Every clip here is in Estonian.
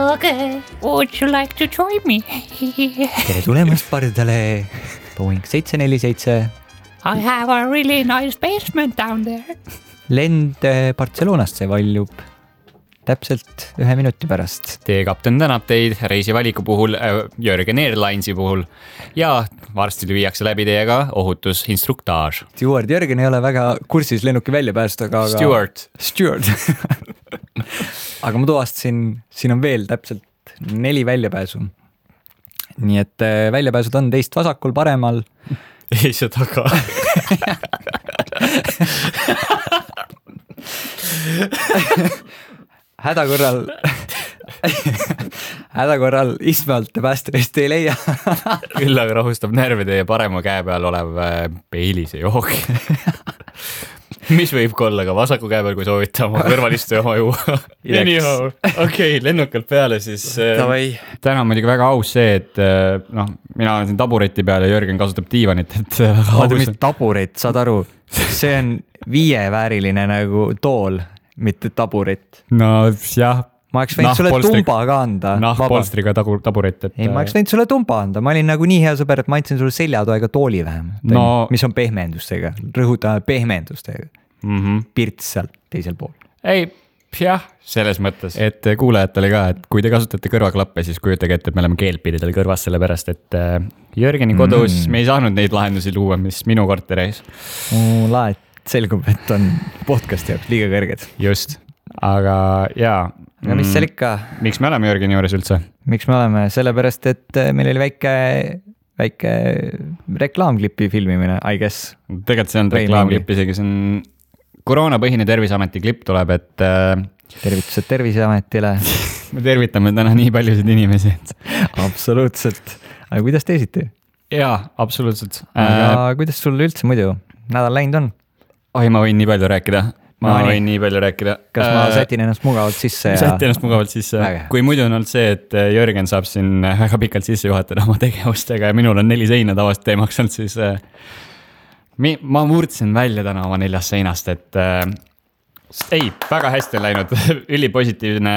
Okay, would you like to join me? Tere tulemast pardale Boeing 747. I have a really nice basement down there. Lend Barcelonasse valjub täpselt 1 minuti pärast. Teie kapten tänab teid reisivaliku puhul, Jörgen Airlinesi puhul ja varsti viiakse läbi teiega ohutusinstruktaaž. Steward Jörgen ei ole väga kursis lennuki väljapääst, aga... Steward. Aga ma tuvastasin, siin on veel täpselt 4 väljapääsu. Nii et väljapääsud on teist vasakul, paremal. Ei see taga. hädakorral istme alt päästerist ei leia. Küll aga rahustab närve teie parema käe peal olev peilise jook. Mis võib olla ka vasaku käe peal, kui soovite oma kõrvalistu oma juua. Anyhow, okei, lennukalt peale siis. Täna on muidugi väga aus see, et mina olen siin tabureti peal ja Jörgen kasutab diivanit. Mis taburet, saad aru? See on 5-vääriline nagu tool, mitte taburet. No jah. Ma oleks võinud sulle tumba ka anda. Polstriga taburet. Ei, ma oleks võinud sulle tumba anda. Ma olin nagu nii hea sõber, et ma andsin sulle seljatoega tooli vähem. Mis on pehmendustega. Rõhutame pehmendustega. Pirts seal teisel pool. Ei, jah, selles mõttes. Et kuulajatele ka, et kui te kasutate kõrvaklappe, siis kujutage ette, et me oleme keelpididel kõrvas selle pärast, et Jörgeni kodus me ei saanud neid lahendusi luua, mis minu korteris. Laet selgub, et on podcast jaoks liiga kõrged. Just, aga jaa. Ja mis seal ikka? Miks me oleme Jörgeni juures üldse? Miks me oleme? Sellepärast, et meil oli väike reklaamklipi filmimine, I guess. Tegelikult see on reklaamklip isegi, see on koroonapõhine Terviseameti klipp tuleb, et... Tervitused Terviseametile. Me tervitame täna nii paljusid inimesi. Absoluutselt. Aga kuidas teisiti? Jaa, absoluutselt. Aga kuidas sul üldse muidu nädal läinud on? Oi, ma võin nii palju rääkida. Võin nii palju rääkida. Kas ma sätin ennast mugavalt sisse? Sätin ennast mugavalt sisse. Kui muidu on olnud see, et Jörgen saab siin väga pikalt sisse juhatada oma tegevustega ja minul on 4 seina tavast teemaks olnud, siis ma murdsin välja täna oma 4 seinast, et ei, väga hästi on läinud. Ülipositiivne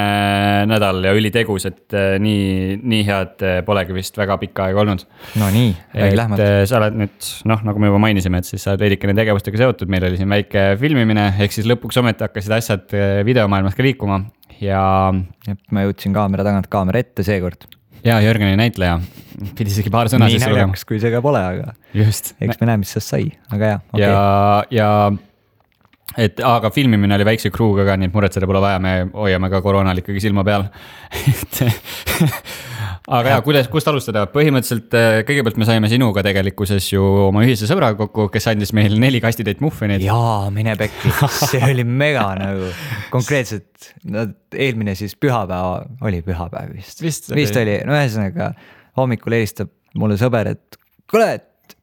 nädal ja ülitegus, et nii head polegi vist väga pikka aega olnud. No nii, lähmalt. Sa oled nüüd, nagu me juba mainisime, et siis sa oled veidikene tegevustega seotud. Meil oli siin väike filmimine, ehk siis lõpuks ometi hakkasid asjad videomaailmas ka liikuma. Ja ma jõudsin kaamera tagant kaamera ette seekord. Ja Jörgeni näitleja. Pidi isegi paar sõna siis lugema. Nii näljaks, kui see ka pole, aga just. Eks me näeme, mis sest sai. Aga jah, aga filmimine oli väikse kruuga ka, nii et muretseda pole vaja, me hoiame ka koroonal ikkagi silma peal. Aga kust alustada? Põhimõtteliselt kõigepealt me saime sinuga tegelikkuses ju oma ühise sõbra kokku, kes andis meil 4 kastitäit muffinit. Jaa, mine pekki. See oli mega nagu konkreetselt. Eelmine siis pühapäev oli pühapäev vist. Vist oli. No ühesõnaga hommikul helistab mulle sõber, et kuule,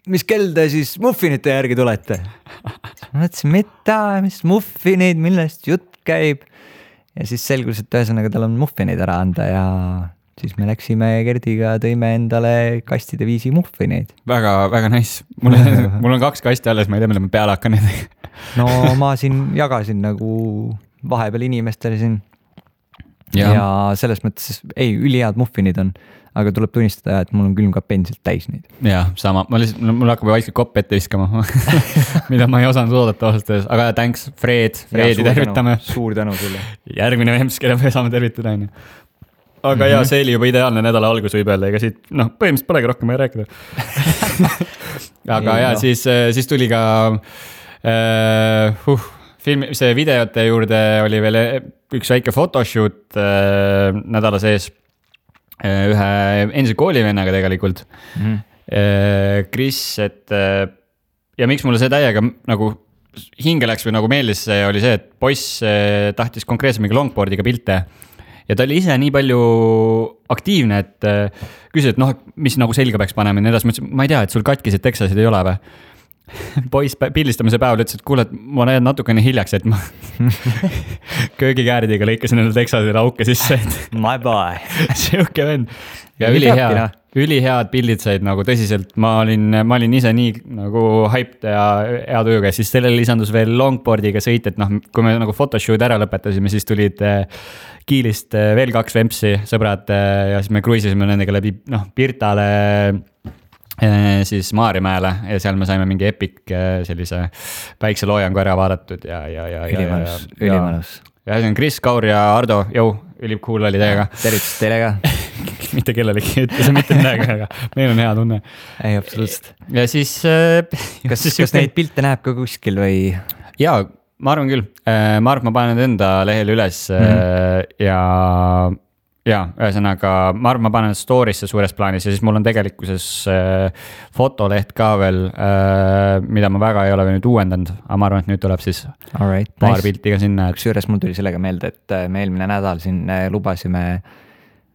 mis kell te siis muffinite järgi tulete? Ma mõtlesin, mis muffinid, millest jutt käib. Ja siis selgus, et ühesõnaga tal on muffinid ära anda ja siis me läksime Gerdiga, tõime endale kastide 5 muffineid. Väga, väga nice. Mul on 2 kasti alles, ma ei tea, mille ma peale hakkan. No ma siin jagasin nagu vahepeal inimestele siin. Ja selles mõttes, ülihead muffinid on, aga tuleb tunnistada, et mul on külmkapp endiselt täis neid. Jah, sama. Mul hakkab vaikselt kopp ette viskama, mida ma ei osanud oodata aastas. Aga thanks, Fredi tervitame. Suur tänu sulle. Järgmine vemps, kelle me saame tervitada. Aga ja see oli juba ideaalne nädala algus võib öelda, ega siit, põhimõtteliselt polegi rohkem ei rääkida. Aga ja siis tuli ka see videote juurde oli veel üks väike photoshoot nädala sees ühe endise koolivennaga tegelikult. Chris, et ja miks mulle see täiega nagu hinge läks või nagu meeldis, oli see, et poiss tahtis konkreetselt mingi longboardiga pilte. Ja ta oli ise nii palju aktiivne, et küsis, et mis nagu selga peaks panema. Ma ei tea, et sul katkised Texasid ei ole või? poiss pildistamise päeval ütles, et kuule, et ma lähen natukene hiljaks, et ma köögikääridega lõikasin endale teksadele auke sisse, et my boy. Siuke vend. Ja ülihead pildid said nagu tõsiselt, ma olin ise nii nagu hyped ja hea tujuga, siis sellele lisandus veel longboardiga sõit, et noh, kui me nagu photoshoot ära lõpetasime, siis tulid Kiilist veel 2 vempsi sõbrad ja siis me kruiisisime nendega läbi Pirtale siis Maarjamäele ja seal me saime mingi epic sellise päikseloojangu ära vaadatud ja ülimanus. Ja see on Kris, Kaur ja Ardo, ülikool oli teiega. Tervitus teile ka. Mitte kellelegi ütlese mitte midagi, aga meil on hea tunne. Ei, absoluutselt. Ja siis... Kas neid pilte näeb ka kuskil või? Jaa, ma arvan küll. Ma arvan, ma panen need enda lehel üles ja ühesõnaga, ma arvan, ma panen story'sse suures plaanis ja siis mul on tegelikkuses fotoleht ka veel, mida ma väga ei ole nüüd uuendanud, aga ma arvan, et nüüd tuleb siis paar pilti ka sinna. Kusjuures mul tuli sellega meelde, et me eelmine nädal siin lubasime,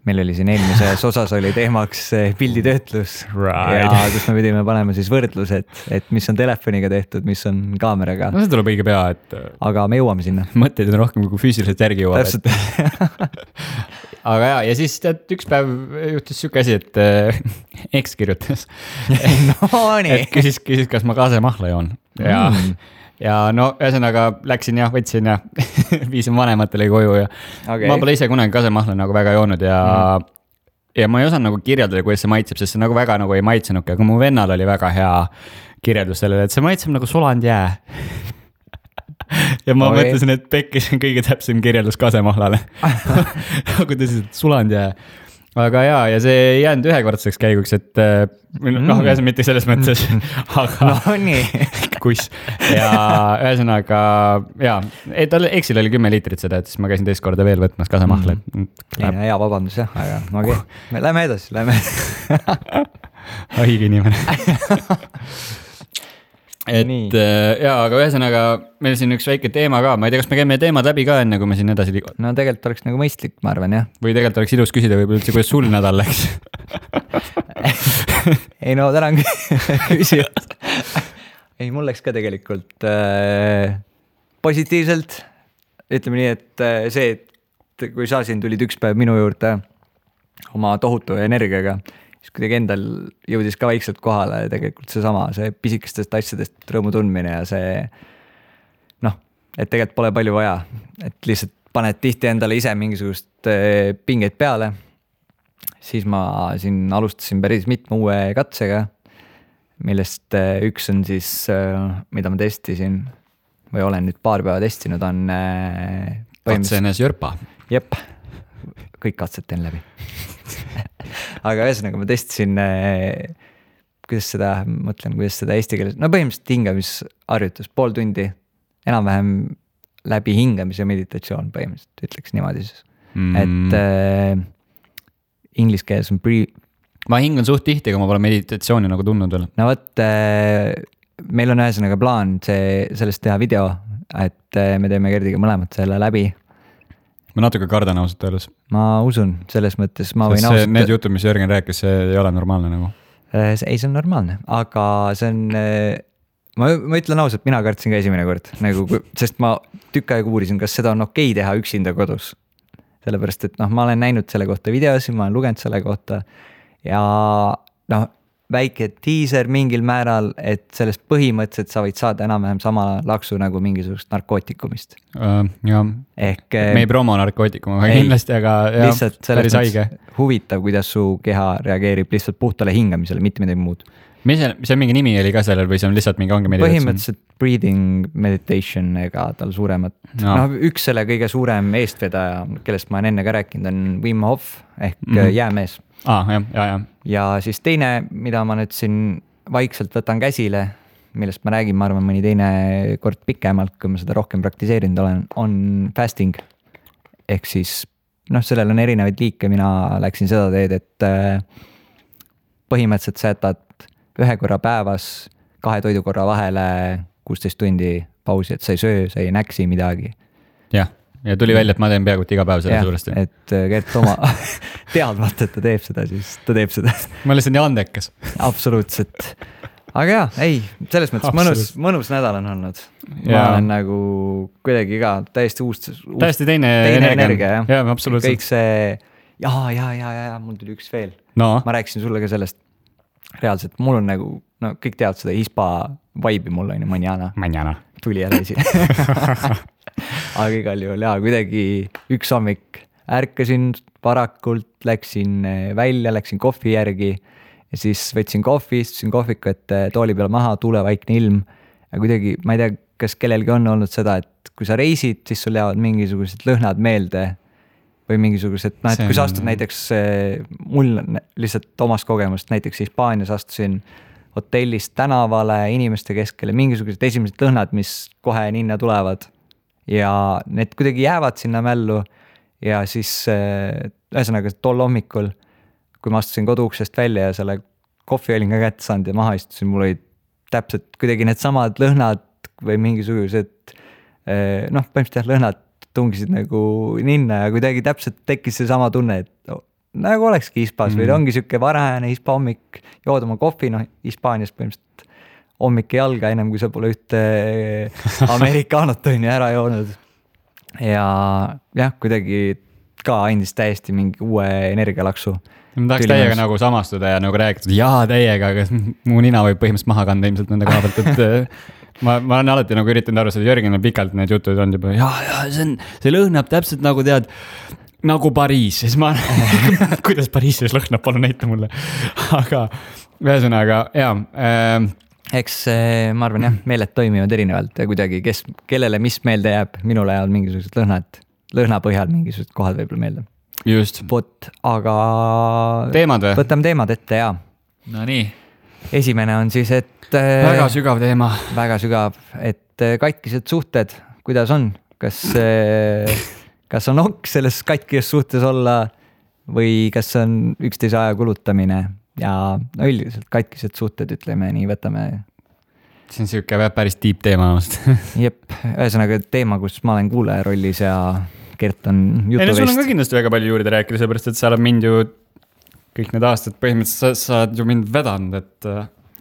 meil oli siin eelmises osas oli teemaks pilditöötlus ja kus me pidime panema siis võrdlus, et mis on telefoniga tehtud, mis on kaameraga. No see tuleb õige pea, et... Aga me jõuame sinna. Mõtteid on rohkem kui füüsiliselt järgi jõuab. Täpselt. Aga ja siis tead, üks päev juhtus siuke asi, et X kirjutas. No nii. Et küsis, kas ma kasemahla joon. Ja no ühesõnaga läksin ja võtsin ja viisin vanematele koju ja ma pole ise kunagi kasemahla nagu väga joonud ja ma ei osanud nagu kirjeldada, kuidas see maitseb, sest see nagu väga nagu ei maitsenudki, aga mu vennal oli väga hea kirjeldus sellele, et see maitseb nagu sulanud jää. Ja ma mõtlesin, et pekkis on kõige täpsem kirjeldus kasemahlale. Nagu tõsiselt sulanud jää. Aga ja see ei jäänud ühekordseks käiguks, et mitte selles mõttes, aga no nii. Kuss. Ja ühesõnaga, tal Exil oli 10 liitrit seda, et siis ma käisin teist korda veel võtmas kasemahla. Hea vabandus jah, aga okei. Lähme edasi. Haige inimene. Et aga ühesõnaga meil siin üks väike teema ka, ma ei tea, kas me käime teemad läbi ka enne, kui me siin edasi liigume. No tegelikult oleks nagu mõistlik, ma arvan, jah. Või tegelikult oleks ilus küsida võib-olla üldse, kuidas sul nädal läks. Ei no tänan küsijad. Ei, mul läks ka tegelikult positiivselt. Ütleme nii, et see, et kui sa siin tulid üks päev minu juurde oma tohutu energiaga, siis kuidagi endal jõudis ka vaikselt kohale tegelikult see pisikestest asjadest rõõmu tundmine ja see et tegelikult pole palju vaja, et lihtsalt paned tihti endale ise mingisugust pingeid peale, siis ma siin alustasin päris mitme uue katsega, millest üks on siis, mida ma testisin või olen nüüd paar päeva testinud, on katsenes jörpa. Jep, kõik katsed teen läbi. Aga ühesõnaga ma testisin, kuidas seda eesti keeles, no põhimõtteliselt hingamisharjutus, pool tundi, enam-vähem läbi hingamise meditatsioon põhimõtteliselt, ütleks niimoodi siis. Et inglise keeles on Ma hingan suht tihti, kui ma pole meditatsiooni nagu tundnud veel. No võt, meil on ühesõnaga plaan sellest teha video, et me teeme Gerdiga mõlemad selle läbi. Ma natuke kardan ausalt öeldes. Ma usun, selles mõttes ma võin ausalt... Need jutud, mis Jörgen rääkis, see ei ole normaalne nagu? Ei, see on normaalne, aga see on... Ma ütlen ausalt, mina kartsin ka esimene kord, nagu, sest ma tükk aega uurisin, kas seda on okei teha üksinda kodus. Sellepärast, et ma olen näinud selle kohta videosi, ma olen lugenud selle kohta ja väike teaser mingil määral, et sellest põhimõtteliselt sa võid saada enam-vähem sama laksu nagu mingisugust narkootikumist. Ehk, me ei promo narkootikum, aga kindlasti, aga lihtsalt selles mõttes huvitav, kuidas su keha reageerib lihtsalt puhtale hingamisele, mitte midagi muud. Mis see mingi nimi oli ka sellel või see on lihtsalt mingi ongi meditatsioon? Põhimõtteliselt breathing meditation ega tal suuremat. Üks selle kõige suurem eestvedaja, kellest ma olen enne ka rääkinud, on Wim Hof ehk jäämees. Ja siis teine, mida ma nüüd siin vaikselt võtan käsile, millest ma räägin, ma arvan, mõni teine kord pikemalt, kui ma seda rohkem praktiseerinud olen, on fasting. Ehk siis, sellel on erinevaid liike, mina läksin seda teed, et põhimõtteliselt sa jätad ühe korra päevas 2 toidukorra vahele 16 tundi pausi, et sa ei söö, sa ei näksi midagi. Ja tuli välja, et ma teen peaaegu iga päev selle suuresti. Et Gert oma teadmata, et ta teeb seda, siis ta teeb seda. Ma olen lihtsalt nii andekas. Absoluutselt. aga jaa, ei, selles mõttes mõnus nädal on olnud. Ma olen nagu kuidagi ka täiesti teine energia, jah. Jaa, absoluutselt. Kõik see, mul tuli üks veel. No. Ma rääkisin sulle ka sellest. Reaalselt, mul on nagu, no kõik teavad seda hispa vibe'i mul on ju, manjana. Tuli ära esi. Aga igal juhul, kuidagi üks hommik ärkasin varakult, läksin välja, läksin kohvi järgi ja siis võtsin kohvi, istusin kohviku, et tooli peale maha, tuulevaikne ilm ja kuidagi, ma ei tea, kas kellelgi on olnud seda, et kui sa reisid, siis sul jäävad mingisugused lõhnad meelde või mingisugused, et kui sa astud näiteks, mul lihtsalt omast kogemust, näiteks Hispaanias astusin hotellist tänavale, inimeste keskele, mingisugused esimesed lõhnad, mis kohe ninna tulevad ja need kuidagi jäävad sinna mällu ja siis ühesõnaga tol hommikul, kui ma astusin koduuksest välja ja selle kohvi olin ka kätte saanud ja maha istusin, mul olid täpselt kuidagi need samad lõhnad või mingisugused põhimõtteliselt lõhnad tungisid nagu ninna ja kuidagi täpselt tekkis see sama tunne, et nagu olekski hispas või ongi siuke varajane hispa hommik, jood oma kohvi, Hispaanias põhimõtteliselt hommik ei alga ennem, kui sa pole ühte amerikaanot ära joonud. Ja jah, kuidagi ka andis täiesti mingi uue energialaksu. Ma tahaks täiega nagu samastuda ja nagu rääkida, täiega, aga mu nina võib põhimõtteliselt maha kanda ilmselt nende koha pealt, et ma olen alati nagu üritanud aru, seda Jörgenil pikalt need jutud on juba, see lõhnab täpselt nagu tead, nagu Pariis, siis ma kuidas Pariisis lõhnab, palun näita mulle. Aga ühesõnaga, eks ma arvan jah, meeled toimivad erinevalt ja kuidagi, kellele mis meelde jääb, minule jäävad mingisugused lõhna põhjal mingisugused kohad võib-olla meelde. Just. Aga teemad või? Võtame teemad ette, jaa. No nii. Esimene on siis, et väga sügav teema. Väga sügav, et katkised suhted, kuidas on? Kas on ok selles katkis suhtes olla või kas on üksteise aja kulutamine ja üldiselt katkised suhted, ütleme nii, võtame. See on siuke päris deep teema. Jep, ühesõnaga teema, kus ma olen kuulaja rollis ja Gert on jutuvest. Sul on ka kindlasti väga palju juurde rääkida, seepärast, et sa oled mind ju kõik need aastad põhimõtteliselt sa oled ju mind vedanud, et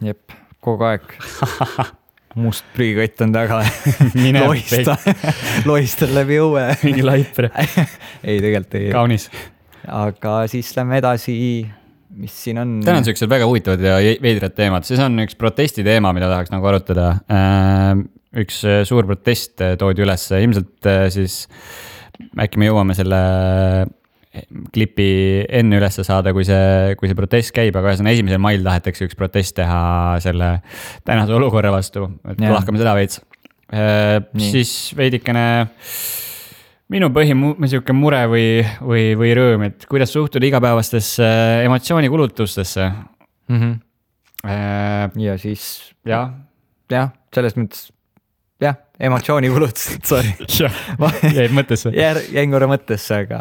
jep, kogu aeg. Must prügikott on taga. Lohistan läbi õue. Mingi laipre. Ei, tegelikult ei. Kaunis. Aga siis lähme edasi, mis siin on. Täna on sellised väga huvitavad ja veidrad teemad. Siis on üks protesti teema, mida tahaks nagu arutada. Üks suur protest toodi üles. Ilmselt siis äkki me jõuame selle klipi enne üles saada, kui see protest käib, aga 1. mail tahetakse üks protest teha selle tänase olukorra vastu, et lahkame seda veits. Siis veidikene minu siuke mure või rõõm, et kuidas suhtud igapäevastesse emotsioonikulutustesse. Ja siis jah, selles mõttes emotsioonikulutust, sorry. Jäid mõttesse. Jäin korra mõttesse, aga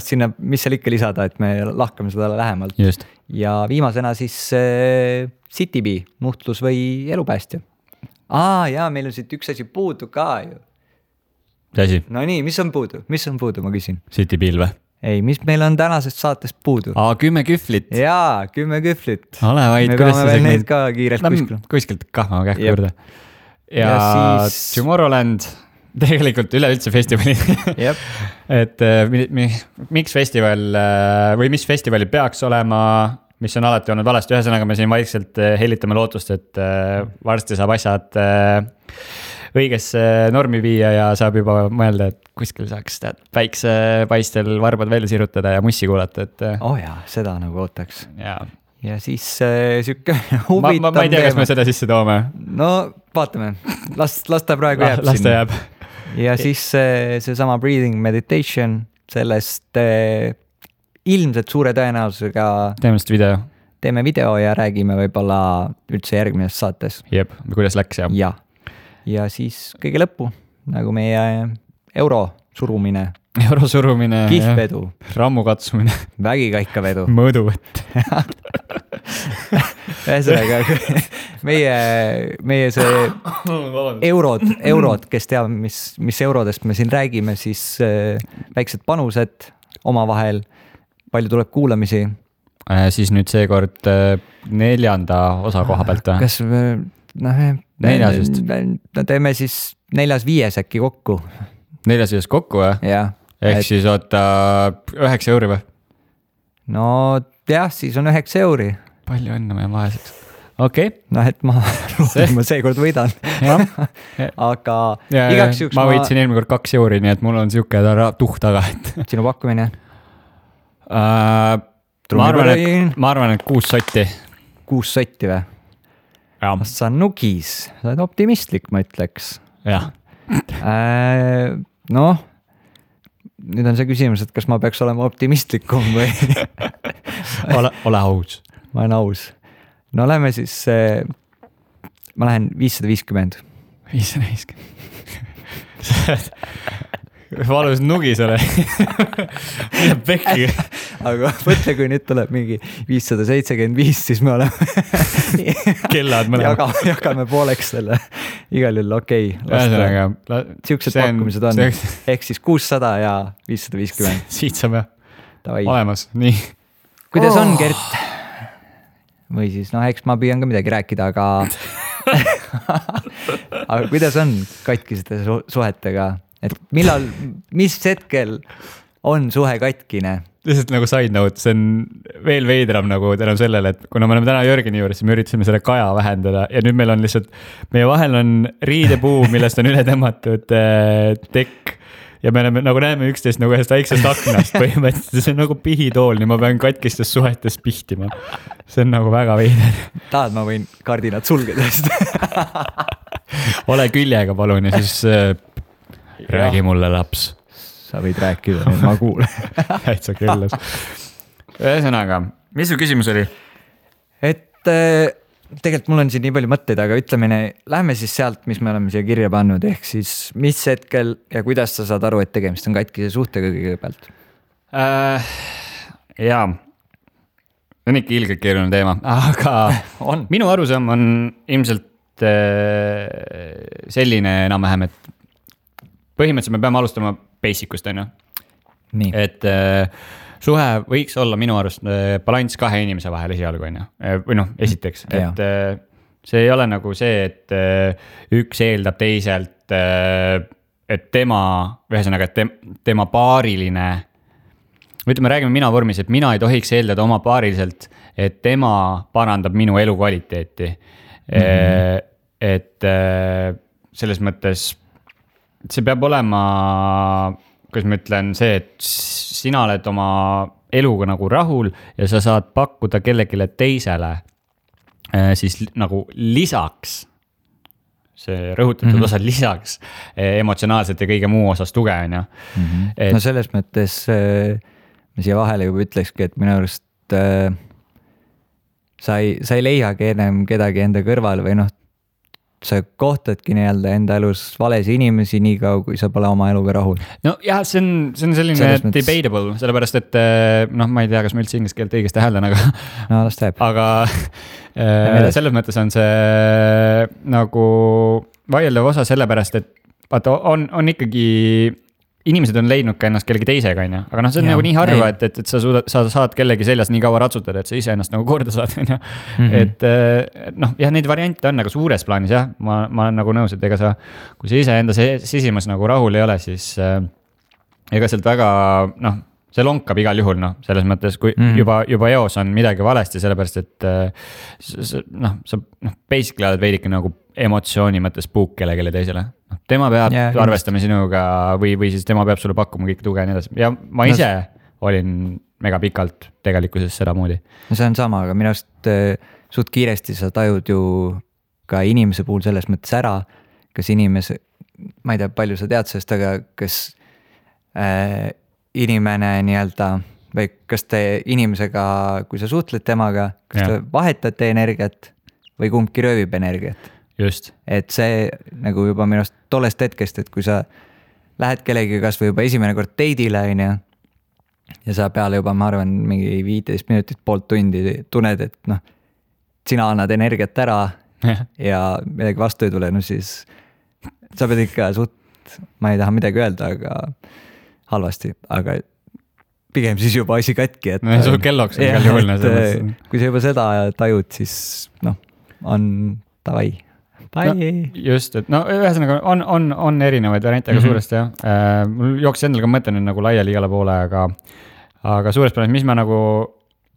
sinna, mis seal ikka lisada, et me lahkame seda lähemalt. Just. Ja viimasena siis CityBee, nuhtlus või elupäästja. Meil on siit üks asi puudu ka ju. See asi? No nii, mis on puudu, ma küsin. CityBee'l või? Ei, mis meil on tänasest saatest puudu? 10 kühvlit. Jaa, 10 kühvlit. Ole vaid, me peame veel neid ka kiirelt kuskilt kahma kähku juurde. Ja siis Tomorrowland, tegelikult üleüldse festivali. Et miks festival või mis festivali peaks olema, mis on alati olnud valesti. Ühesõnaga me siin vaikselt hellitame lootust, et varsti saab asjad õigesse normi viia ja saab juba mõelda, et kuskil saaks päiksepaistel varbad välja sirutada ja mussi kuulata. Seda nagu ootaks. Ja siis siuke huvitav ma ei tea, kas me seda sisse toome. No vaatame, las ta praegu jääb sinna. Las ta jääb. Ja siis see sama breathing meditation, sellest ilmselt suure tõenäosusega teeme video ja räägime võib-olla üldse järgmises saates. Jep, kuidas läks ja. Ja siis kõige lõppu, nagu meie euro surumine, kihvedu, rammu katsumine, vägikaikavedu, mõõduvõtt. Ühesõnaga, meie see eurod, kes teab, mis eurodest me siin räägime, siis väiksed panused omavahel, palju tuleb kuulamisi siis nüüd seekord 4. osa koha pealt või? Kas teeme siis 4-5 äkki kokku. 4-5 kokku või? Jah. Ehk siis oota 9 € või? No jah, siis on 9 €. Palju õnne meie vaeseks. Okei. Noh, et ma seekord võidan. Aga igaks juhuks ma võitsin eelmine kord 2 €, nii et mul on siuke tuhk taga. Sinu pakkumine? Ma arvan, et 6 sotti. 6 sotti või? Sa nugis, sa oled optimistlik, ma ütleks. Jah. Noh, nüüd on see küsimus, et kas ma peaks olema optimistlikum või? Ole aus. Ma olen aus. No lähme siis, ma lähen 550. 550. Valus nugis ole. Mida pekki. Aga mõtle, kui nüüd tuleb mingi 575, siis me oleme kellad mõlemad. Jagame pooleks selle. Igal juhul okei. Siuksed pakkumised on. Ehk siis 600 ja 550. Siit saame olemas. Nii. Kuidas on, Gert? Või siis, eks ma püüan ka midagi rääkida, aga kuidas on katkisete suhetega? Et mis hetkel on suhe katkine? Lihtsalt nagu side note, see on veel veidram nagu tänu sellele, et kuna me oleme täna Jörgeni juures, siis me üritasime selle kaja vähendada ja nüüd meil on lihtsalt, meie vahel on riidepuu, millest on üle tõmmatud tekk ja me oleme, nagu näeme üksteist nagu ühest väiksest aknast põhimõtteliselt, see on nagu pihitool, nii ma pean katkistes suhetes pihtima. See on nagu väga veider. Tahad, ma võin kardinad sulgeda? Ole küljega palun ja siis räägi mulle, laps. Sa võid rääkida, nüüd ma kuulen. Täitsa küllas. Ühesõnaga, mis su küsimus oli? Et tegelikult mul on siin nii palju mõtteid, aga ütleme, lähme siis sealt, mis me oleme siia kirja pannud, ehk siis mis hetkel ja kuidas sa saad aru, et tegemist on katkise suhtega kõigepealt? Jaa, on ikka ilgelt keeruline teema, aga minu arusaam on ilmselt selline enam-vähem, et põhimõtteliselt me peame alustama basicust, on ju. Et suhe võiks olla minu arust balanss 2 inimese vahel esialgu, on ju. Või esiteks, et see ei ole nagu see, et üks eeldab teiselt, et tema paariline, ütleme, räägime mina vormis, et mina ei tohiks eeldada oma paariliselt, et tema parandab minu elukvaliteeti. Et selles mõttes see peab olema, kuidas ma ütlen, see, et sina oled oma eluga nagu rahul ja sa saad pakkuda kellegile teisele siis nagu lisaks, see rõhutatud osa lisaks emotsionaalselt ja kõige muu osas tuge, on ju. No selles mõttes ma siia vahele juba ütlekski, et minu arust sa ei leiagi enam kedagi enda kõrval või sa kohtadki nii-öelda enda elus valesi inimesi nii kaua, kui sa pole oma eluga rahul. No jah, see on selline debatable, sellepärast et ma ei tea, kas ma üldse inglise keelt õigesti hääldan, aga no las teeb. Aga selles mõttes on see nagu vaieldav osa sellepärast, et vaata, on ikkagi inimesed on leidnud ka ennast kellegi teisega, on ju. Aga see on nagu nii harva, et sa saad kellegi seljas nii kaua ratsutada, et sa ise ennast nagu korda saad, on ju. Et neid variante on nagu suures plaanis, jah. Ma olen nagu nõus, et ega sa, kui sa ise enda sisimas nagu rahul ei ole, siis ega sealt väga, see lonkab igal juhul, selles mõttes, kui juba eos on midagi valesti, sellepärast, et sa basically oled veidike nagu emotsiooni mõttes puuk kellelegi teisele. Tema peab arvestama sinuga või siis tema peab sulle pakkuma kõik tuge ja nii edasi. Ja ma ise olin mega pikalt tegelikkuses seda moodi. No see on sama, aga minu arust suht kiiresti sa tajud ju ka inimese puhul selles mõttes ära, kas inimese, ma ei tea, palju sa tead sellest, aga kas inimene nii-öelda või kas te inimesega, kui sa suhtled temaga, kas te vahetate energiat või kumbki röövib energiat? Just. Et see nagu juba minust tollest hetkest, et kui sa lähed kellegi kas või juba esimene kord date'ile ja sa peale juba, ma arvan, mingi 15 minutit, poolt tundi tunned, et sina annad energiat ära ja midagi vastu ei tule, siis sa pead ikka ma ei taha midagi öelda, aga halvasti, aga pigem siis juba asi katki, et sul kelloks on igal juhul. Kui sa juba seda tajud, siis on davai. No, just, et ühesõnaga on erinevaid variante, aga suuresti jah. Mul jooksis endal ka mõte nüüd nagu laiali igale poole, aga suures plaanis, mis ma nagu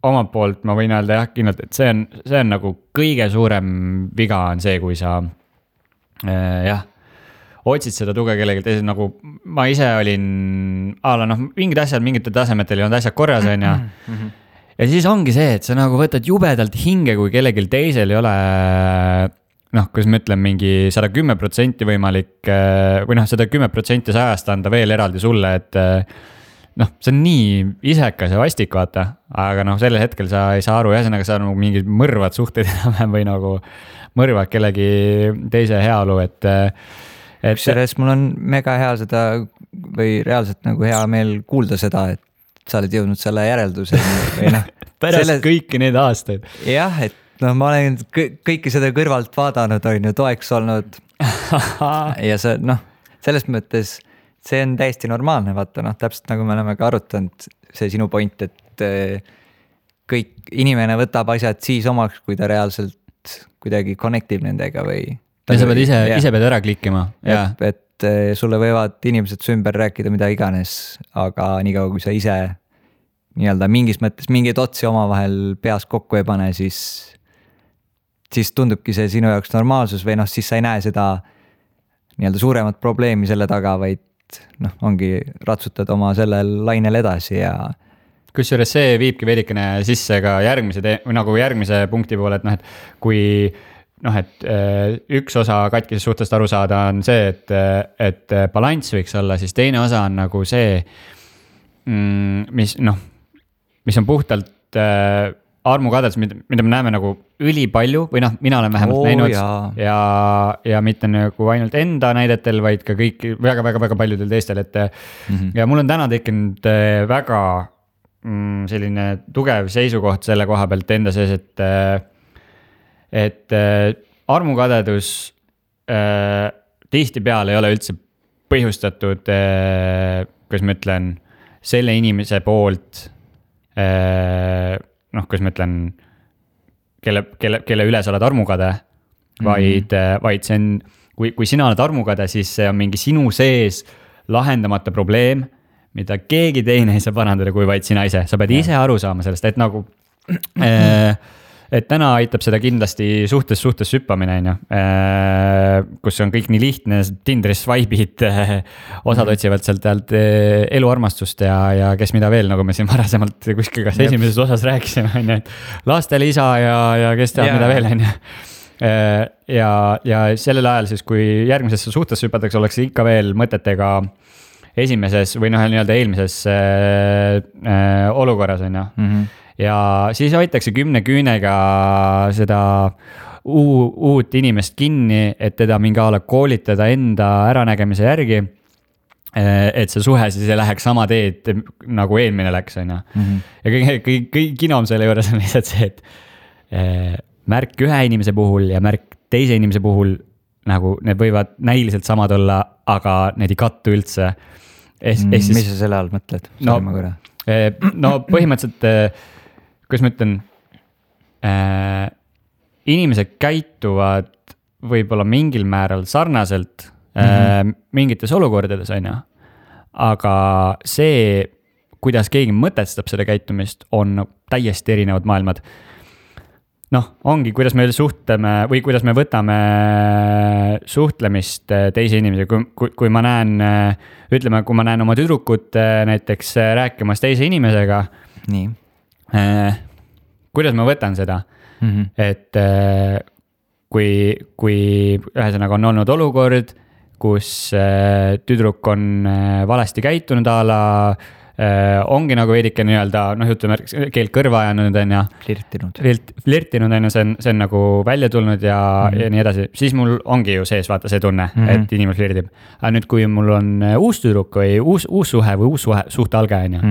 omalt poolt ma võin öelda jah, kindlalt, et see on nagu kõige suurem viga on see, kui sa otsid seda tuge kellegi teisel, nagu ma ise olin mingid asjad, mingitel tasemetel ei olnud asjad korras, on ja. Ja siis ongi see, et sa nagu võtad jubedalt hinge, kui kellelgi teisel ei ole kuidas ma ütlen, mingi 110% võimalik või 110% sajast anda veel eraldi sulle, et see on nii isekas ja vastik, vaata, aga sellel hetkel sa ei saa aru, ühesõnaga sa nagu mingid mõrvad suhteid enam või nagu mõrvad kellegi teise heaolu, et sellest mul on mega hea seda või reaalselt nagu hea meel kuulda seda, et sa oled jõudnud selle järelduseni või pärast kõiki neid aastaid. Jah, et ma olen kõike seda kõrvalt vaadanud, on ju toeks olnud ja see, selles mõttes see on täiesti normaalne, vaata, täpselt nagu me oleme ka arutanud, see sinu point, et kõik inimene võtab asjad siis omaks, kui ta reaalselt kuidagi connectib nendega või. Ja sa pead ise pead ära klikkima. Et sulle võivad inimesed su ümber rääkida mida iganes, aga niikaua kui sa ise nii-öelda mingis mõttes mingeid otsi omavahel peas kokku ei pane, siis tundubki see sinu jaoks normaalsus või siis sa ei näe seda nii-öelda suuremat probleemi selle taga, vaid ongi ratsutad oma sellel lainel edasi ja. Kusjuures see viibki veidikene sisse ka järgmise punkti poole, et kui üks osa katkisest suhtest aru saada on see, et balanss võiks olla, siis teine osa on nagu see, mis on puhtalt armukadedus, mida me näeme nagu ülipalju või mina olen vähemalt näinud ja mitte nagu ainult enda näidetel, vaid ka kõik väga paljudel teistel, et ja mul on täna tekkinud väga selline tugev seisukoht selle koha pealt enda sees, et armukadedus tihtipeale ei ole üldse põhjustatud, kuidas ma ütlen, selle inimese poolt kuidas ma ütlen, kelle üle sa oled armukade, vaid see on, kui sina oled armukade, siis see on mingi sinu sees lahendamata probleem, mida keegi teine ei saa parandada, kui vaid sina ise. Sa pead ise aru saama sellest, et nagu, et täna aitab seda kindlasti suhtes süppamine, kus on kõik nii lihtne, Tinderis swipe'id, osad otsivad sealt eluarmastust ja kes mida veel, nagu me siin varasemalt kuskil kas esimeses osas rääkisime, et lastele isa ja kes teab mida veel, ja sellel ajal siis, kui järgmisesse suhtesse hüpatakse, oleks ikka veel mõtetega esimeses või nii-öelda eelmises olukorras, ja siis hoitakse 10 küünega seda uut inimest kinni, et teda mingi ala koolitada enda äranägemise järgi, et see suhe siis ei läheks sama teed nagu eelmine läks, on. Ja kõik kinom selle juures on lihtsalt see, et märk ühe inimese puhul ja märk teise inimese puhul nagu need võivad näiliselt samad olla, aga need ei kattu üldse. Mis sa selle all mõtled? Põhimõtteliselt kuidas ma ütlen, inimesed käituvad võib-olla mingil määral sarnaselt mingites olukordades, on. Aga see, kuidas keegi mõtestab seda käitumist, on täiesti erinevad maailmad. Ongi, kuidas me suhtleme või kuidas me võtame suhtlemist teise inimese, kui ma näen, ütleme, kui ma näen oma tüdrukut näiteks rääkimas teise inimesega, nii. Kuidas ma võtan seda, et kui ühesõnaga on olnud olukord, kus tüdruk on valesti käitunud ala, ongi nagu veidike nii-öelda, ütleme, keelt kõrva ajanud, on ja flirtinud, on ja see on nagu välja tulnud ja nii edasi, siis mul ongi ju sees vaata see tunne, et inimene flirtib. Aga nüüd, kui mul on uus tüdruk või uus suhe või uus suhte alge, on ja,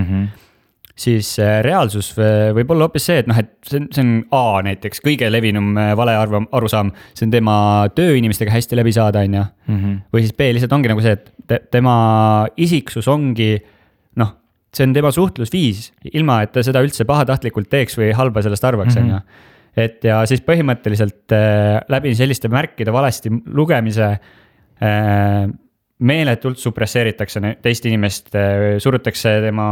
siis reaalsus võib olla hoopis see, et see on näiteks kõige levinum vale arusaam, see on tema tööinimestega hästi läbi saada, on ja, või siis B lihtsalt ongi nagu see, et tema isiksus ongi see on tema suhtlusviis, ilma et ta seda üldse pahatahtlikult teeks või halba sellest arvaks, on ju. Et ja siis põhimõtteliselt läbi selliste märkide valesti lugemise meeletult supresseeritakse teist inimest, surutakse tema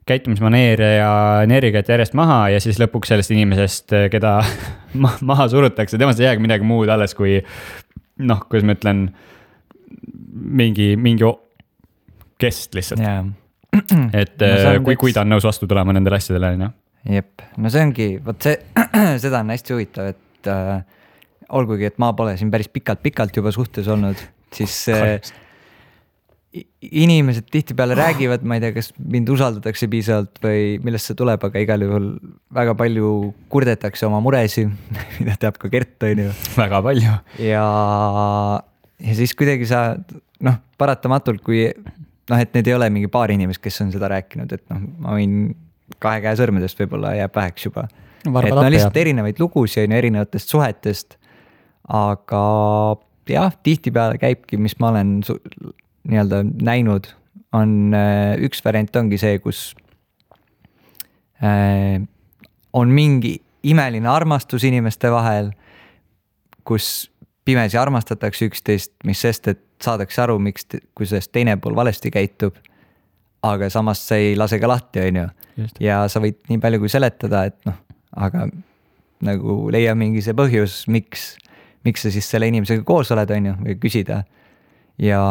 käitumismaneere ja energiat järjest maha ja siis lõpuks sellest inimesest, keda maha surutakse, temast ei jäägi midagi muud alles kui noh, kuidas ma ütlen, mingi kest lihtsalt. Et kui ta on nõus vastu tulema nendele asjadele, on ju. Jep, no see ongi, võt see, seda on hästi huvitav, et olgugi, et ma pole siin päris pikalt juba suhtes olnud, siis inimesed tihtipeale räägivad, ma ei tea, kas mind usaldatakse piisavalt või millest see tuleb, aga igal juhul väga palju kurdetakse oma muresi, mida teab ka Gert, on ju. Väga palju. Ja siis kuidagi sa, noh, paratamatult, kui noh, et need ei ole mingi paar inimest, kes on seda rääkinud, et noh, ma võin 2 käe sõrmedest võib-olla jääb väheks juba. Et no lihtsalt erinevaid lugusid on erinevatest suhetest, aga jah, tihtipeale käibki, mis ma olen nii-öelda näinud, on üks variant ongi see, kus on mingi imeline armastus inimeste vahel, kus pimesi armastatakse üksteist, mis sest, et saadakse aru, kui sellest teine pool valesti käitub, aga samas see ei lase ka lahti, on ju. Ja sa võid nii palju kui seletada, et noh, aga nagu leia mingi see põhjus, miks sa siis selle inimesega koos oled, on ju, või küsida. Ja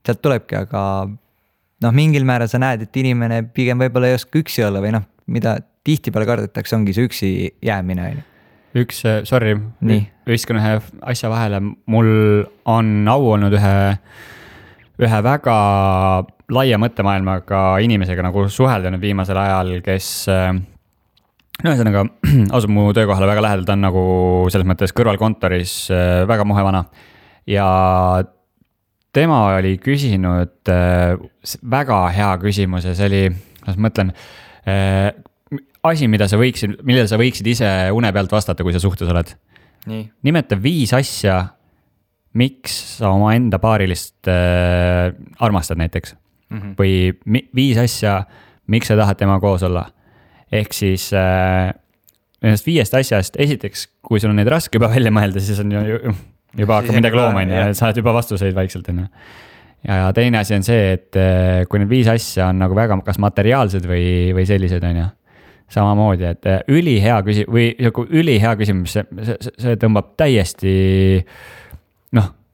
sealt tulebki, aga noh, mingil määral sa näed, et inimene pigem võib-olla ei oska üksi olla või noh, mida tihtipeale kardetakse, ongi see üksi jäämine. Sorry, viskan ühe asja vahele, mul on au olnud ühe väga laia mõttemaailmaga inimesega nagu suhelda nüüd viimasel ajal, kes no ühesõnaga asub mu töökohale väga lähedalt, on nagu selles mõttes kõrvalkontoris väga muhevana ja tema oli küsinud väga hea küsimus ja see oli, kuidas ma mõtlen, asi, millele sa võiksid ise une pealt vastata, kui sa suhtes oled. Nii. Nimeta 5 asja, miks sa oma enda paarilist armastad näiteks. Või 5 asja, miks sa tahad tema koos olla. Ehk siis nendest 5 asjast, esiteks, kui sul on neid raske juba välja mõelda, siis on juba hakkab midagi looma, saad juba vastuseid vaikselt. Ja teine asi on see, et kui need 5 asja on nagu väga kas materiaalsed või sellised, on ju. Samamoodi, et ülihea küsimus, see tõmbab täiesti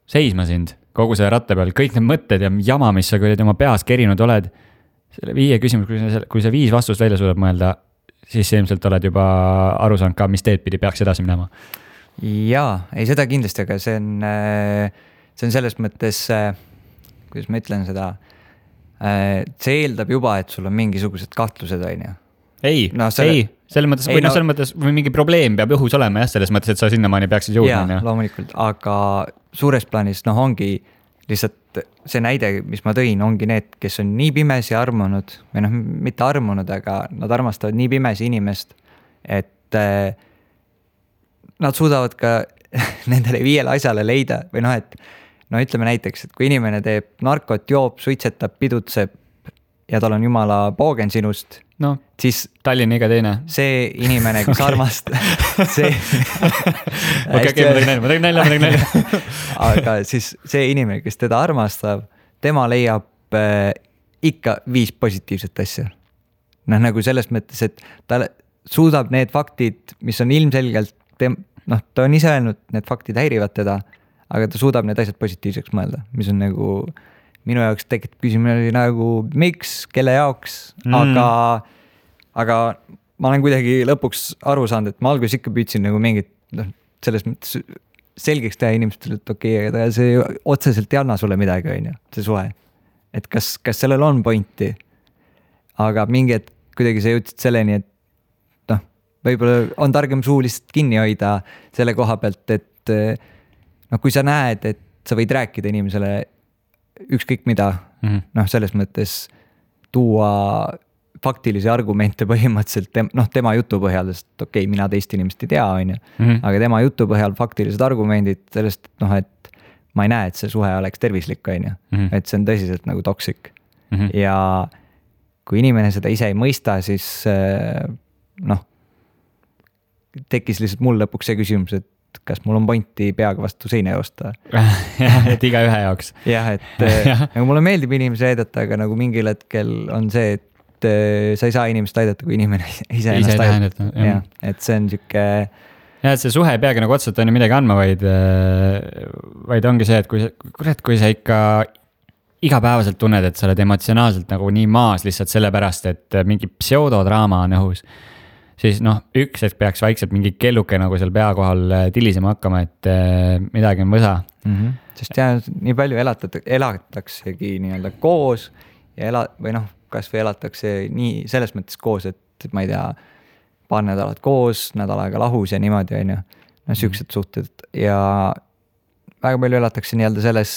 seisma sind kogu selle ratta peal, kõik need mõtted ja jama, mis sa oma peas kerinud oled, selle 5 küsimus, kui sa 5 vastust välja suudab mõelda, siis ilmselt oled juba aru saanud ka, mis teed pidi peaks edasi minema. Jaa, ei seda kindlasti, aga see on selles mõttes, kuidas ma ütlen seda, see eeldab juba, et sul on mingisugused kahtlused, on ju. Ei, selles mõttes või mingi probleem peab õhus olema jah, selles mõttes, et sa sinnamaani peaksid jõudma. Jaa, loomulikult, aga suures plaanis ongi lihtsalt see näide, mis ma tõin, ongi need, kes on nii pimesi armunud või mitte armunud, aga nad armastavad nii pimesi inimest, et nad suudavad ka nendele 5 asjale leida või et ütleme näiteks, et kui inimene teeb narkot, joob, suitsetab, pidutseb ja tal on jumala poogen sinust, siis Tallinna iga teine. See inimene, kes armastab see ma tegin nalja. Aga siis see inimene, kes teda armastab, tema leiab ikka 5 positiivset asja. Nagu selles mõttes, et ta suudab need faktid, mis on ilmselgelt ta on ise öelnud, need faktid häirivad teda, aga ta suudab need asjad positiivseks mõelda, mis on nagu minu jaoks tekitab küsimus nagu miks, kelle jaoks, aga ma olen kuidagi lõpuks aru saanud, et ma alguses ikka püüdsin nagu mingit selles mõttes selgeks teha inimestele, et okei, aga see otseselt ei anna sulle midagi, on ju, see suhe. Et kas sellel on pointi, aga mingi hetk kuidagi sa jõudsid selleni, et võib-olla on targem suu lihtsalt kinni hoida selle koha pealt, et kui sa näed, et sa võid rääkida inimesele ükskõik mida, selles mõttes tuua faktilisi argumente põhimõtteliselt tema jutu põhjal, sest okei, mina teist inimest ei tea, on ju, aga tema jutu põhjal faktilised argumendid sellest, et ma ei näe, et see suhe oleks tervislik, on ju, et see on tõsiselt nagu toksik. ja kui inimene seda ise ei mõista, siis noh, tekkis lihtsalt mul lõpuks see küsimus, et kas mul on pointi peaga vastu seina joosta. Et iga ühe jaoks. Jah, et nagu mulle meeldib inimesi aidata, aga nagu mingil hetkel on see, et sa ei saa inimest aidata, kui inimene ise ennast aidata. Jah, et see on siuke... Ja, et see suhe ei peagi nagu otseselt on ju midagi andma, vaid ongi see, et kui sa ikka igapäevaselt tunned, et sa oled emotsionaalselt nagu nii maas lihtsalt sellepärast, et mingi pseudodraama on õhus, siis noh, üks hetk peaks vaikselt mingi kelluke nagu seal pea kohal tilisema hakkama, et midagi on võsa. Sest jah, nii palju elataksegi nii-öelda koos ja või noh, kas või elatakse nii selles mõttes koos, et ma ei tea, paar nädalat koos, nädal aega lahus ja niimoodi on ju, no siuksed suhted ja väga palju elatakse nii-öelda selles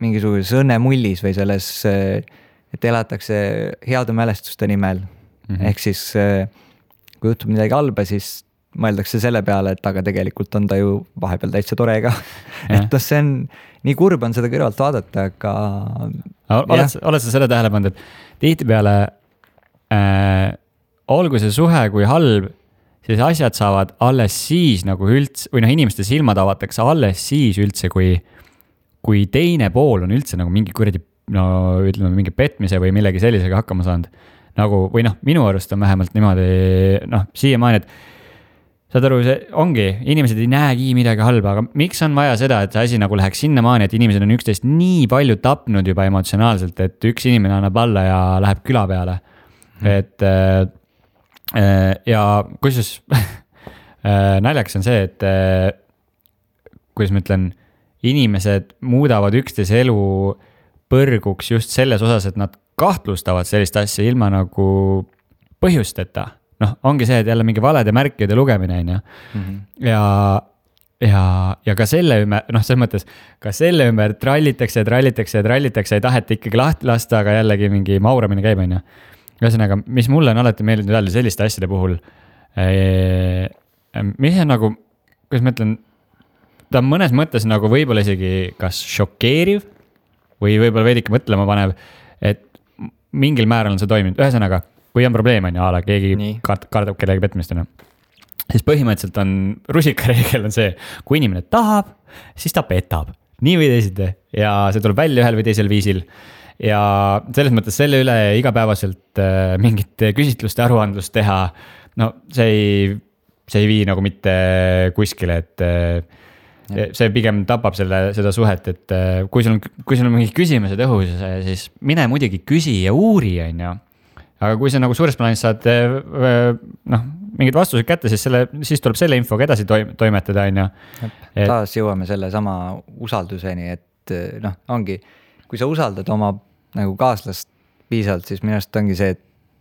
mingisuguses õnnemullis või selles, et elatakse heade mälestuste nimel. Ehk siis kui juhtub midagi halba, siis mõeldakse selle peale, et aga tegelikult on ta ju vahepeal täitsa tore ka. Et see on, nii kurb on seda kõrvalt vaadata, aga... Oled sa selle tähele pannud, et tihtipeale olgu see suhe kui halb, siis asjad saavad alles siis nagu üldse, või noh, inimeste silmad avatakse alles siis üldse, kui teine pool on üldse nagu mingi kuradi, no ütleme mingi petmise või millegi sellisega hakkama saanud. Nagu, või noh, minu arust on vähemalt niimoodi, noh, siiamaani, et saad aru, see ongi, inimesed ei näegi midagi halba, aga miks on vaja seda, et see asi nagu läheks sinnamaani, et inimesed on üksteist nii palju tapnud juba emotsionaalselt, et üks inimene annab alla ja läheb küla peale. Et ja kusjuures naljaks on see, et kuidas ma ütlen, inimesed muudavad üksteise elu põrguks just selles osas, et nad kahtlustavad sellist asja ilma nagu põhjusteta. Noh, ongi see, et jälle mingi valede märkide lugemine on ju. Ja ka selle ümber, noh, selles mõttes, ka selle ümber trallitakse, ei taheta ikkagi lahti lasta, aga jällegi mingi mauramine käib on ju. Ühesõnaga, mis mulle on alati meeldinud öelda selliste asjade puhul, mis on nagu, kuidas ma ütlen, ta on mõnes mõttes nagu võib-olla isegi kas šokeeriv või võib-olla veidike mõtlema panev, et mingil määral on see toiminud. Ühesõnaga, kui on probleem on ja ala, keegi kardab kellegi petmist, siis põhimõtteliselt on, rusikareegel on see, kui inimene tahab, siis ta petab. Nii või teisiti ja see tuleb välja ühel või teisel viisil. Ja selles mõttes selle üle igapäevaselt mingit küsitluste aruandlust teha, no see ei vii nagu mitte kuskile, et see pigem tapab seda suhet, et kui sul on mingid küsimused õhus, siis mine muidugi küsi ja uuri, on ju. Aga kui sa nagu suures plaanis saad mingid vastused kätte, siis tuleb selle infoga edasi toimetada, on ju. Taas jõuame selle sama usalduseni, et noh, ongi, kui sa usaldad oma nagu kaaslast piisavalt, siis minu arust ongi see, et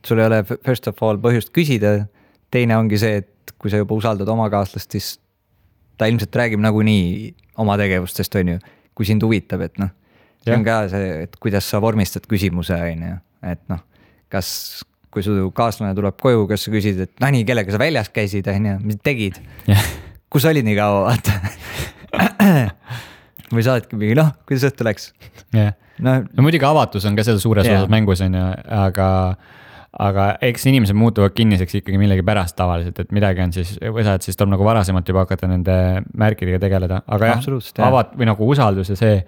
sul ei ole first of all põhjust küsida. Teine ongi see, et kui sa juba usaldad oma kaaslast, siis ta ilmselt räägib nagunii oma tegevustest, on ju, kui sind huvitab, et noh, see on ka see, et kuidas sa vormistad küsimuse, on ju, et noh, kas, kui su kaaslane tuleb koju, kas sa küsid, et nii, kellega sa väljas käisid, on ju, mis tegid, kus olid nii kaua, vaata. Või saadki mingi, noh, kuidas õhtu läks. No muidugi avatus on ka seal suures osas mängus, on ju, aga eks inimesed muutuvad kinniseks ikkagi millegi pärast tavaliselt, et midagi on siis, siis tuleb nagu varasemalt juba hakata nende märkidega tegeleda, aga või nagu usaldus ja see,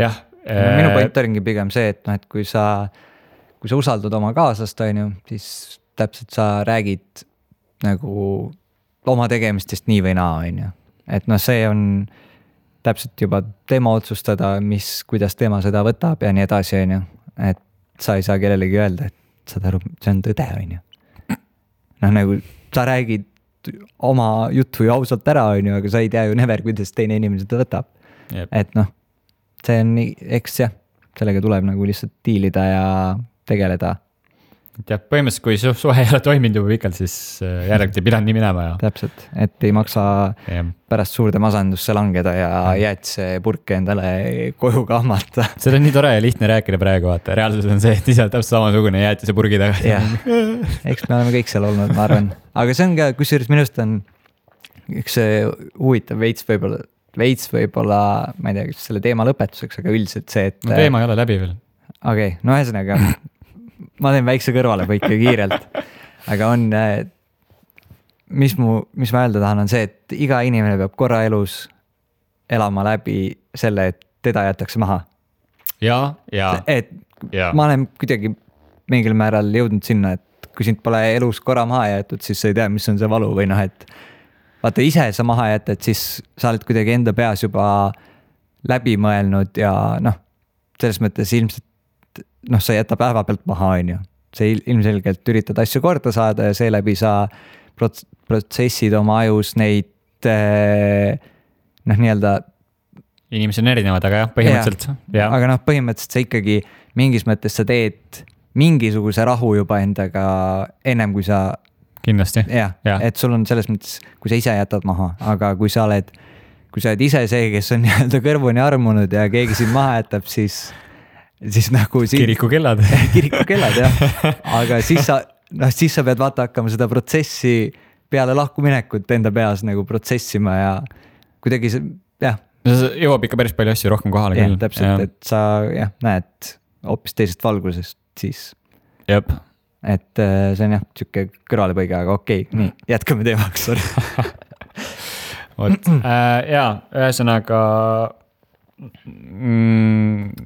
jah. Minu point ongi pigem see, et noh, et kui sa usaldad oma kaaslast, on ju, siis täpselt sa räägid nagu oma tegemistest nii või naa, on ju, et noh, see on täpselt juba tema otsustada, kuidas tema seda võtab ja nii edasi, on ju, et sa ei saa kellelegi öelda, et saad aru, see on tõde, on ju. Noh, nagu sa räägid oma juttu ju ausalt ära, on ju, aga sa ei tea ju never, kuidas teine inimene seda võtab. Et noh, see on nii, eks jah, sellega tuleb nagu lihtsalt diilida ja tegeleda. Ja põhimõtteliselt, kui suhe ei ole toiminud juba pikalt, siis järelikult ei pidanud nii minema. Ja. Täpselt, et ei maksa pärast suurde masandusse langeda ja jäätise purke endale koju kahmata. See on nii tore ja lihtne rääkida praegu, vaata. Reaalsus on see, et ise täpselt samasugune jäätise purgi taga. Eks me oleme kõik seal olnud, ma arvan. Aga see on ka, kusjuures minust on üks huvitav veits võib-olla, ma ei tea, kas selle teema lõpetuseks, aga üldiselt see, et... No, teema ei ole läbi veel. okei, no ühesõnaga ma teen väikse kõrvalepõike kiirelt, aga on, mis ma öelda tahan, on see, et iga inimene peab korra elus elama läbi selle, et teda jätakse maha. Et ma olen kuidagi mingil määral jõudnud sinna, et kui sind pole elus korra maha jäetud, siis sa ei tea, mis on see valu või noh, et vaata ise sa maha jätad, siis sa oled kuidagi enda peas juba läbi mõelnud ja noh, selles mõttes ilmselt sa ei jäta päeva pealt maha, on ju. Sa ilmselgelt üritad asju korda saada ja seeläbi sa protsessid oma ajus neid nii-öelda. Inimesed on erinevad, aga jah, põhimõtteliselt. Ja. Aga põhimõtteliselt sa ikkagi mingis mõttes sa teed mingisuguse rahu juba endaga ennem kui sa kindlasti. Et sul on selles mõttes, kui sa ise jätad maha, aga kui sa oled ise see, kes on nii-öelda kõrvuni armunud ja keegi sind maha jätab, siis nagu kirikukellad. Kirikukellad, jah. Aga siis sa pead vaata hakkama seda protsessi peale lahkuminekut enda peas nagu protsessima ja kuidagi see, jah. Jõuab ikka päris palju asju rohkem kohale küll. Täpselt, et sa näed hoopis teisest valgusest siis. Jep. Et see on jah, siuke kõrvalepõige, aga okei, nii, jätkame teemaks. Jaa, ühesõnaga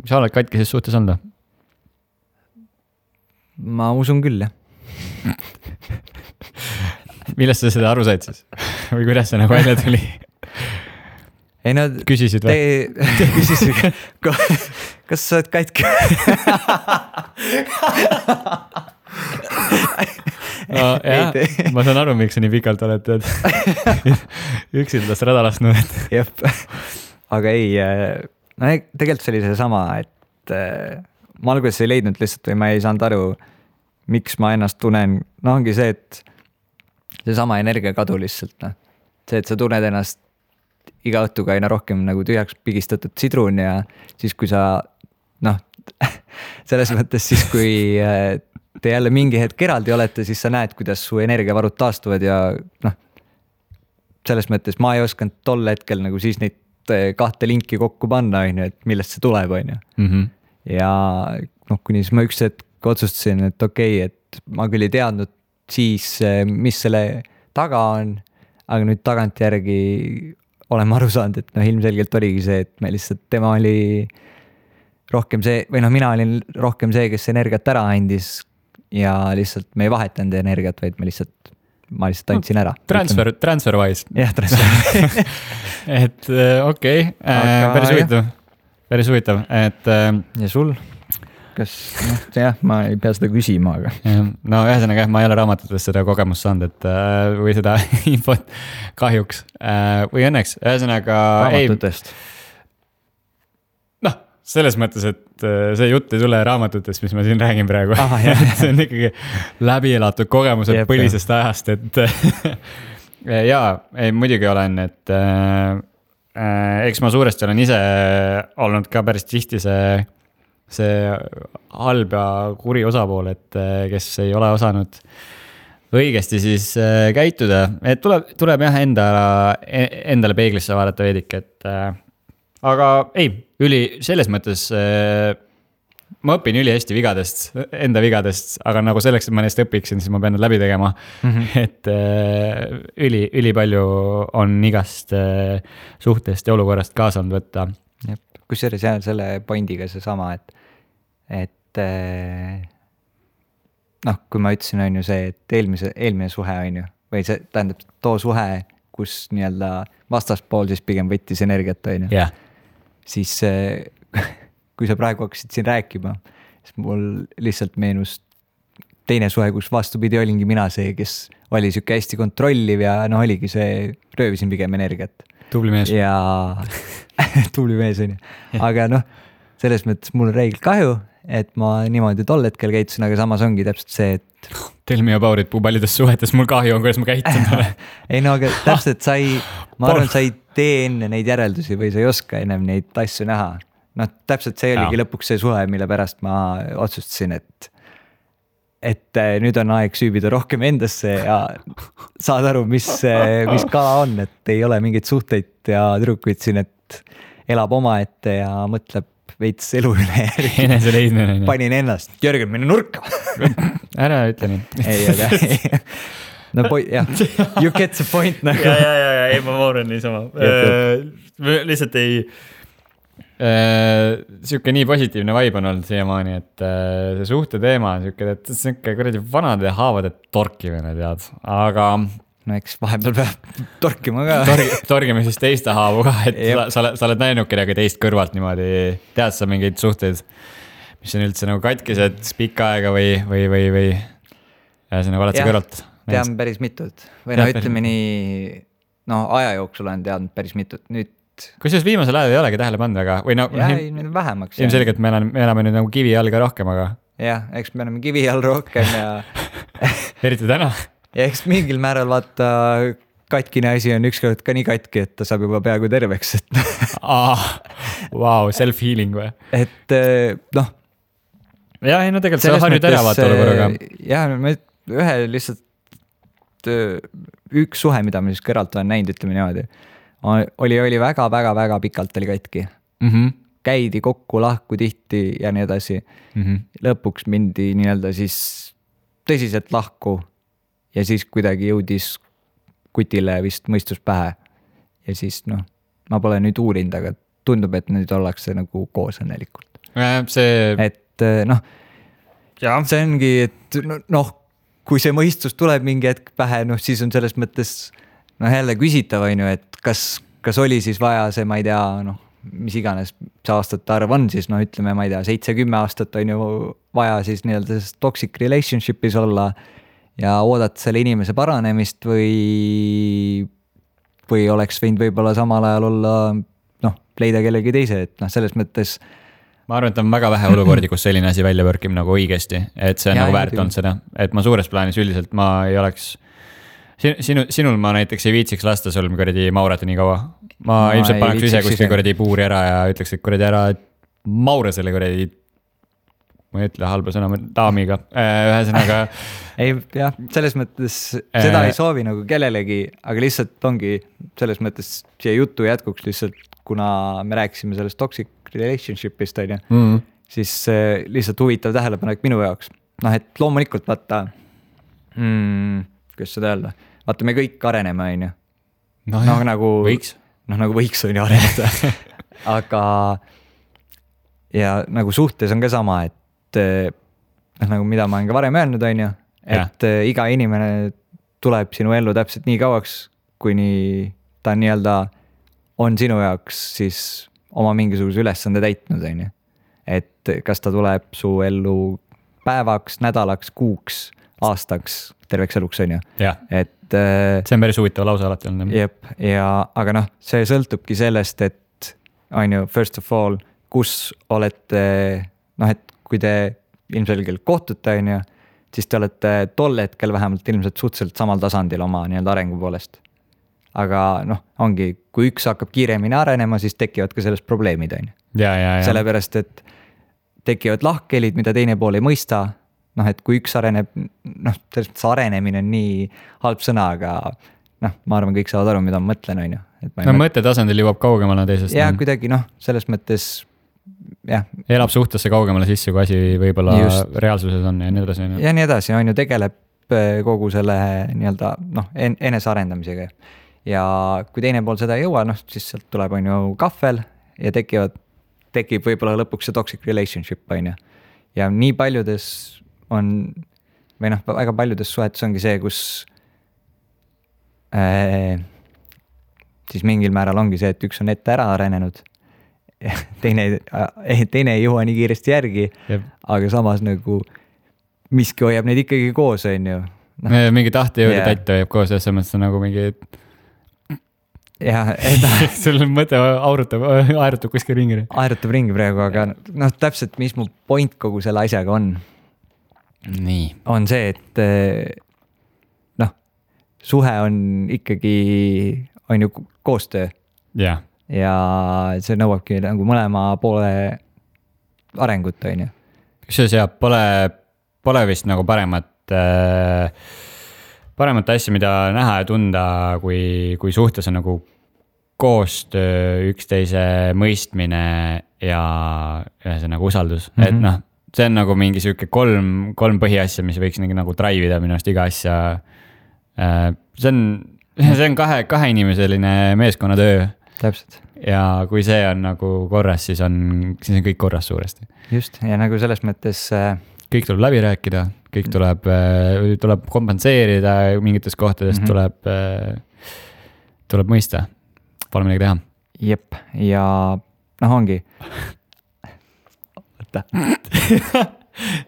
sa oled katkises suhtes olnud? Ma usun küll, jah. Millest sa seda aru said siis? Või kuidas see nagu välja tuli? Ei no, küsisid või? Küsisid, kas sa oled katki? No, jah, ma saan aru, miks sa nii pikalt oled üksildast rada lasknud. Jep, aga ei, no tegelikult see oli see sama, et ma alguses ei leidnud lihtsalt või ma ei saanud aru, miks ma ennast tunnen. No ongi see, et see sama energia kadu lihtsalt. No. See, et sa tunned ennast iga õhtuga aina rohkem nagu tühjaks pigistatud sidrun ja siis kui sa selles mõttes siis kui te jälle mingi hetk eraldi olete, siis sa näed, kuidas su energiavarud taastuvad ja selles mõttes ma ei osanud tol hetkel nagu siis neid kahte linki kokku panna, et millest see tuleb, on ju. Ja kuni siis ma üks hetk otsustasin, et okei, et ma küll ei teadnud siis, mis selle taga on, aga nüüd tagantjärgi oleme aru saanud, et ilmselgelt oligi see, et me lihtsalt, tema oli rohkem see, või mina olin rohkem see, kes energiat ära andis ja lihtsalt me ei vahetanud energiat, vaid ma lihtsalt andsin ära. Transfer-wise. Jah, transfer. Et okei, päris huvitav, et. Ja sul? Kas, ma ei pea seda küsima, aga. No ühesõnaga, ma ei ole raamatutest seda kogemust saanud, et või seda infot kahjuks või õnneks, ühesõnaga. Raamatutest. Selles mõttes, et see jutt ei tule raamatutest, mis ma siin räägin praegu. See on ikkagi läbi elatud kogemused põlisest ajast, et jaa, muidugi olen, et eks ma suuresti olen ise olnud ka päris tihti see halb ja kuri osapool, et kes ei ole osanud õigesti siis käituda, et tuleb jah endale peeglisse vaadata veedik, et aga ei, selles mõttes ma õpin ülihästi enda vigadest, aga nagu selleks, et ma neist õpiksin, siis ma pean need läbi tegema. Et üli palju on igast suhtest ja olukorrast kaasa olnud võtta. Kusjuures jääb selle pointiga see sama, et kui ma ütlesin, on ju see, et eelmine suhe on ju, või see tähendab too suhe, kus nii-öelda vastaspool siis pigem võttis energiat, on ju. Siis kui sa praegu hakkasid siin rääkima, siis mul lihtsalt meenus teine suhe, kus vastupidi olingi mina see, kes oli siuke hästi kontrolliv ja oligi see, röövisin pigem energiat. Tubli mees. Ja tubli mees on ju. Aga selles mõttes mul on reegel kahju, et ma niimoodi tol hetkel käitusin, aga samas ongi täpselt see, et tell me about it, paljudes suhetes mul kahju on, kuidas ma käitun ole. Ei aga täpselt ma arvan, sa ei tee enne neid järeldusi või sa ei oska ennem neid asju näha. Täpselt see oligi lõpuks see suhe, mille pärast ma otsustasin, et nüüd on aeg süübida rohkem endasse ja saad aru, mis kala on, et ei ole mingeid suhteid ja tüdrukuid siin, et elab omaette ja mõtleb veits elu üle järgi. Enese leidmine. Panin ennast, Jörgen, mine nurka. Ära ütle nii. Ei, aga no jah, you get the point nagu. Ja, ei ma mooran niisama. Lihtsalt ei, siuke nii positiivne vibe on olnud siiamaani, et see suhte teema on siuke, et siuke kuradi vanade haavade torkimine, tead, aga no eks vahepeal peab torkima ka. Torgime siis teiste haavu ka, et sa oled näinud kedagi teist kõrvalt niimoodi, tead sa mingeid suhteid, mis on üldse nagu katkised pikka aega või ja see nagu oled sa kõrvalt? Tean päris mitut või no ütleme nii, no aja jooksul olen teadnud päris mitut. Nüüd kusjuures viimasel ajal ei olegi tähele pannud väga või no vähemaks. Ilmselgelt me elame nüüd nagu kivi all ka rohkem, aga jah, eks me oleme kivi all rohkem ja eriti täna. Ja eks mingil määral vaata katkine asi on ükskord ka nii katki, et ta saab juba peaaegu terveks. Wow, self-healing või? Et noh. Ja, ei no tegelikult see on nüüd ära vaata olukorraga. Jah, ühe lihtsalt üks suhe, mida ma siis kõralt olen näinud, ütleme niimoodi, oli väga pikalt oli katki. Käidi kokku, lahku tihti ja nii edasi. Lõpuks mindi nii-öelda siis tõsiselt lahku. Ja siis kuidagi jõudis kutile vist mõistus pähe. Ja siis noh, ma pole nüüd uurinud, aga tundub, et nüüd ollakse nagu koos õnnelikult. Et noh, see ongi, et noh, kui see mõistus tuleb mingi hetk pähe, noh siis on selles mõttes noh jälle küsitav, et kas oli siis vaja see, ma ei tea, noh, mis iganes see aastate arv on siis, noh ütleme, ma ei tea, 7-10 aastat on ju vaja siis nii-öelda toxic relationship'is olla ja oodata selle inimese paranemist või oleks võinud võib-olla samal ajal olla, noh, leida kellegi teise, et noh, selles mõttes. Ma arvan, et on väga vähe olukordi, kus selline asi välja võrkib nagu õigesti, et see on nagu väärt olnud seda, et ma suures plaanis üldiselt ma ei oleks, sinul ma näiteks ei viitsiks lasta sul kuradi maurata nii kaua. Ma ilmselt paneks ise kuskil kuradi puuri ära ja ütleks, et kuradi ära maure selle kuradi, ma ei ütle halba sõna, daamiga, ühesõnaga. Ei, jah, selles mõttes seda ei soovi nagu kellelegi, aga lihtsalt ongi selles mõttes siia jutu jätkuks lihtsalt, kuna me rääkisime sellest toxic relationship'ist, siis lihtsalt huvitav tähelepanek minu jaoks. Noh, et loomulikult vaata, kuidas seda öelda, vaata me kõik areneme, on ju. No nagu võiks. Noh, nagu võiks on ju areneda. Aga ja nagu suhtes on ka sama, et nagu mida ma olen ka varem öelnud, on ju, et iga inimene tuleb sinu ellu täpselt nii kauaks, kuni ta nii-öelda on sinu jaoks siis oma mingisuguse ülesande täitnud, on ju. Et kas ta tuleb su ellu päevaks, nädalaks, kuuks, aastaks, terveks eluks, on ju. Et see on päris huvitav lause alati olnud. Jep, aga noh, see sõltubki sellest, et on ju, first of all, kus olete, noh, et kui te ilmselgelt kohtute, on ju, siis te olete tol hetkel vähemalt ilmselt suhteliselt samal tasandil oma nii-öelda arengu poolest. Aga noh, ongi, kui üks hakkab kiiremini arenema, siis tekivad ka sellest probleemid, on ju. Sellepärast, et tekivad lahkhelid, mida teine pool ei mõista. Noh, et kui üks areneb, noh, selles mõttes arenemine on nii halb sõna, aga noh, ma arvan, kõik saavad aru, mida ma mõtlen, on ju. No mõtte tasandil jõuab kaugemale teisest. Ja kuidagi noh, selles mõttes jah. Elab suhtesse kaugemale sisse, kui asi võib-olla reaalsuses on ja nii edasi. Ja nii edasi, on ju, tegeleb kogu selle nii-öelda noh, enese arendamisega. Ja kui teine pool seda ei jõua, noh, siis sealt tuleb on ju kahvel ja tekib võib-olla lõpuks see toxic relationship, on ju. Ja nii paljudes on, või noh, väga paljudes suhetes ongi see, kus siis mingil määral ongi see, et üks on ette ära arenenud, teine ei jõua nii kiiresti järgi, aga samas nagu miski hoiab neid ikkagi koos, on ju. Mingi tahte jõuda täita hoiab koos, selles mõttes on nagu mingi sul on mõte aerutab kuskil ringi. Aerutab ringi praegu, aga noh, täpselt mis mu point kogu selle asjaga on. Nii. On see, et noh, suhe on ikkagi, on ju koostöö. Ja see nõuabki nagu mõlema poole arengut, on ju. Kusjuures jah, pole vist nagu paremat asja, mida näha ja tunda, kui suhtes on nagu koostöö, üksteise mõistmine ja ühesõnaga usaldus, et noh, see on nagu mingi sihuke kolm põhiasja, mis võiks nagu drive ida minu arust iga asja. See on kahe inimeseline meeskonnatöö. Täpselt. Ja kui see on nagu korras, siis on kõik korras suuresti. Just, ja nagu selles mõttes kõik tuleb läbi rääkida, kõik tuleb kompenseerida mingites kohtades, tuleb mõista, pole midagi teha. Jep, ja noh ongi. Võtta.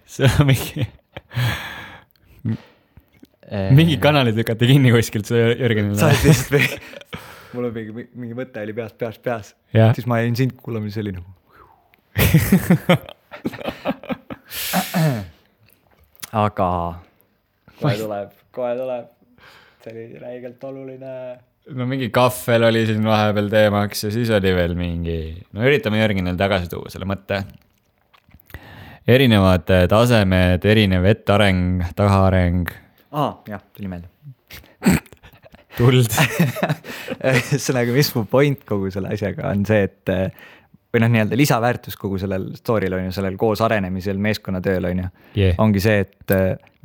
See on mingi kanalid lükati kinni kuskilt, see Jürgenile. Sa oled lihtsalt mul on mingi mõte oli peas. Siis ma jäin sind kuulama, siis oli nagu. Aga kohe tuleb. See oli räigelt oluline. No mingi kahvel oli siin vahepeal teemaks ja siis oli veel mingi, no üritame Jürgenil tagasi tuua selle mõtte. Erinevad tasemed, erinev etteareng, tahaareng. Jah, tuli meelde. Tuld. Ühesõnaga, mis mu point kogu selle asjaga on see, et või noh, nii-öelda lisaväärtus kogu sellel story'l on ju, sellel koos arenemisel, meeskonnatööl on ju, ongi see, et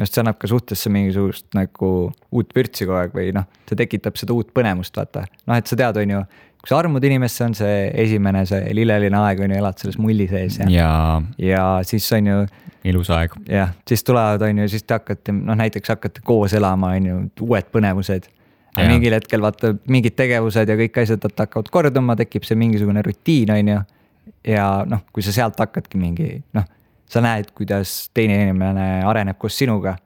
see annab ka suhtesse mingisugust nagu uut vürtsi kogu aeg või noh, see tekitab seda uut põnemust, vaata. Noh, et sa tead, on ju, kui sa armud inimesse, on see esimene, see lilleline aeg on ju, elad selles mulli sees ja siis on ju ilus aeg. Jah, siis tulevad, on ju, siis te hakkate, noh näiteks hakkate koos elama, on ju, uued põnevused. Ja mingil hetkel vaata mingid tegevused ja kõik asjad hakkavad korduma, tekib see mingisugune rutiin, on ju. Ja noh, kui sa sealt hakkadki mingi, noh, sa näed, kuidas teine inimene areneb koos sinuga.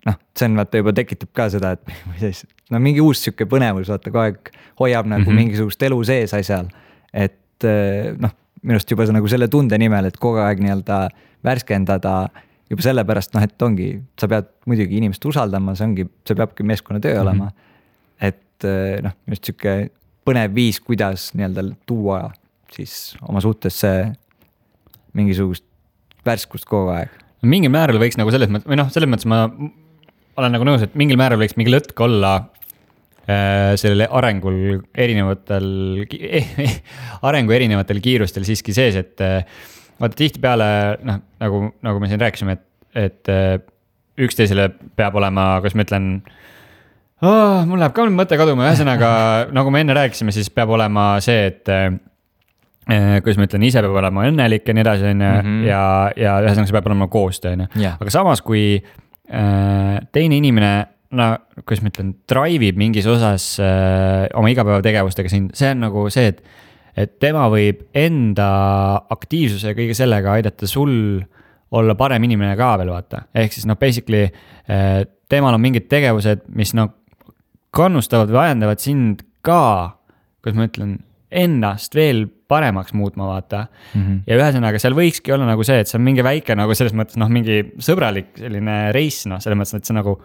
Noh, see on vaata juba tekitab ka seda, et no mingi uus siuke põnevus, vaata kogu aeg hoiab nagu mingisugust elu sees asjal. Et noh, minust juba nagu selle tunde nimel, et kogu aeg nii-öelda värskendada juba sellepärast, noh, et ongi, sa pead muidugi inimest usaldama, see peabki meeskonna töö olema. Et noh, just siuke põnev viis, kuidas nii-öelda tuua siis oma suhtesse mingisugust värskust kogu aeg. Mingil määral võiks nagu selles mõttes, või noh, selles mõttes ma olen nagu nõus, et mingil määral võiks mingi lõtk olla sellele arengul erinevatel kiirustel siiski sees, et vaata tihti peale, noh, nagu me siin rääkisime, et üksteisele peab olema, kas ma ütlen, mul läheb ka mõte kaduma, ühesõnaga, nagu me enne rääkisime, siis peab olema see, et kuidas ma ütlen, ise peab olema õnnelik ja nii edasi, ja ühesõnaga see peab olema koostöö. Aga samas, kui teine inimene, no kuidas ma ütlen, drive'ib mingis osas oma igapäevategevustega siin, see on nagu see, et tema võib enda aktiivsuse ja kõige sellega aidata sul olla parem inimene ka veel, vaata. Ehk siis noh, basically temal on mingid tegevused, mis noh, kannustavad või ajendavad sind ka, kuidas ma ütlen, ennast veel paremaks muutma, vaata. Ja ühesõnaga, seal võikski olla nagu see, et see on mingi väike nagu selles mõttes, noh, mingi sõbralik selline reis, noh, selles mõttes, et see nagu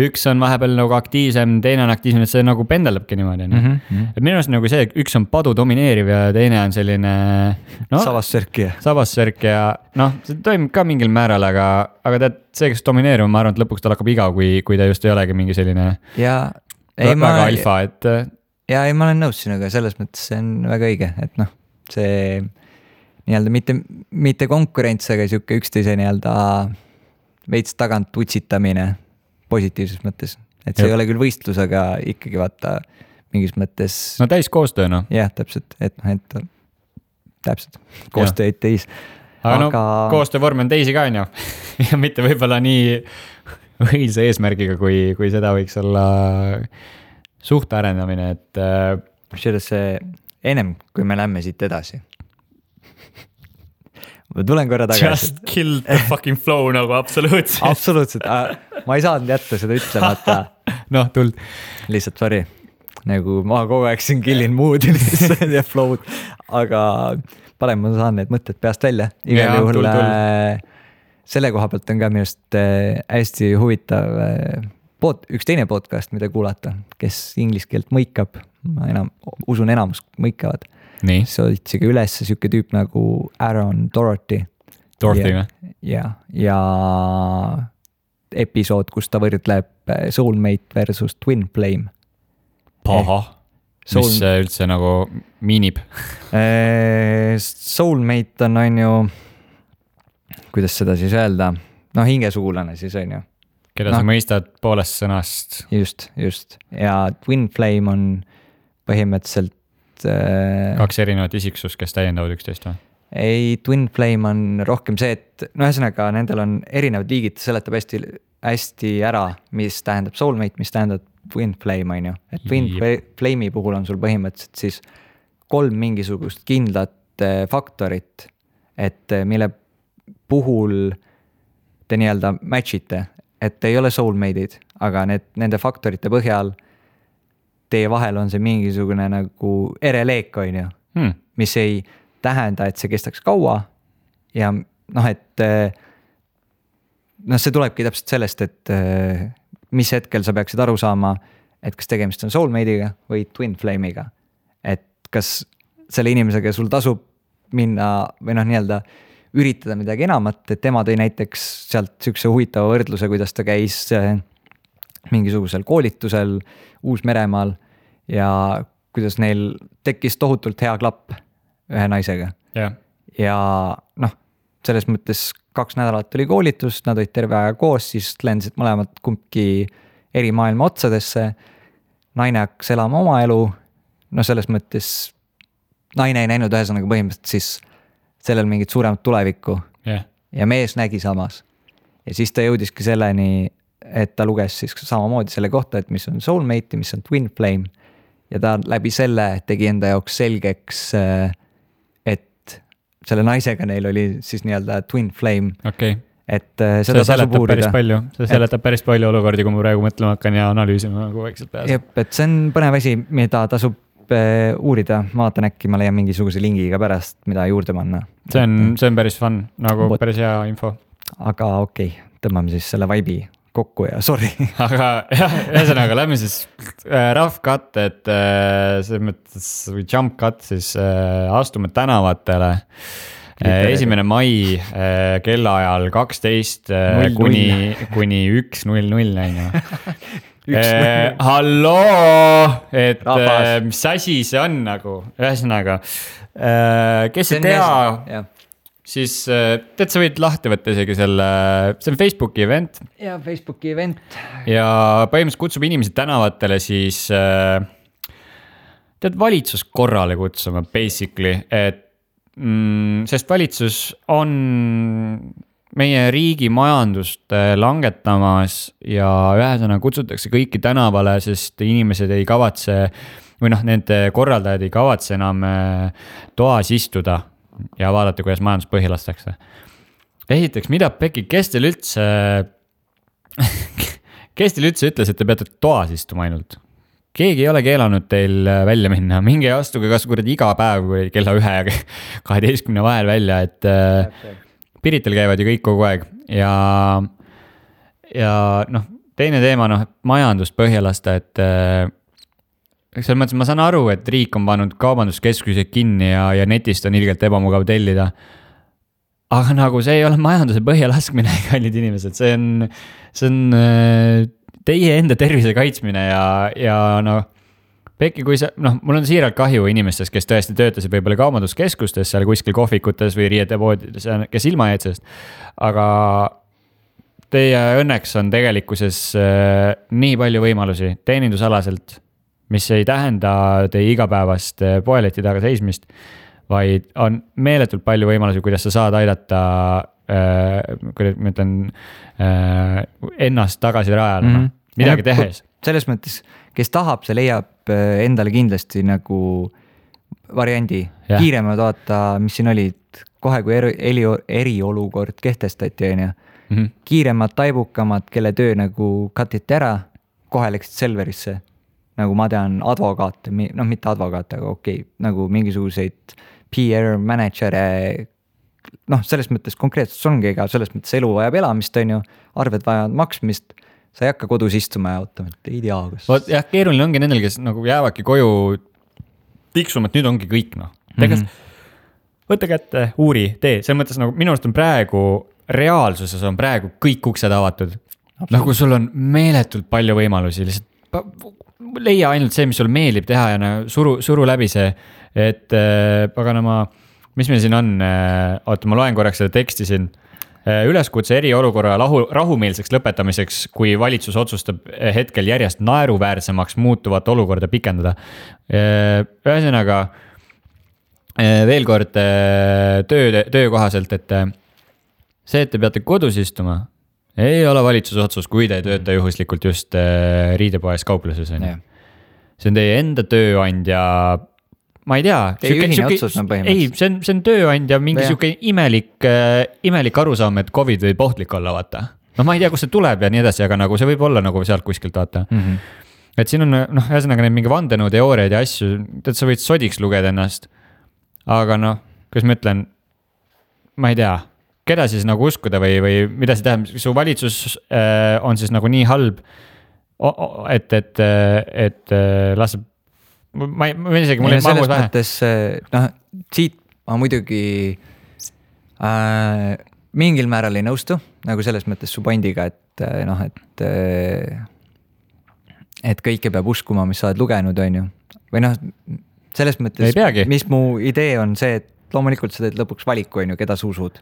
üks on vahepeal nagu aktiivsem, teine on aktiivsem, et see nagu pendeldabki niimoodi. Et minu arust nagu see, üks on padu domineeriv ja teine on selline Savassörk ja noh, see toimub ka mingil määral, aga tead, see, kes domineerib, ma arvan, et lõpuks tal hakkab igav, kui ta just ei olegi mingi selline väga alfa, et ja ei, ma olen nõus sinuga, selles mõttes see on väga õige, et noh, see nii-öelda mitte konkurents, aga siuke üksteise nii-öelda veits tagant utsitamine positiivses mõttes, et see ei ole küll võistlus, aga ikkagi vaata mingis mõttes. No täis koostöö, noh. Jah, täpselt, et täpselt, koostöö ei teis. Aga no, koostöövorm on teisi ka, on ju. Ja mitte võibolla nii õilse eesmärgiga, kui seda võiks olla suhte arendamine, et see ennem, kui me lähme siit edasi. Ma tulen korra tagasi. Just kill the fucking flow nagu absoluutselt. Absoluutselt, ma ei saanud jätta seda ütlemata. Noh, tuld. Lihtsalt, sorry. Nagu ma kogu aeg siin killin mood ja flow'd, aga parem ma saan need mõtted peast välja. Igal juhul selle koha pealt on ka minust hästi huvitav üks teine podcast, mida kuulata, kes inglise keelt mõikab, ma usun enamus mõikavad. Nii. See otsiga üles siuke tüüp nagu Aaron Dorothy. Ja episood, kus ta võrdleb Soulmate versus Twin Flame. Paha. mis üldse nagu miinib? Soulmate on ju, kuidas seda siis öelda, hingesugulane siis on ju. Keda sa mõistad poolest sõnast. Just. Ja Twin Flame on põhimõtteliselt... 2 erinevat isiksust, kes täiendavad üksteist või? Ei, Twin Flame on rohkem see, et ühesõnaga nendel on erinevad liigid, seletab hästi ära, mis tähendab soulmate, mis tähendab Twin Flame on ju. Et Twin Flame'i puhul on sul põhimõtteliselt siis 3 mingisugust kindlat faktorit, et mille puhul te nii-öelda match'ite, et ei ole soulmate'id, aga nende faktorite põhjal teie vahel on see mingisugune nagu ereleek on ju, mis ei tähenda, et see kestaks kaua ja see tulebki täpselt sellest, et mis hetkel sa peaksid aru saama, et kas tegemist on soulmate'iga või twin flame'iga. Et kas selle inimesega sul tasub minna või nii-öelda üritada midagi enamat, et tema tõi näiteks sealt sükse huvitava võrdluse, kuidas ta käis mingisugusel koolitusel Uus-Meremaal ja kuidas neil tekkis tohutult hea klapp ühe naisega. Ja selles mõttes 2 nädalat oli koolitus, nad olid terve aja koos, siis lendasid mõlemad kumbki eri maailma otsadesse. Naine hakkas elama oma elu, selles mõttes naine ei näinud ühesõnaga põhimõtteliselt siis sellel mingit suuremat tulevikku ja mees nägi samas. Ja siis ta jõudiski selleni, et ta luges siis samamoodi selle kohta, et mis on soulmate, mis on twin flame ja ta läbi selle tegi enda jaoks selgeks, selle naisega neil oli siis nii-öelda twin flame. Okay. Et seda tasub uurida. See seletab päris palju olukordi, kui ma praegu mõtlema hakkan ja analüüsima nagu vaikselt peas. Jep, et see on põnev asi, mida tasub uurida. Ma vaatan äkki, ma leian mingisuguse lingiga pärast, mida juurde panna. See on päris fun, nagu päris hea info. Aga okei, tõmbame siis selle vibe'i kokku ja sorry. Aga ühesõnaga, lähme siis rough cut, et selles mõttes või jump cut, siis astume tänavatele 1. mai kellaajal 12 kuni 1:00 halloo, et mis asi see on nagu, ühesõnaga, kes ei tea, siis tead, sa võid lahti võtta isegi see on Facebooki event. Ja Facebooki event. Ja põhimõtteliselt kutsub inimesed tänavatele siis tead valitsus korrale kutsuma basically, et sest valitsus on meie riigi majandust langetamas ja ühesõnaga kutsutakse kõiki tänavale, sest inimesed ei kavatse või nende korraldajad ei kavatse enam toas istuda ja vaadata, kuidas majandus põhi lastakse. Esiteks, mida Pekki, kes teil üldse ütles, et te peate toas istuma ainult? Keegi ei ole keelanud teil välja minna, minge astuge kas iga päev kella 1 ja 12 vahel välja, et Piritel käivad ju kõik kogu aeg ja teine teema, majandust põhja lasta, et selles mõttes ma saan aru, et riik on pannud kaubanduskeskused kinni ja netist on ilgelt ebamugav tellida. Aga nagu see ei ole majanduse põhja laskmine, kallid inimesed, see on teie enda tervise kaitsmine ja Pekki, kui mul on siiralt kahju inimestest, kes tõesti töötasid võib-olla kaubanduskeskustes, seal kuskil kohvikutes või riietepoodides, kes ilma jäid sellest. Aga teie õnneks on tegelikkuses nii palju võimalusi teenindusalaselt, mis ei tähenda teie igapäevast poeleti taga seismist, vaid on meeletult palju võimalusi, kuidas sa saad aidata, kuidas ma ütlen, ennast tagasi rajale, midagi tehes. Selles mõttes, kes tahab, see leiab endale kindlasti nagu variandi. Kiiremad vaata, mis siin olid, kohe kui eriolukord kehtestati, kiiremad, taibukamad, kelle töö nagu katiti ära, kohe läksid Selverisse. Nagu ma tean advokaate, mitte advokaate, aga okei, nagu mingisuguseid PR manager'e, selles mõttes konkreetselt ongi, ega selles mõttes elu vajab elamist, arved vajavad maksmist, sa ei hakka kodus istuma ja ootama, et ei tea, kas... Jah, keeruline ongi nendel, kes nagu jäävadki koju tiksuma, et nüüd ongi kõik, võtta kätte, uuri, tee, selles mõttes nagu minu arust on praegu, reaalsuses on praegu kõik uksed avatud. Nagu sul on meeletult palju võimalusi, lihtsalt leia ainult see, mis sul meeldib teha ja suru läbi see, et paganama, mis meil siin on, oota, ma loen korraks seda teksti siin. Üleskutse eriolukorra rahumeelseks lõpetamiseks, kui valitsus otsustab hetkel järjest naeruväärsemaks muutuvat olukorda pikendada. Ühesõnaga, veel kord töökohaselt, et see, et te peate kodus istuma, ei ole valitsuse otsus, kui te ei tööta juhuslikult just riidepoes kaupluses. See on teie enda tööandja, ma ei tea. Teie ühine otsus on põhimõtteliselt. Ei, see on tööandja mingi siuke imelik arusaam, et COVID võib ohtlik olla, vaata. No ma ei tea, kust see tuleb ja nii edasi, aga nagu see võib olla nagu sealt kuskilt, vaata. Et siin on, ühesõnaga need mingi vandenõuteooriaid ja asju, et sa võid sodiks lugeda ennast. Aga kuidas ma ütlen, ma ei tea, keda siis nagu uskuda või mida see tähendab, su valitsus on siis nagu nii halb, et laseb. Ma isegi, mul ei mahus vähe. Selles mõttes, siit ma muidugi mingil määral ei nõustu, nagu selles mõttes su pointiga, et kõike peab uskuma, mis sa oled lugenud, on ju. Või selles mõttes, mis mu idee on see, et loomulikult sa teed lõpuks valiku, on ju, keda sa usud.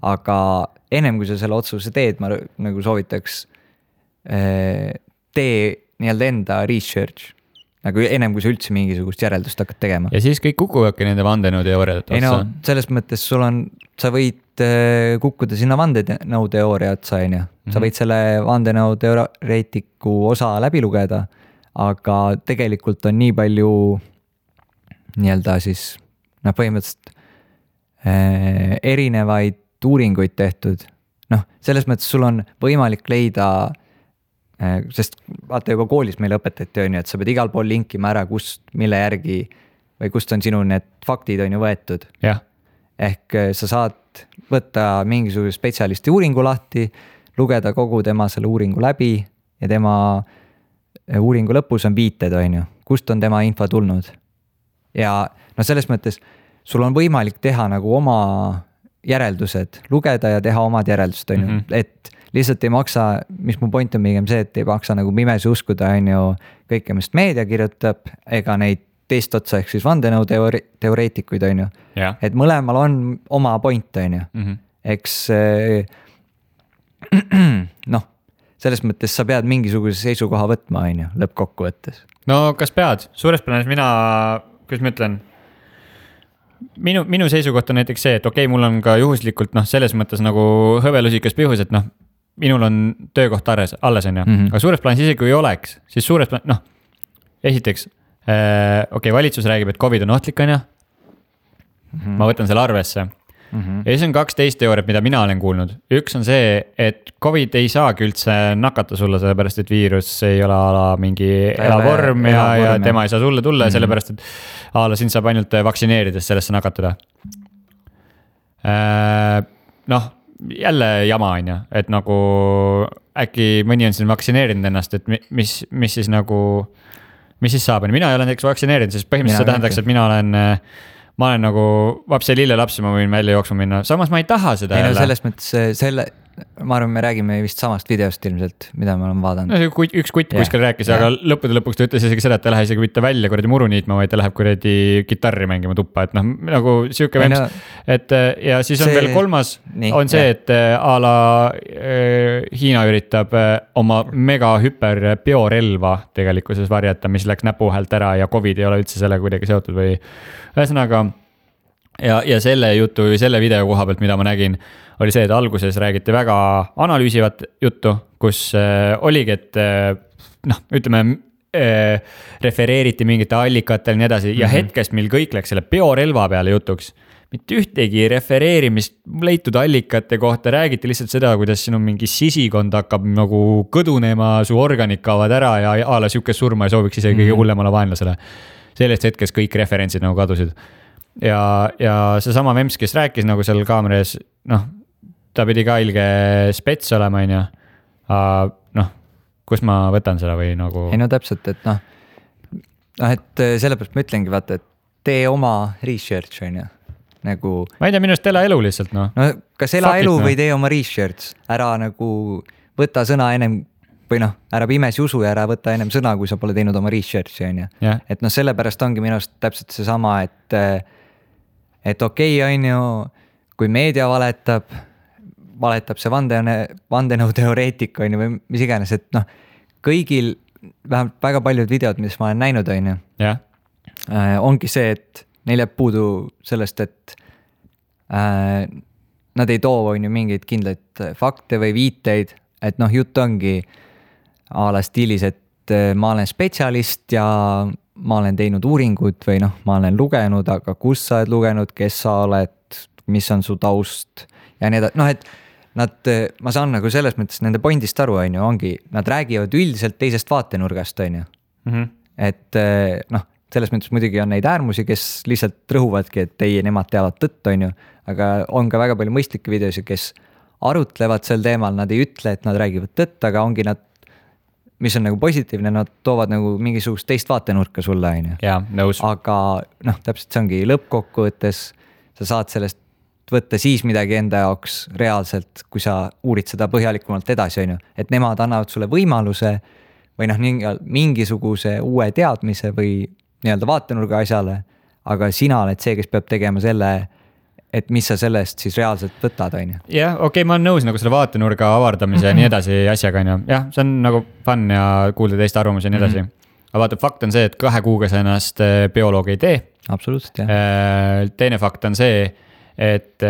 Aga ennem kui sa selle otsuse teed, ma nagu soovitaks tee nii-öelda enda research. Nagu ennem kui sa üldse mingisugust järeldust hakkad tegema. Ja siis kõik kukuvadki nende vandenõuteooriad otsa. Selles mõttes sa võid kukkuda sinna vandenõuteooria otsa, on ju. Sa võid selle vandenõuteoreetiku osa läbi lugeda, aga tegelikult on nii palju nii-öelda siis põhimõtteliselt erinevaid uuringuid tehtud. Selles mõttes sul on võimalik leida, sest vaata juba koolis meile õpetati, on ju, et sa pead igal pool linkima ära, mille järgi või kust on sinu need faktid on ju võetud. Ehk sa saad võtta mingisuguse spetsialisti uuringu lahti, lugeda kogu tema selle uuringu läbi ja tema uuringu lõpus on viited, on ju, kust on tema info tulnud. Ja selles mõttes sul on võimalik teha nagu oma järeldused, lugeda ja teha omad järeldused, on ju, et lihtsalt ei maksa, mis mu point on pigem see, et ei maksa nagu pimesi uskuda, on ju, kõike, mis meedia kirjutab, ega neid teist otsa ehk siis vandenõuteoreetikuid, on ju. Et mõlemal on oma point, on ju. Eks selles mõttes sa pead mingisuguse seisukoha võtma, on ju, lõppkokkuvõttes. No kas pead? Suures plaanis mina, kuidas ma ütlen, minu seisukoht on näiteks see, et okei, mul on ka juhuslikult selles mõttes nagu hõbelusikas pihus, et minul on töökoht alles, on ju. Aga suures plaanis isegi kui ei oleks, siis suures plaanis, esiteks, valitsus räägib, et COVID on ohtlik, on ju. Ma võtan selle arvesse. Ja siis on 12 teooriat, mida mina olen kuulnud. Üks on see, et COVID ei saagi üldse nakata sulle, sellepärast et viirus ei ole mingi elavorm ja tema ei saa sulle tulla, sellepärast et sind saab ainult vaktsineerides sellesse nakatuda. Jälle jama on ju, et nagu äkki mõni on siin vaktsineerinud ennast, et mis siis nagu, mis siis saab, mina ei ole näiteks vaktsineerinud, sest põhimõtteliselt see tähendaks, et ma olen nagu vapse lille lapsi, ma võin välja jooksma minna. Samas ma ei taha seda jälle. Selles mõttes ma arvan, me räägime vist samast videost ilmselt, mida me oleme vaadanud. Üks kutt kuskil rääkis, aga lõppude lõpuks ta ütles isegi seda, et ta lähe isegi mitte välja kuradi muru niitma, vaid ta läheb kuradi kitarri mängima tuppa. Et nagu siuke vems. Et ja siis on veel kolmas, on see, et a la Hiina üritab oma mega hüper biorelva tegelikkuses varjata, mis läks näpuhäält ära ja COVID ei ole üldse selle kuidagi seotud või ühesõnaga. Ja selle jutu või selle video koha pealt, mida ma nägin, oli see, et alguses räägiti väga analüüsivat juttu, kus oligi, et ütleme, refereeriti mingite allikatel nii edasi ja hetkest, mil kõik läks selle biorelva peale jutuks. Mitte ühtegi refereerimist leitud allikate kohta, räägiti lihtsalt seda, kuidas sinu mingi sisikond hakkab nagu kõdunema, su organid kaovad ära ja a la siukest surma ei sooviks isegi kõige hullemale vaenlasele. Sellest hetkest kõik referentsid nagu kadusid. Ja see sama Mems, kes rääkis nagu seal kaameras, ta pidi ka ilge spets olema, on ju. Kus ma võtan seda või nagu. Ei täpselt, et et sellepärast ma ütlengi, vaata, et tee oma research, on ju. Nagu. Ma ei tea, minust ela elu lihtsalt, kas ela elu või tee oma research, ära nagu võta sõna ennem või noh, ära pimesi usu ja ära võta ennem sõna, kui sa pole teinud oma research'i on ju. Et noh, sellepärast ongi minu arust täpselt seesama, et okei, on ju, kui meedia valetab see vandenõuteoreetik on ju või mis iganes, et noh, kõigil vähemalt väga paljud videod, mis ma olen näinud, on ju, ongi see, et neil jääb puudu sellest, et nad ei too on ju mingeid kindlaid fakte või viiteid, et noh, jutt ongi a la stiilis, et ma olen spetsialist ja ma olen teinud uuringut või noh, ma olen lugenud, aga kus sa oled lugenud, kes sa oled, mis on su taust ja nii edasi, noh, et ma saan nagu selles mõttes nende pointist aru, on ju, ongi, nad räägivad üldiselt teisest vaatenurgast, on ju. Et noh, selles mõttes muidugi on neid äärmusi, kes lihtsalt rõhuvadki, et ei, nemad teavad tõtt, on ju, aga on ka väga palju mõistlikke videosid, kes arutlevad sel teemal, nad ei ütle, et nad räägivad tõtt, aga ongi nad, mis on nagu positiivne, nad toovad nagu mingisugust teist vaatenurka sulle, on ju. Jaa, nõus. Aga noh, täpselt see ongi lõppkokkuvõttes, sa saad sellest võtta siis midagi enda jaoks reaalselt, kui sa uurid seda põhjalikumalt edasi, on ju. Et nemad annavad sulle võimaluse või noh, mingisuguse uue teadmise või nii-öelda vaatenurga asjale, aga sina oled see, kes peab tegema selle, et mis sa sellest siis reaalselt võtad, on ju. Jah, okei, ma olen nõus nagu selle vaatenurga avardamise ja nii edasi asjaga, on ju. Jah, see on nagu fun ja kuulda teiste arvamusi ja nii edasi. Aga vaata, fakt on see, et 2 kuuga sa ennast bioloog ei tee. Absoluutselt, jah. Teine fakt on see, et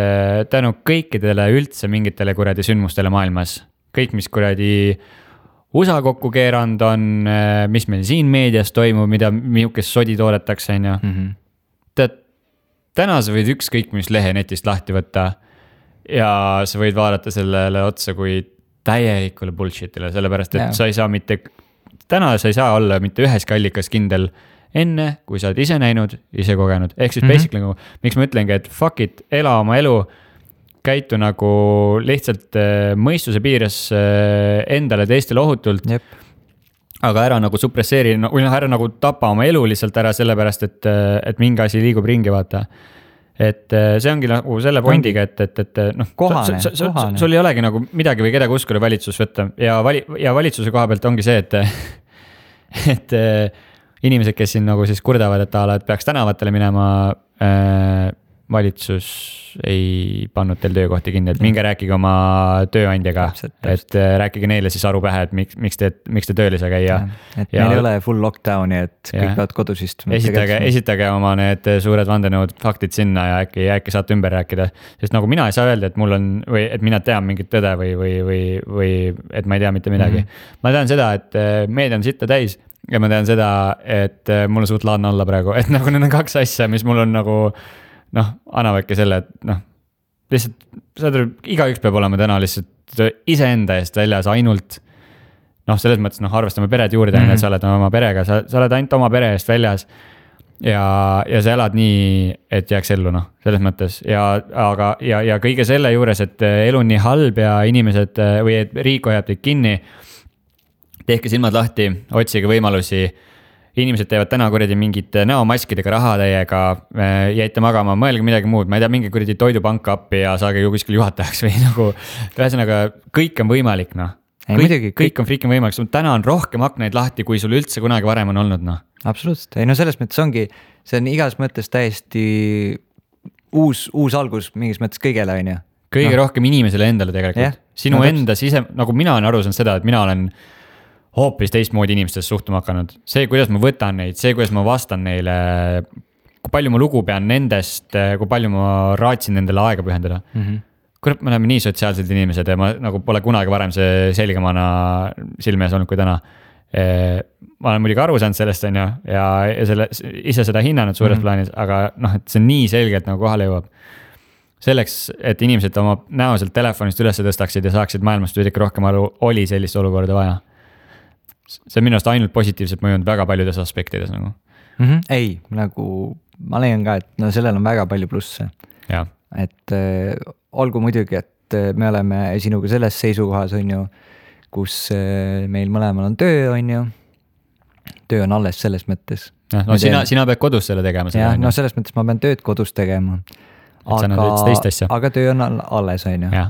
tänu kõikidele üldse mingitele kuradi sündmustele maailmas, kõik, mis kuradi USA kokku keeranud on, mis meil siin meedias toimub, milles sodi toodetakse, on ju. Tead, täna sa võid ükskõik mis lehe netist lahti võtta ja sa võid vaadata sellele otsa kui täielikule bullshitile, sellepärast, et sa ei saa täna sa ei saa olla mitte üheski allikas kindel enne, kui sa oled ise näinud, ise kogenud. Ehk siis basically nagu, miks ma ütlengi, et fuck it, ela oma elu, käitu nagu lihtsalt mõistuse piires endale teistele ohutult. Aga ära nagu suppresseeri, või ära nagu tapa oma elu lihtsalt ära sellepärast, et mingi asi liigub ringi, vaata. Et see ongi nagu selle pointiga, et noh, sul ei olegi nagu midagi või kedagi uskuda valitsus võtta. Ja valitsuse koha pealt ongi see, et inimesed, kes siin nagu siis kurdavad, et peaks tänavatele minema, valitsus ei pannud teil töökohti kinni, et minge rääkige oma tööandjaga, et rääkige neile siis aru pähe, et miks te tööl ei saa käia. Et meil ei ole full lockdowni, et kõik peavad kodus istuma. Esitage oma need suured vandenõud faktid sinna ja äkki saate ümber rääkida, sest nagu mina ei saa öelda, et mul on, või et mina tean mingit tõde või et ma ei tea mitte midagi. Ma tean seda, et meedia on sitta täis ja ma tean seda, et mul on suht laadne olla praegu, et nagu need on 2 asja, mis mul on nagu noh, annavadki selle, et noh, lihtsalt igaüks peab olema täna lihtsalt iseenda eest väljas ainult noh, selles mõttes noh, arvestame pered juurde, et sa oled oma perega, sa oled ainult oma pere eest väljas ja sa elad nii, et jääks ellu noh, selles mõttes ja kõige selle juures, et elu on nii halb ja inimesed või et riik hoiab teid kinni, tehke silmad lahti, otsige võimalusi. Inimesed teevad täna kuradi mingid näomaskidega raha teiega, jäite magama, mõelge midagi muud, ma ei tea, mingi kuradi toidupanka appi ja saage ju kuskil juhatajaks või nagu, ühesõnaga kõik on võimalik, noh. Kõik on freaking võimalik, täna on rohkem aknaid lahti, kui sul üldse kunagi varem on olnud, noh. Absoluutselt, ei no selles mõttes ongi, see on igas mõttes täiesti uus algus mingis mõttes kõigele, on ju. Kõige rohkem inimesele endale tegelikult. Sinu enda sise, nagu mina olen aru saanud seda, et mina olen hoopis teistmoodi inimestest suhtuma hakanud. See, kuidas ma võtan neid, see, kuidas ma vastan neile, kui palju ma lugu pean nendest, kui palju ma raatsin nendele aega pühendada. Kurat, me oleme nii sotsiaalsed inimesed ja ma nagu pole kunagi varem see selgemana silmes olnud kui täna. Ma olen muidugi aru saanud sellest on ju, ja ise seda hinnanud suures plaanis, aga noh, et see on nii selgelt nagu kohale jõuab. Selleks, et inimesed oma näoselt telefonist üles tõstaksid ja saaksid maailmast veidi rohkem aru, oli sellist olukorda vaja. See on minu arust ainult positiivselt mõjunud väga paljudes aspektides nagu. Ei, nagu ma leian ka, et no sellel on väga palju plusse. Et olgu muidugi, et me oleme sinuga selles seisukohas on ju, kus meil mõlemal on töö on ju. Töö on alles selles mõttes. No sina pead kodus selle tegema. No selles mõttes ma pean tööd kodus tegema. Aga töö on alles on ju.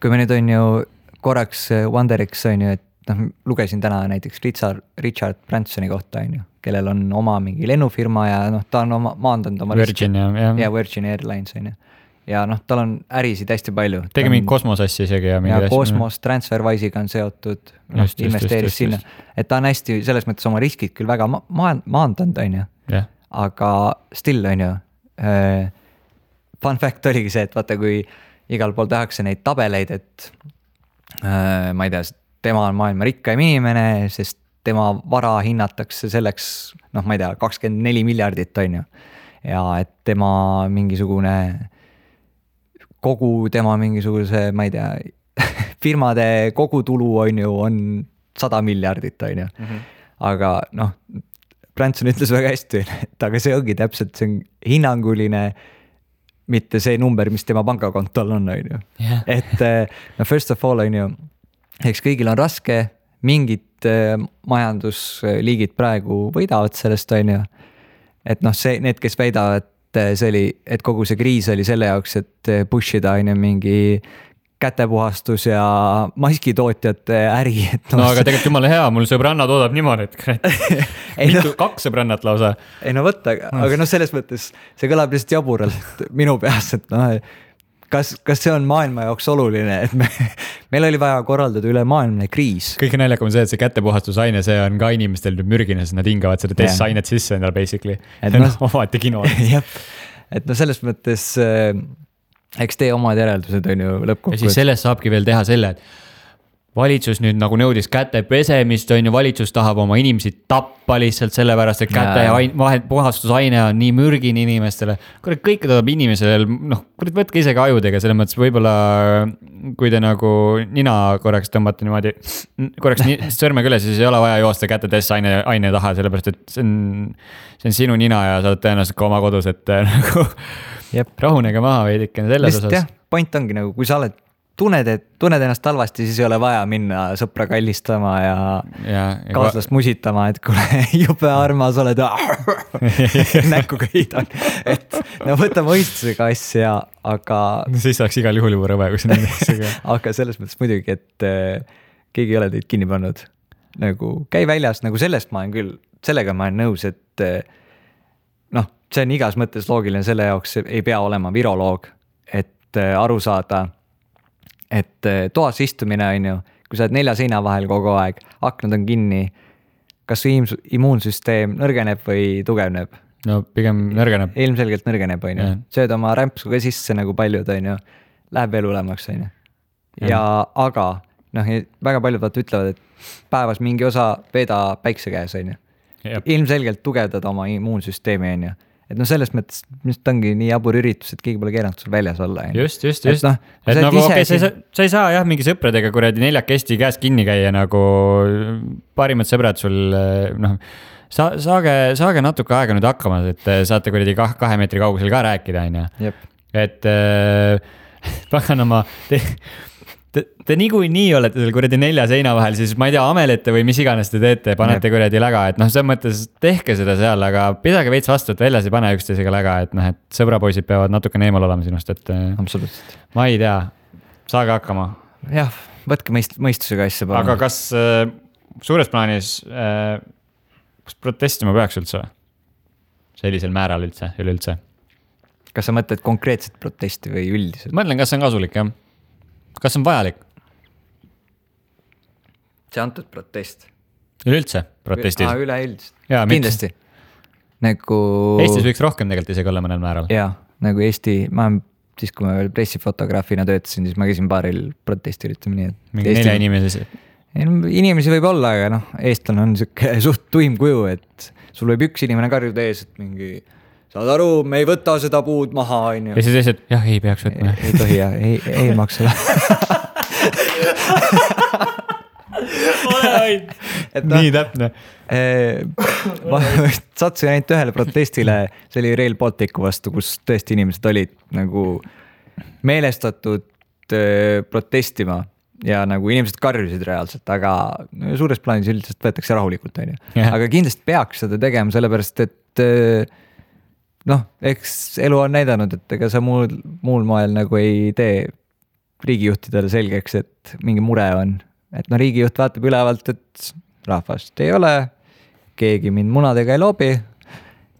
Kui me nüüd on ju korraks Wonderix on ju, et noh, lugesin täna näiteks Richard Bransoni kohta on ju, kellel on oma mingi lennufirma ja noh, ta on maandanud oma Virgin ja Virgin Airlines on ju. Ja noh, tal on ärisid hästi palju. Tegi mingi kosmosassi isegi ja mingi asja. Kosmos TransferWise'iga on seotud, investeeris sinna. Et ta on hästi selles mõttes oma riskid küll väga maandanud on ju, aga still on ju. Fun fact oligi see, et vaata, kui igal pool tehakse neid tabeleid, et ma ei tea, tema on maailma rikkaim inimene, sest tema vara hinnatakse selleks, noh, ma ei tea, 24 miljardit on ju. Ja et tema mingisugune, kogu tema mingisuguse, ma ei tea, firmade kogutulu on ju, on 100 miljardit on ju. Aga noh, Branson ütles väga hästi, et aga see ongi täpselt, see on hinnanguline, mitte see number, mis tema pangakontol on ju. Et no first of all on ju, eks kõigil on raske, mingid majandusliigid praegu võidavad sellest on ju. Et noh, see, need, kes väidavad, see oli, et kogu see kriis oli selle jaoks, et pushida on ju mingi kätepuhastus ja maskitootjate äri. No aga tegelikult jumala hea, mul sõbranna toodab niimoodi, et kaks sõbrannat lausa. Ei no võtta, aga noh, selles mõttes see kõlab lihtsalt jaburalt minu peas, et noh, kas see on maailma jaoks oluline, et meil oli vaja korraldada üle maailmne kriis. Kõige naljakam on see, et see kätepuhastusaine, see on ka inimestel nüüd mürgine, sest nad hingavad seda testainet sisse endale basically. Et no, omati kino. Et no selles mõttes eks tee omad järeldused on ju lõppkokkuvõttes. Ja siis sellest saabki veel teha selle, et valitsus nüüd nagu nõudis käte pesemist on ju, valitsus tahab oma inimesi tappa lihtsalt sellepärast, et käte puhastusaine on nii mürgin inimestele. Kõike tuleb inimesel, noh, võtke isegi ajudega, selles mõttes võib-olla kui te nagu nina korraks tõmbate niimoodi, korraks sõrmega üle, siis ei ole vaja joosta käte testaine taha, sellepärast et see on sinu nina ja sa oled tõenäoliselt ka oma kodus, et nagu rahunege maha veidikene selles osas. Jah, point ongi nagu, kui sa oled tunned ennast halvasti, siis ei ole vaja minna sõpra kallistama ja kaaslast musitama, et kuule, jube armas oled, näkkuga hiidan. Et no võta mõistusega asja, aga... No siis saaks igal juhul juba rõve, kui see nende asjaga. Aga selles mõttes muidugi, et keegi ei ole teid kinni pannud. Nagu käi väljas, nagu sellest ma olen küll, sellega ma olen nõus, et noh, see on igas mõttes loogiline, selle jaoks ei pea olema viroloog, et aru saada, et toas istumine on ju, kui sa oled 4 seina vahel kogu aeg, aknad on kinni, kas immuunsüsteem nõrgeneb või tugevneb? No pigem nõrgeneb. Ilmselgelt nõrgeneb on ju, sööd oma rämpsu ka sisse nagu paljud on ju, läheb veel hulemaks on ju. Ja aga noh, väga paljud ütlevad, et päevas mingi osa veeda päikse käes on ju. Ilmselgelt tugevdada oma immuunsüsteemi on ju. Et no selles mõttes, mis ongi nii jabur üritus, et keegi pole keeranud sul väljas olla. Just. Et nagu okei, sa ei saa jah mingi sõpradega kuradi 4 käest kinni käia nagu parimad sõbrad sul, noh, saage natuke aega nüüd hakkama, et saate kuradi 2 meetri kaugusel ka rääkida, on ju. Et paganama, te niikuinii olete seal kuradi 4 seina vahel, siis ma ei tea, amelete või mis iganes te teete, panete kuradi läga, et noh, selles mõttes tehke seda seal, aga pidage veits vastu, et väljas ei pane üksteisega läga, et noh, et sõbrapoisid peavad natuke eemal olema sinust, et absoluutselt. Ma ei tea, saage hakkama. Jah, võtke mõistusega asja. Aga kas suures plaanis kas protestima peaks üldse? Sellisel määral üleüldse? Kas sa mõtled konkreetset protesti või üldiselt? Ma mõtlen, kas see on kasulik, jah? Kas on vajalik? See antud protest. Üleüldse protestis? Üleüldselt. Kindlasti. Nagu... Eestis võiks rohkem tegelikult isegi olla mõnel määral. Jaa, nagu Eesti, siis kui ma veel pressifotograafina töötasin, siis ma käisin paaril protestil, ütleme nii. Mingi 4 inimesi? Inimesi võib olla, aga noh, eestlane on suht tuim kuju, et sul võib üks inimene karjuda ees, et mingi... Saad aru, me ei võta seda puud maha, on ju. Ja siis eesed, jah, ei peaks võtma. Ei tohi, jah, ei maksa. Nii täpne. Ma satsin ainult ühele protestile, see oli Rail Balticu vastu, kus tõesti inimesed olid nagu meelestatud protestima ja nagu inimesed karjusid reaalselt, aga suures plaanis üldiselt võetakse rahulikult, on ju. Aga kindlasti peaks seda tegema, sellepärast, et noh, eks elu on näidanud, et ega sa muul moel nagu ei tee riigijuhtidele selgeks, et mingi mure on. Et no riigijuht vaatab ülevalt, et rahvast ei ole, keegi mind munadega ei loobi.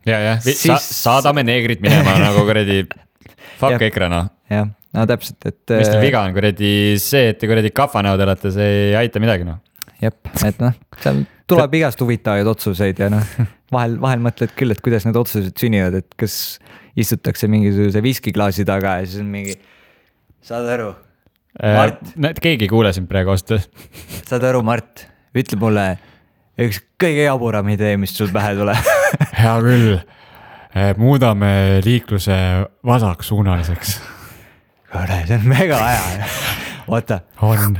Ja. Saadame neegrid minema nagu kuradi fuck EKRE noh. Jah, no täpselt, et mis teil viga on kuradi see, et te kuradi kafanäod olete, see ei aita midagi noh. Jep, et noh, seal tuleb igast huvitavaid otsuseid ja noh, vahel mõtled küll, et kuidas need otsused sünnivad, et kas istutakse mingisuguse viskiklaasi taga ja siis on mingi, saad aru, Mart? Keegi ei kuule sind praegu osta. Saad aru, Mart, ütle mulle üks kõige jaburam idee, mis sul pähe tuleb. Hea küll, muudame liikluse vasaksuunaliseks. Kuule, see on mega aja. Oota. On.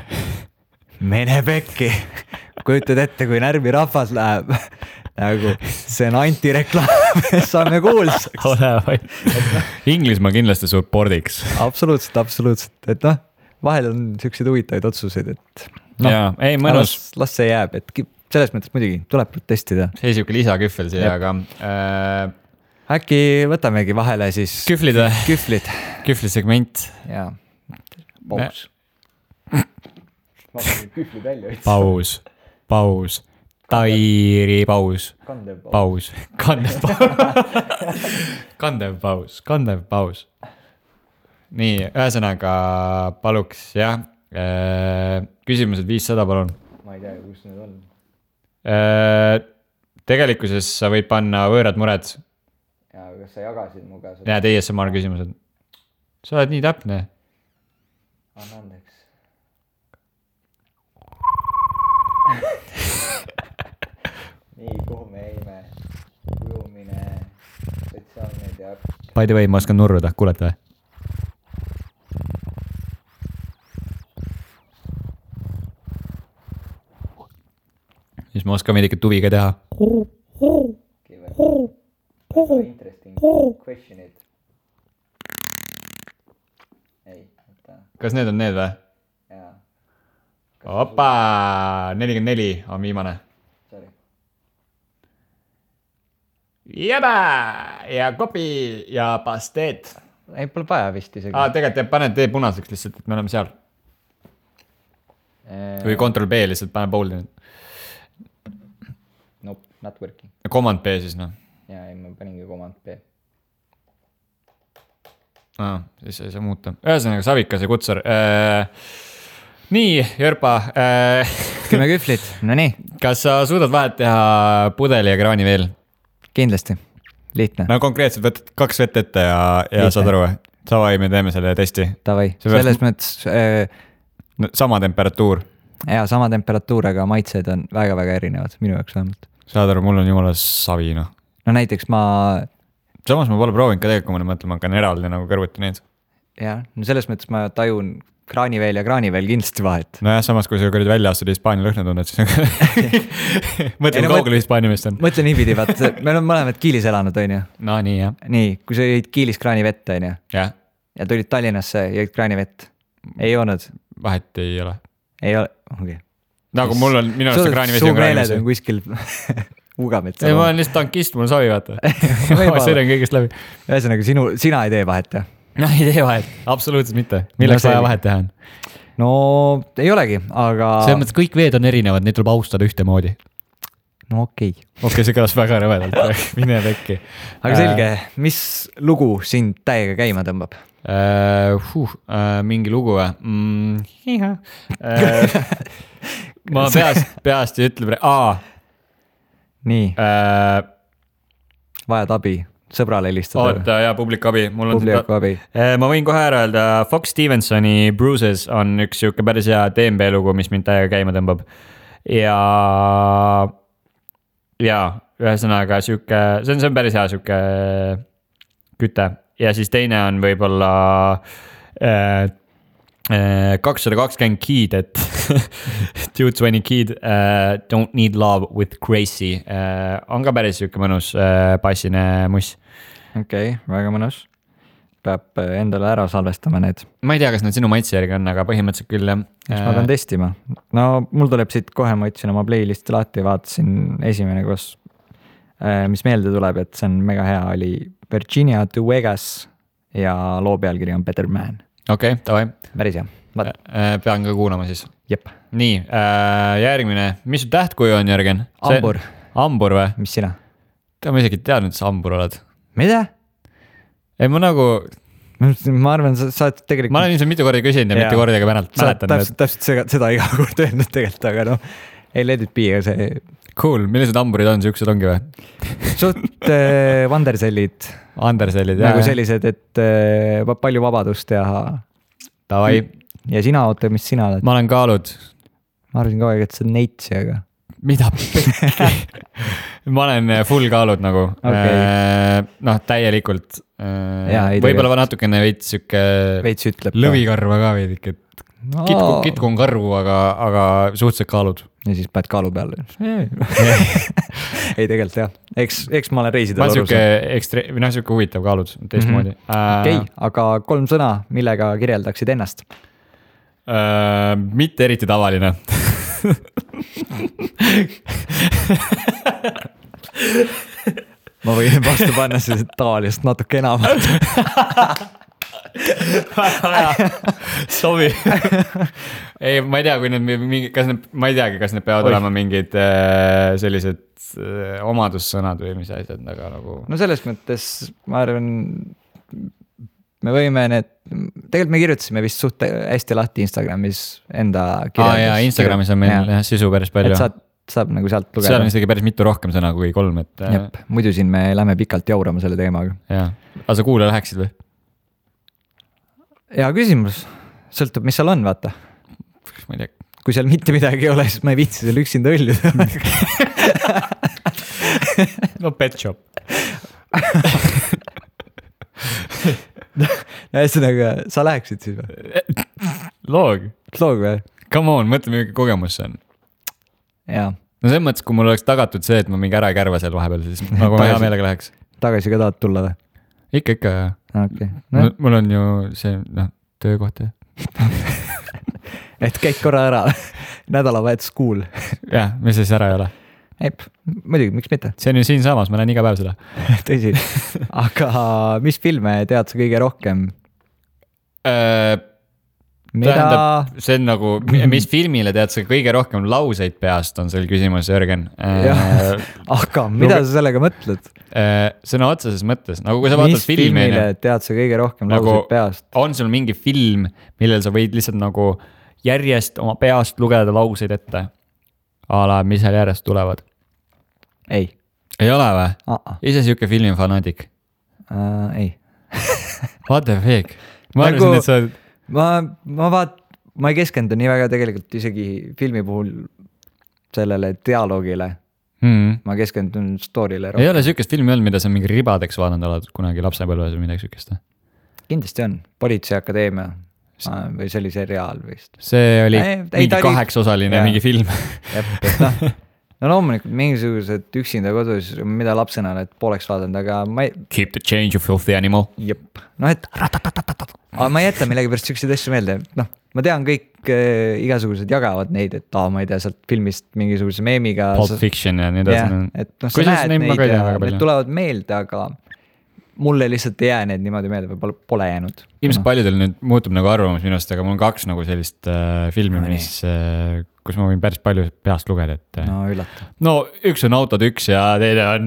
Mene pekki, kujutad ette, kui närvi rahvas läheb, nagu see on antireklaam, saame kuulsaks. Ole vaid. Inglismaa kindlasti suppordiks. Absoluutselt, et noh, vahel on selliseid huvitavaid otsuseid, et no, jaa, ei mõnus. Las see jääb, et selles mõttes muidugi tuleb protestida. See siuke lisakühvel siia, aga äkki võtamegi vahele siis kühvlisegment. Jaa, paus. Ma panin kühvlid välja. Paus. Tairi paus. Kandev paus. Nii, ühesõnaga paluks, jah. Küsimused 500, palun. Ma ei tea, kus need on. Tegelikkuses sa võid panna võõrad mured. Ja, kas sa jagasid mu käes? Ja, ASMR küsimused. Sa oled nii täpne. Anna andeks. Nii, kuhu me jäime? Ujumine, sotsiaalmeedia. By the way, ma oskan nurruda, kuulete või? Siis ma oskan veidike tuviga teha. Interesting questionid. Ei, võtta. Kas need on need või? Jaa. Opa, 44 on viimane. Sorry. Jäbä ja kopi ja pasteet. Ei, pole vaja vist isegi. Tegelikult paned tee punaseks lihtsalt, et me oleme seal. Või Ctrl B lihtsalt pane boldi. Nope, not working. Command B siis noh. Jaa, ei, ma paningi Command B. Siis ei saa muuta. Ühesõnaga Savikas ja Kutsar. Nii, Jörpa. 10 kühvlit, no nii. Kas sa suudad vahet teha pudeli ja kraani veel? Kindlasti, lihtne. No konkreetselt võtad 2 vett ette ja saad aru. Savai, me teeme selle testi. Tavai, selles mõttes... Sama temperatuur. Jaa, sama temperatuur, aga maitsed on väga-väga erinevad, minu jaoks vähemalt. Saad aru, mul on jumala savi, noh. No näiteks Samas ma pole proovinud ka tegelikult, kui ma mõtlen, ma hakkan eraldi nagu kõrvuti neid. Jah, no selles mõttes ma tajun kraaniveel ja kraaniveel kindlasti vahet. No jah, samas kui sa kõrvuti välja astud Hispaania lõhna tunned, siis mõtlen kaugele Hispaania meest on. Mõtlen niipidi, vaat me oleme mõlemad Kiilis elanud, on ju? No nii, jah. Nii, kui sa jõid Kiilis kraanivett, on ju? Jah. Ja tulid Tallinnasse, jõid kraanivett. Ei joonud? Vahet ei ole. Ei ole, okei. Nagu mul on, minu arust kraanivesi on kraanivesi. Su meeled on kuskil Ugametsa. Ei, ma olen lihtsalt tankist, mul savi vaata. Ma sõidan kõigest läbi. Ühesõnaga, sina ei tee vahet, jah? No ei tee vahet, absoluutselt mitte. Milleks vaja vahet teha on? No ei olegi, aga... See mõttes kõik veed on erinevad, neid tuleb austada ühtemoodi. No okei. Okei, see kõlas väga rõvedalt, mine pekki. Aga selge, mis lugu sind täiega käima tõmbab? Mingi lugu või? Ma peast ei ütle Nii. Vajad abi, sõbrale helistada. Oota, ja publikabi. Publikabi. Ma võin kohe ära öelda, Fox Stevensoni Bruises on üks siuke päris hea DMB lugu, mis mind täiega käima tõmbab. Ja ühesõnaga siuke, see on päris hea siuke küte. Ja siis teine on võib-olla 220 Kid, et 220 Kid, Don't Need Love with Crazy. On ka päris siuke mõnus passine muss. Okei, väga mõnus. Peab endale ära salvestama need. Ma ei tea, kas need sinu maitse järgi on, aga põhimõtteliselt küll jah. Ma pean testima. No mul tuleb siit kohe, ma ütlesin oma playlisti lahti, vaatasin esimene koos, mis meelde tuleb, et see on mega hea, oli Virginia to Vegas ja loo pealkiri on Better Man. okei, davai. päris hea. Pean ka kuulama siis. Jep. Nii, järgmine, mis su tähtkuju on, Jörgen? Ambur. Ambur või? Mis sina? Ma isegi teadnud, et sa ambur oled. Mida? Ei, ma nagu... Ma arvan, sa oled tegelikult... Ma olen ilmselt mitu korda küsinud ja mitu korda ka mäletan. Täpselt seda iga kord öelnud tegelikult, aga noh, ei let it be, aga see... Cool, millised hamburid on, siuksed ongi või? Suht vandersellid. Vandersellid, jah. Nagu sellised, et palju vabadust ja... Davai. Ja sina, oota, mis sina oled? Ma olen kaalud. Ma arvasin kogu aeg, et see on neitsi, aga... Mida pekki? Ma olen full kaalud nagu. Okay. Noh, täielikult. Võib-olla natukene veits siuke... Veits ütleb. Lõvikarva ka veedik, et kitku on karvu, aga suhteliselt kaalud. Ja siis paned kaalu peale. Ei, tegelikult jah. Eks ma olen reisidel aru. Ma siuke huvitav kaalud teistmoodi. Okei, aga 3 sõna, millega kirjeldaksid ennast? Mitte eriti tavaline. Ma võin vastu panna siis tavalist natuke enamat. Sobi. Ei, ma ei tea, kui need ma ei teagi, kas need peavad olema mingid sellised omadussõnad või mis asjad, aga nagu... No selles mõttes, ma arvan, me võime need, tegelikult me kirjutasime vist suht hästi lahti Instagramis enda kirjeldus. Jaa, Instagramis on meil sisu päris palju. Et saab nagu sealt lugeda. Seal on isegi päris mitu rohkem sõna kui 3, et... Jep, muidu siin me lähme pikalt jaurama selle teemaga. Jaa, aga sa kuule läheksid või? Hea küsimus, sõltub, mis seal on, vaata. Ma ei tea. Kui seal mitte midagi ei ole, siis ma ei viitsi seal üksinda õlluda. No pet shop. Ühesõnaga, sa läheksid siis või? Loog või? Come on, mõtle, mingi kogemus see on. Jaa. No selles mõttes, kui mul oleks tagatud see, et ma mingi ära ei kärva seal vahepeal, siis nagu ma hea meelega läheks. Tagasi ka tahad tulla või? Ikka. Okay. No. Mul on ju see töökoht. Et käid korra ära, nädalavahetus kuul. Jah, mis siis ära ei ole? Muidugi, miks mitte? See on ju siin samas, ma näen iga päev seda. Tõsi. Aga mis filme tead sa kõige rohkem? Tähendab, see on nagu, mis filmile tead sa kõige rohkem lauseid peast, on seal küsimus, Jörgen. Aga mida sa sellega mõtled? Sõna otseses mõttes, nagu kui sa vaatad filmi. Mis filmile tead sa kõige rohkem lauseid peast? On sul mingi film, millel sa võid lihtsalt nagu järjest oma peast lugeda lauseid ette? Ala, mis seal järjest tulevad? Ei ole või? Ise siuke filmifanatik? Ei. What the fuck? Ma arvasin, et sa... Ma ei keskendu nii väga tegelikult isegi filmi puhul sellele dialoogile. Ma keskendun story'le rohkem. Ei ole siukest filmi olnud, mida sa mingi ribadeks vaadanud oled kunagi lapsepõlves või midagi siukest? Kindlasti on. Politseiakadeemia või see oli seriaal vist. See oli mingi 8-osaline mingi film. No loomulikult mingisugused üksinda kodus, mida lapsena oled pooleks vaadanud, aga ma ei... Keep the change, you filthy animal. Jep. No et... Aga ma ei jäta millegi pärast siukseid asju meelde. No, ma tean kõik igasugused jagavad neid, et ma ei tea sealt filmist mingisuguse meemiga. Pulp Fiction ja nii edasi. Et noh, sa näed neid ja need tulevad meelde, aga mulle lihtsalt ei jää need niimoodi meelde või pole jäänud. Ilmselt paljudel nüüd muutub nagu arvamus minust, aga mul on 2 nagu sellist filmi, kus ma võin päris palju peast lugeda, et... No üllata. No üks on Autod 1 ja teine on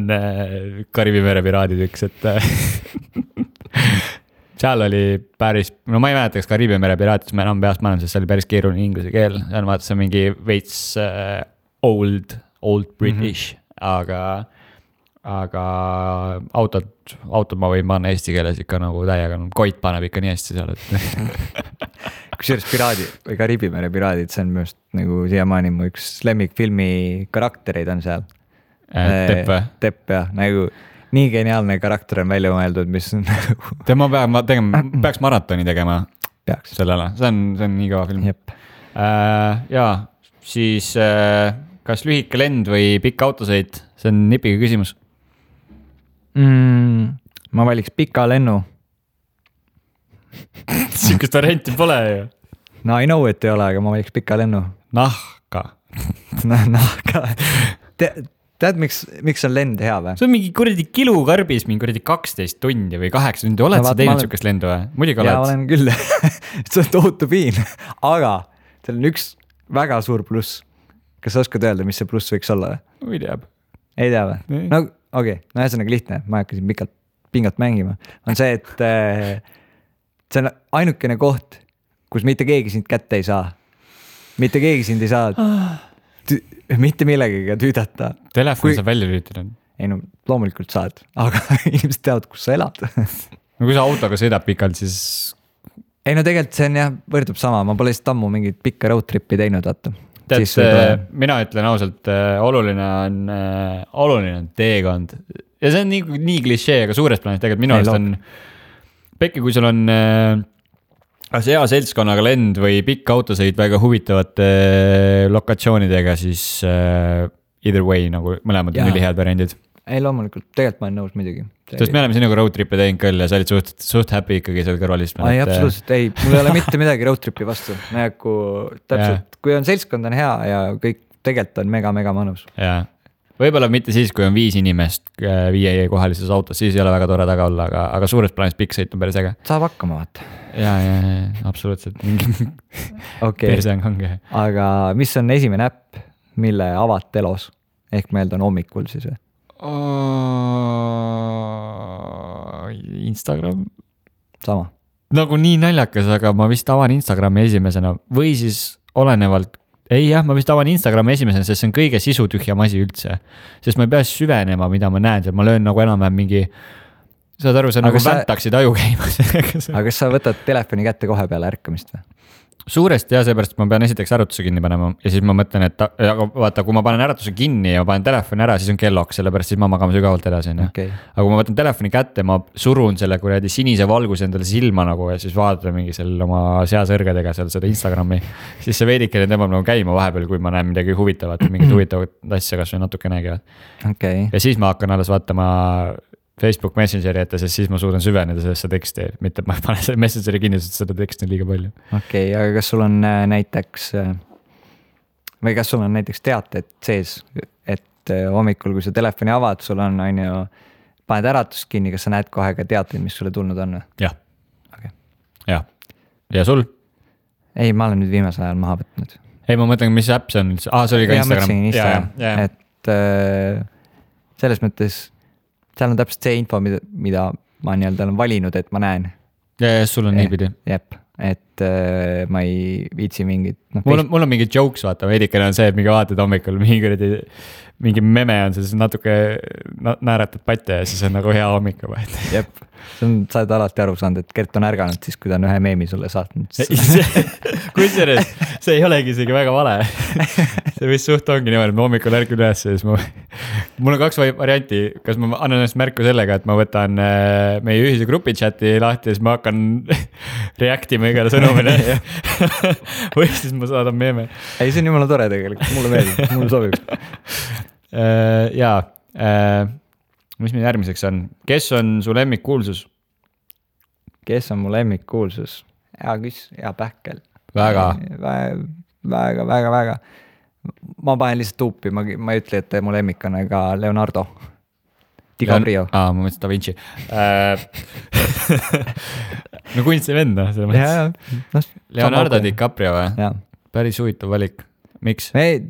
Kariibi mere piraadid 1, et... Seal oli päris, no ma ei mäleta, kas Kariibi mere piraatid, ma enam peast maailm, sest see oli päris keeruline inglise keel. Seal vaata, see on mingi veits old British, aga autod ma võin panna eesti keeles ikka nagu täiega, Koit paneb ikka nii hästi seal, et... Kusjuures piraadid või Kariibi mere piraadid, see on minu arust nagu siiamaani mu üks lemmikfilmi karaktereid on seal. Tepp või? Tepp jah, nagu nii geniaalne karakter on välja mõeldud, mis on nagu... Tema peaks maratoni tegema. Peaks. Sellele, see on nii kõva film. Jep. Jaa, siis kas lühike lend või pikk autosõit, see on nipiga küsimus. Ma valiks pika lennu. Siukest varianti pole ju. No I know, et ei ole, aga ma valiks pika lennu. Nahka. Nahka. tead, miks on lend hea või? See on mingi kuradi kilukarbis, mingi kuradi 12 tundi või 8 tundi, oled sa teinud sukest lendu või? Muidugi oled. Jaa, olen küll. See on tohutu piin, aga seal on üks väga suur pluss. Kas sa oskad öelda, mis see pluss võiks olla või? Ei tea või? No okei, no ühesõnaga lihtne, ma hakkasin pingat mängima. On see, et see on ainukene koht, kus mitte keegi sind kätte ei saa. Mitte keegi sind ei saa mitte millegagi tüüdata. Telefon saab välja lüütada. Ei no loomulikult saad, aga inimesed teavad, kus sa elad. No kui sa autoga sõidab pikalt, siis... Ei no tegelikult see on jah, võrdub sama, ma pole lihtsalt ammu mingit pikka road tripi teinud, vaata. Mina ütlen ausalt, oluline on teekond. Ja see on nii klišee, aga suures plaanis tegelikult minu arust on... Pekki, kui sul on hea seltskonnaga lend või pikk autosõid väga huvitavate lokatsioonidega, siis either way, nagu mõlemad on ülihead variandid. Ei loomulikult, tegelikult ma olen nõus midagi. Sest me oleme sinuga road trippe teinud küll ja sa olid suht happy ikkagi seal kõrvalist. Ei, absoluutselt, ei, mul ei ole mitte midagi road tripi vastu. Täpselt, kui on seltskond on hea ja kõik tegelikult on mega mõnus. Jaa. Võib-olla mitte siis, kui on 5 inimest 5 kohalises autos, siis ei ole väga tore taga olla, aga suures plaanis pikk sõit on päris äge. Saab hakkama, vaata. Jaa, absoluutselt. Persang ongi. Aga mis on esimene äpp, mille avad telos? Ehk meil on hommikul siis või? Instagram. Sama. Nagu nii naljakas, aga ma vist avan Instagrami esimesena või siis olenevalt. Ei jah, ma vist avan Instagrami esimesena, sest see on kõige sisutühjam asi üldse. Sest ma ei pea süvenema, mida ma näen, ma löön nagu enam-vähem mingi, saad aru, see nagu väntaksid aju käimas. Aga kas sa võtad telefoni kätte kohe peale ärkamist või? Suuresti jah, seepärast ma pean esiteks äratuse kinni panema ja siis ma mõtlen, et vaata, kui ma panen äratuse kinni ja ma panen telefoni ära, siis on kelloks, sellepärast siis ma magama sügavalt edasi. Okay. Aga kui ma võtan telefoni kätte, ma surun selle kuradi sinise valguse endale silma nagu ja siis vaatan mingi seal oma seasõrgedega seal seda Instagrami, siis see veidikene tõmbab nagu käima vahepeal, kui ma näen midagi huvitavat, mingit huvitavat asja kas või natukenegi. Okay. Ja siis ma hakkan alles vaatama Facebook Messengeri ette, sest siis ma suudan süveneda sellesse teksti, mitte ma panen selle Messengeri kinni, sest seda teksti on liiga palju. Okei, aga kas sul on näiteks teated sees, et hommikul, kui sa telefoni avad, sul on ju, paned äratust kinni, kas sa näed kohe ka teateid, mis sulle tulnud on? Jah. Okay. Jah. Ja sul? Ei, ma olen nüüd viimasel ajal maha võtnud. Ei, ma mõtlen, mis äpp see on? See oli ka Instagram. Et selles mõttes seal on täpselt see info, mida ma olen valinud, et ma näen. Ja sul on niipidi. Jep, et ma ei viitsi mingit... Mul on mingi jokes, vaata, veidikene on see, et mingi vaatad hommikul, mingi meme on siis natuke naeratad patte ja siis on nagu hea hommika. Jep, sa oled alati aru saanud, et Gert on ärganud siis, kui ta on ühe meemi sulle saatnud. Kusjuures, see ei olegi isegi väga vale. See vist suht ongi niimoodi, et ma hommikul ärgin üles ja siis mul on 2 varianti, kas ma annan ennast märku sellega, et ma võtan meie ühise grupi chati lahti ja siis ma hakkan reaktima igale sõnumile või siis ma saadan meeme. Ei, see on jumala tore tegelikult, mulle meeldib, mulle sobib. Jaa, mis meil järgmiseks on? Kes on su lemmikkuulsus? Kes on mu lemmikkuulsus? Hea pähkel. Väga. Ma panen lihtsalt tuupi, ma ei ütle, et mu lemmik on ka Leonardo DiCaprio. Ma mõtlesin Da Vinci. No kunsti vend, Leonardo DiCaprio või? Päris huvitav valik. Miks? Või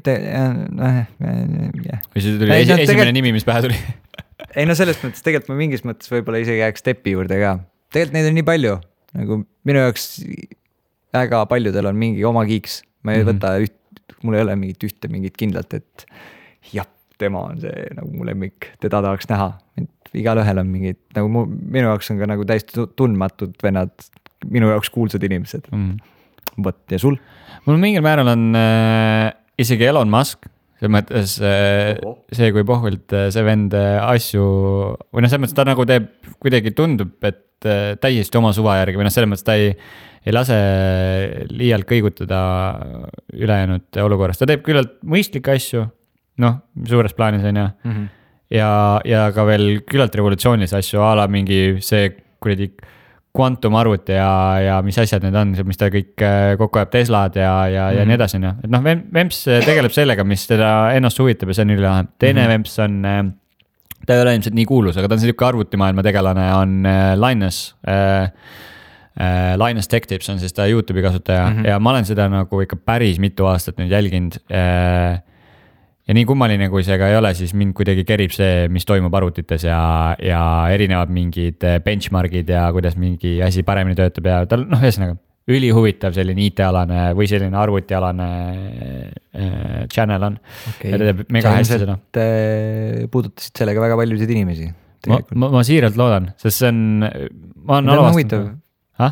see tuli esimene nimi, mis pähe tuli? Ei no selles mõttes, tegelikult ma mingis mõttes võib-olla isegi jääks Steppi juurde ka. Tegelikult neid on nii palju. Nagu minu jaoks väga paljudel on mingi oma kiiks. Ma ei võta mul ei ole mingit kindlalt, et jah, tema on see nagu mu lemmik, teda tahaks näha. Igal ühel on mingid, nagu minu jaoks on ka nagu täiesti tundmatud vennad, minu jaoks kuulsad inimesed. Võt, ja sul? Mul mingil määral on isegi Elon Musk, see mõttes see, kui pohvilt see vend asju, või see mõttes ta nagu teeb, kuidagi tundub, et täiesti oma suva järgi, või selles mõttes ta ei lase liialt kõigutada ülejäänud olukorrast. Ta teeb küllalt mõistlikke asju, suures plaanis on ja ka veel küllalt revolutsioonilisi asju, ala mingi see kuradi kvantumarvuti ja mis asjad need on, mis ta kõik kokku ajab, Teslad ja nii edasi, noh. Et noh, Vemps tegeleb sellega, mis teda ennast huvitab ja see on ülilahe. Teine Vemps on, ta ei ole ilmselt nii kuulus, aga ta on selline arvutimaailma tegelane, on Linus. Linus Tech Tips on siis ta YouTube'i kasutaja ja ma olen seda nagu ikka päris mitu aastat nüüd jälginud. Ja nii kummaline, kui see ka ei ole, siis mind kuidagi kerib see, mis toimub arvutites ja erinevad mingid benchmarkid ja kuidas mingi asi paremini töötab ja tal, noh, ühesõnaga ülihuvitav selline IT-alane või selline arvutialane channel on. Okay. Ja ta teeb mega hästi seda. Puudutasid sellega väga paljusid inimesi. Ma siiralt loodan, sest see on, ma olen alavastanud.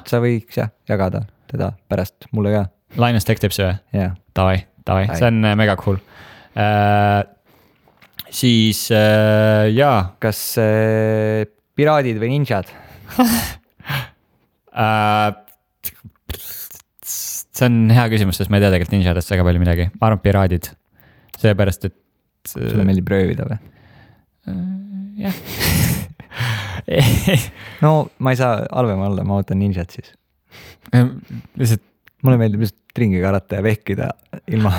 Sa võiks jagada teda pärast mulle ka. Linus Tech Tips või? Jah. Davai, see on mega cool. Siis jaa. Kas piraadid või ninjad? See on hea küsimus, sest ma ei tea tegelikult ninjadest väga palju midagi. Ma arvan piraadid, seepärast, et sulle meeldib röövida või? Jah. No ma ei saa halvema olla, ma ootan ninjad siis. Lihtsalt mulle meeldib lihtsalt ringi karata ja vehkida ilma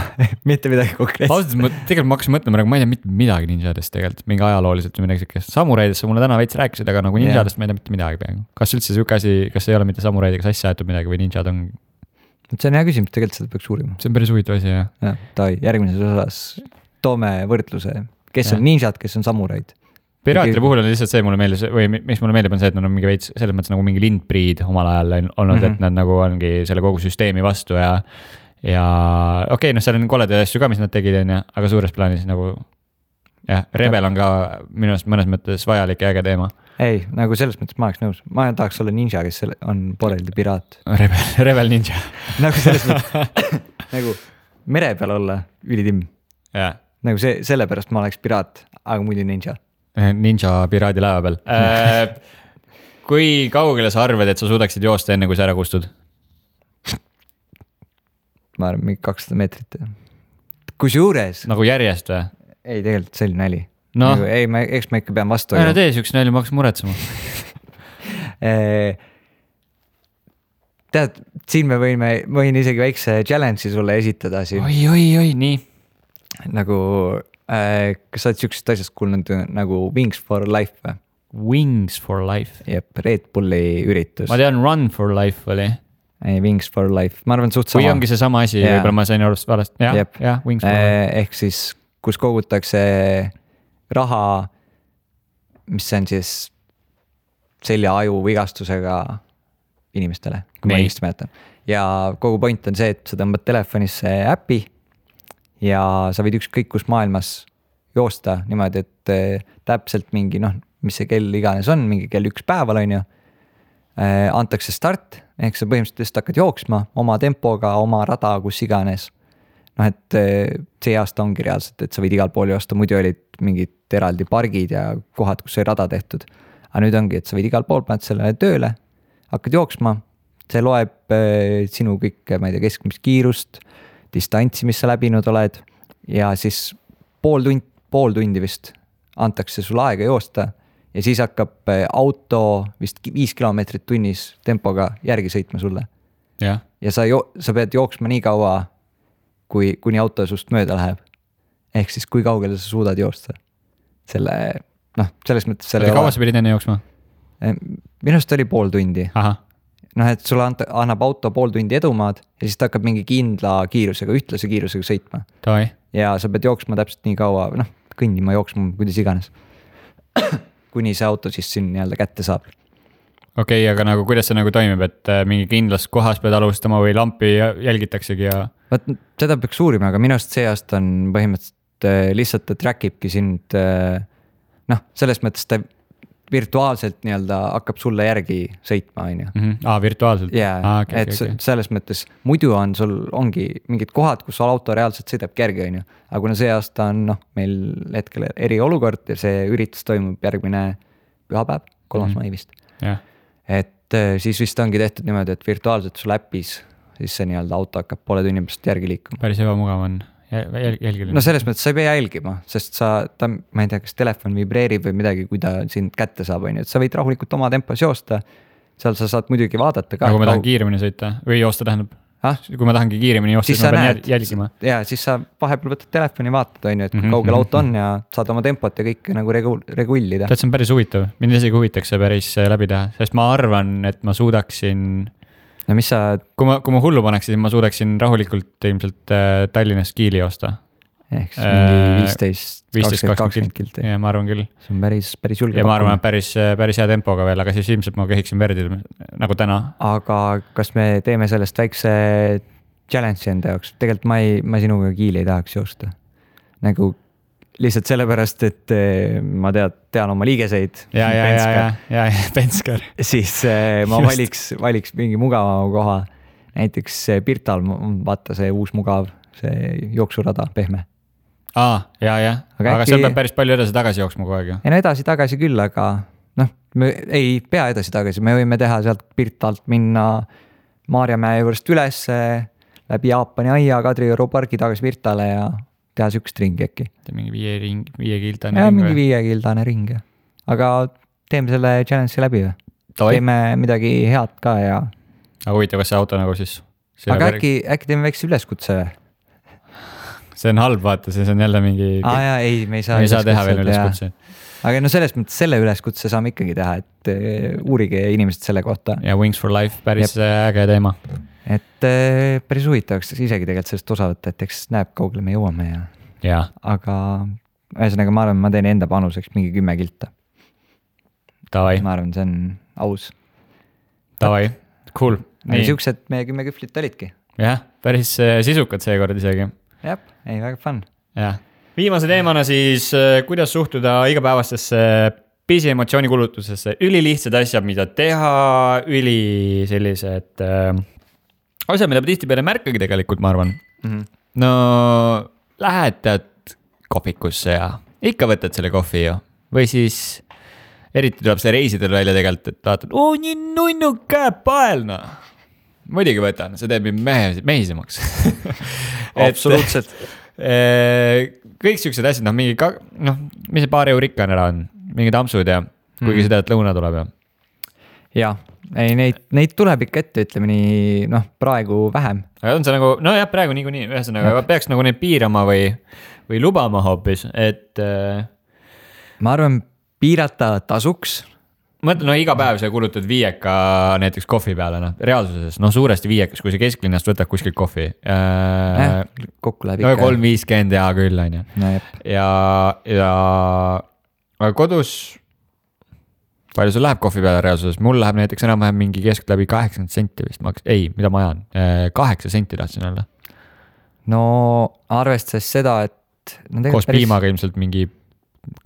mitte midagi konkreetset. Ausalt, tegelikult ma hakkasin mõtlema, aga ma ei tea mitte midagi ninjadest tegelikult, mingi ajalooliselt või midagi siukest. Samuraidest mulle täna veits rääkisid, aga nagu ninjadest ma ei tea mitte midagi peaaegu. Kas üldse siuke asi, kas ei ole mitte samuraidega sassi aetud midagi või ninjad on? See on hea küsimus, tegelikult seda peaks uurima. See on päris huvitav asi, jah. Ja, järgmises osas toome võrdluse, kes on ninjad, kes on samuraid. Piraatide puhul on lihtsalt see mulle meeldis, või mis mulle meeldib on see, et nad on mingi veits selles mõttes nagu mingi lindpriid omal ajal olnud, et nad nagu ongi selle kogu süsteemi vastu ja okei, noh, seal on koledaid asju ka, mis nad tegid, aga suures plaanis nagu jah, Rebel on ka minu arust mõnes mõttes vajalik ja äge teema. Ei, nagu selles mõttes ma oleks nõus. Ma tahaks olla ninja, kes on pooleldi piraat. Rebel ninja. Nagu selles mõttes, nagu mere peal olla ülitimm. Nagu sellepärast ma oleks piraat, aga muidu ninja. Ninja piraadi laeva peal. Kui kaugele sa arvad, et sa suudaksid joosta enne, kui sa ära kustud? Ma arvan, mingi 200 meetrit. Kus juures? Nagu järjest või? Ei, tegelikult see oli näli. No. Nagu, ei, eks ma ikka pean vastu. Ära tee siukse näli, ma hakkas muretsema. Tead, siin me võin isegi väikse challenge'i sulle esitada siin. Oi, nii. Nagu, kas sa oled siuksest asjast kuulnud nagu Wings for Life või? Wings for Life? Jep, Red Bulli üritus. Ma tean Run for Life oli. Ei, Wings for Life, ma arvan suht sama. Või ongi see sama asi, võib-olla ma sain arvast valest. Jah, Wings for Life. Ehk siis, kus kogutakse raha, mis on siis selja-aju vigastusega inimestele, kui ma õigesti mäletan. Ja kogu point on see, et sa tõmbad telefonisse äpi ja sa võid ükskõik kus maailmas joosta niimoodi, et täpselt mingi, noh, mis see kell iganes on, mingi kell 1 päeval on ju, antakse start, ehk sa põhimõtteliselt hakkad jooksma oma tempoga, oma rada, kus iganes. Noh, et see aasta ongi reaalselt, et sa võid igal pool joosta, muidu olid mingid eraldi pargid ja kohad, kus sai rada tehtud. Aga nüüd ongi, et sa võid igal pool paned sellele tööle, hakkad jooksma, see loeb sinu kõik, ma ei tea, keskmist kiirust, distantsi, mis sa läbinud oled ja siis pool tundi vist antakse sulle aega joosta ja siis hakkab auto vist 5 kilomeetrit tunnis tempoga järgi sõitma sulle. Ja sa pead jooksma nii kaua, kuni auto sust mööda läheb. Ehk siis kui kaugele sa suudad joosta. Selles mõttes kaua sa pidid enne jooksma? Minust oli pool tundi. Aha. Noh, et sulle annab auto pool tundi edumaad ja siis ta hakkab mingi kindla kiirusega, ühtlase kiirusega sõitma. Toi. Ja sa pead jooksma täpselt nii kaua, kõndima, jooksma, kuidas iganes. Kuni see auto siis siin nii-öelda kätte saab. Okei, aga nagu kuidas see nagu toimib, et mingi kindlas kohas pead alustama või lampi jälgitaksegi ja... Seda peaks uurima, aga minu arust see aasta on põhimõtteliselt lihtsalt ta trackibki sind, selles mõttes ta virtuaalselt nii-öelda hakkab sulle järgi sõitma, on ju. Virtuaalselt? Jaa, et selles mõttes muidu ongi mingid kohad, kus auto reaalselt sõidabki järgi, on ju. Aga kuna see aasta on meil hetkel eriolukord ja see üritus toimub järgmine pühapäev, 3. mai vist. Et siis vist ongi tehtud niimoodi, et virtuaalselt sul äppis siis see nii-öelda auto hakkab poole tunni pärast järgi liikuma. Päris ebamugav on jälgiline. No selles mõttes sa ei pea jälgima, sest ma ei tea, kas telefon vibreerib või midagi, kui ta sind kätte saab, on ju, et sa võid rahulikult oma tempos joosta seal sa saad muidugi vaadata ka. Kui ma tahan kiiremini sõita või joosta tähendab. Kui ma tahangi kiiremini joosta, siis ma pean jälgima. Ja siis sa vahepeal võtad telefoni, vaatad, on ju, et kaugel auto on ja saad oma tempot ja kõik nagu regullida. See on päris huvitav. Mind isegi huvitaks see päris läbi teha, sest ma arvan, et ma suudaksin... No mis sa... Kui ma hullu paneks, siis ma suudaksin rahulikult ilmselt Tallinnast Kiili joosta. Ehk siis mingi 15-20 kilti. Ja ma arvan küll. See on päris julge. Ja ma arvan, et päris hea tempoga veel, aga siis ilmselt ma kehiksin verdi nagu täna. Aga kas me teeme sellest väikse challenge'i enda jaoks? Tegelikult ma sinuga Kiili ei tahaks joosta. Nagu lihtsalt sellepärast, et ma tean oma liigeseid. Ja, Penskar. Siis ma valiks mingi mugavama koha. Näiteks Pirtal, vaata see uus mugav, see jooksurada, pehme. Aga seal peab päris palju edasi-tagasi jooksma kogu aeg ju. Ei no edasi-tagasi küll, aga me ei pea edasi-tagasi. Me võime teha sealt Pirtalt minna Maarjamäe juurest üles, läbi Jaapani aia, Kadrioru pargi tagasi Pirtale ja teha sükst ringi äkki. Mingi 5-kildane ring. Mingi 5-kildane ring. Aga teeme selle challenge'i läbi või? Teeme midagi head ka ja... Aga huvitav, kas see auto nagu siis... Aga äkki teeme väikse üleskutse või? See on halb, vaata, see on jälle mingi... me ei saa teha veel üleskutse. Aga no selles mõttes selle üleskutse saame ikkagi teha, et uurige inimesed selle kohta. Ja Wings for Life, päris äge teema. Et päris huvitavaks isegi tegelikult sellest osa võtta, et eks näeb kaugele me jõuame ja. Aga ühesõnaga ma arvan, ma teen enda panuseks mingi 10 kilta. Tavai. Ma arvan, see on aus. Tavai, cool. Aga siuksed meie 10 küflit olidki. Jah, päris sisukad seekord isegi. Jah, ei, väga fun. Ja. Viimase teemana siis, kuidas suhtuda igapäevastesse pisiemotsiooni-kulutusesse. Ülilihtsad asjad, mida teha, sellised asjad, mida tihti peale märkagi tegelikult, ma arvan. No, lähetad kohvikusse ja ikka võtad selle kohvi ju. Või siis eriti tuleb see reisidel välja tegelikult, et vaatad, nii nunnu käepaelna. Muidugi võtan, see teeb mehisemaks. Absoluutselt. Kõik siuksed asjad, mingi, mis see paar eurikka ära on, mingi tampsud ja kuigi seda, et lõuna tuleb ja. Ja, ei, neid tuleb ikka ette, ütleme nii, praegu vähem. Aga on see nagu, praegu nii, ühesõnaga, peaks nagu neid piirama või lubama hoopis, et... Ma arvan, piirata tasuks. Mõtlen, iga päev sa kulutad 5 näiteks kohvi peale, reaalsuses, suuresti 5, kui sa kesklinnast võtad kuskil kohvi. Kokku läheb ikka. 3.50 ja küll, on ju. Ja kodus, palju sul läheb kohvi peale reaalsuses? Mul läheb näiteks enam-vähem mingi kesk läbi 80 senti vist. Mida ma ajan? 8 senti tahtsin olla. No arvestades seda, et... Koos piimaga ilmselt mingi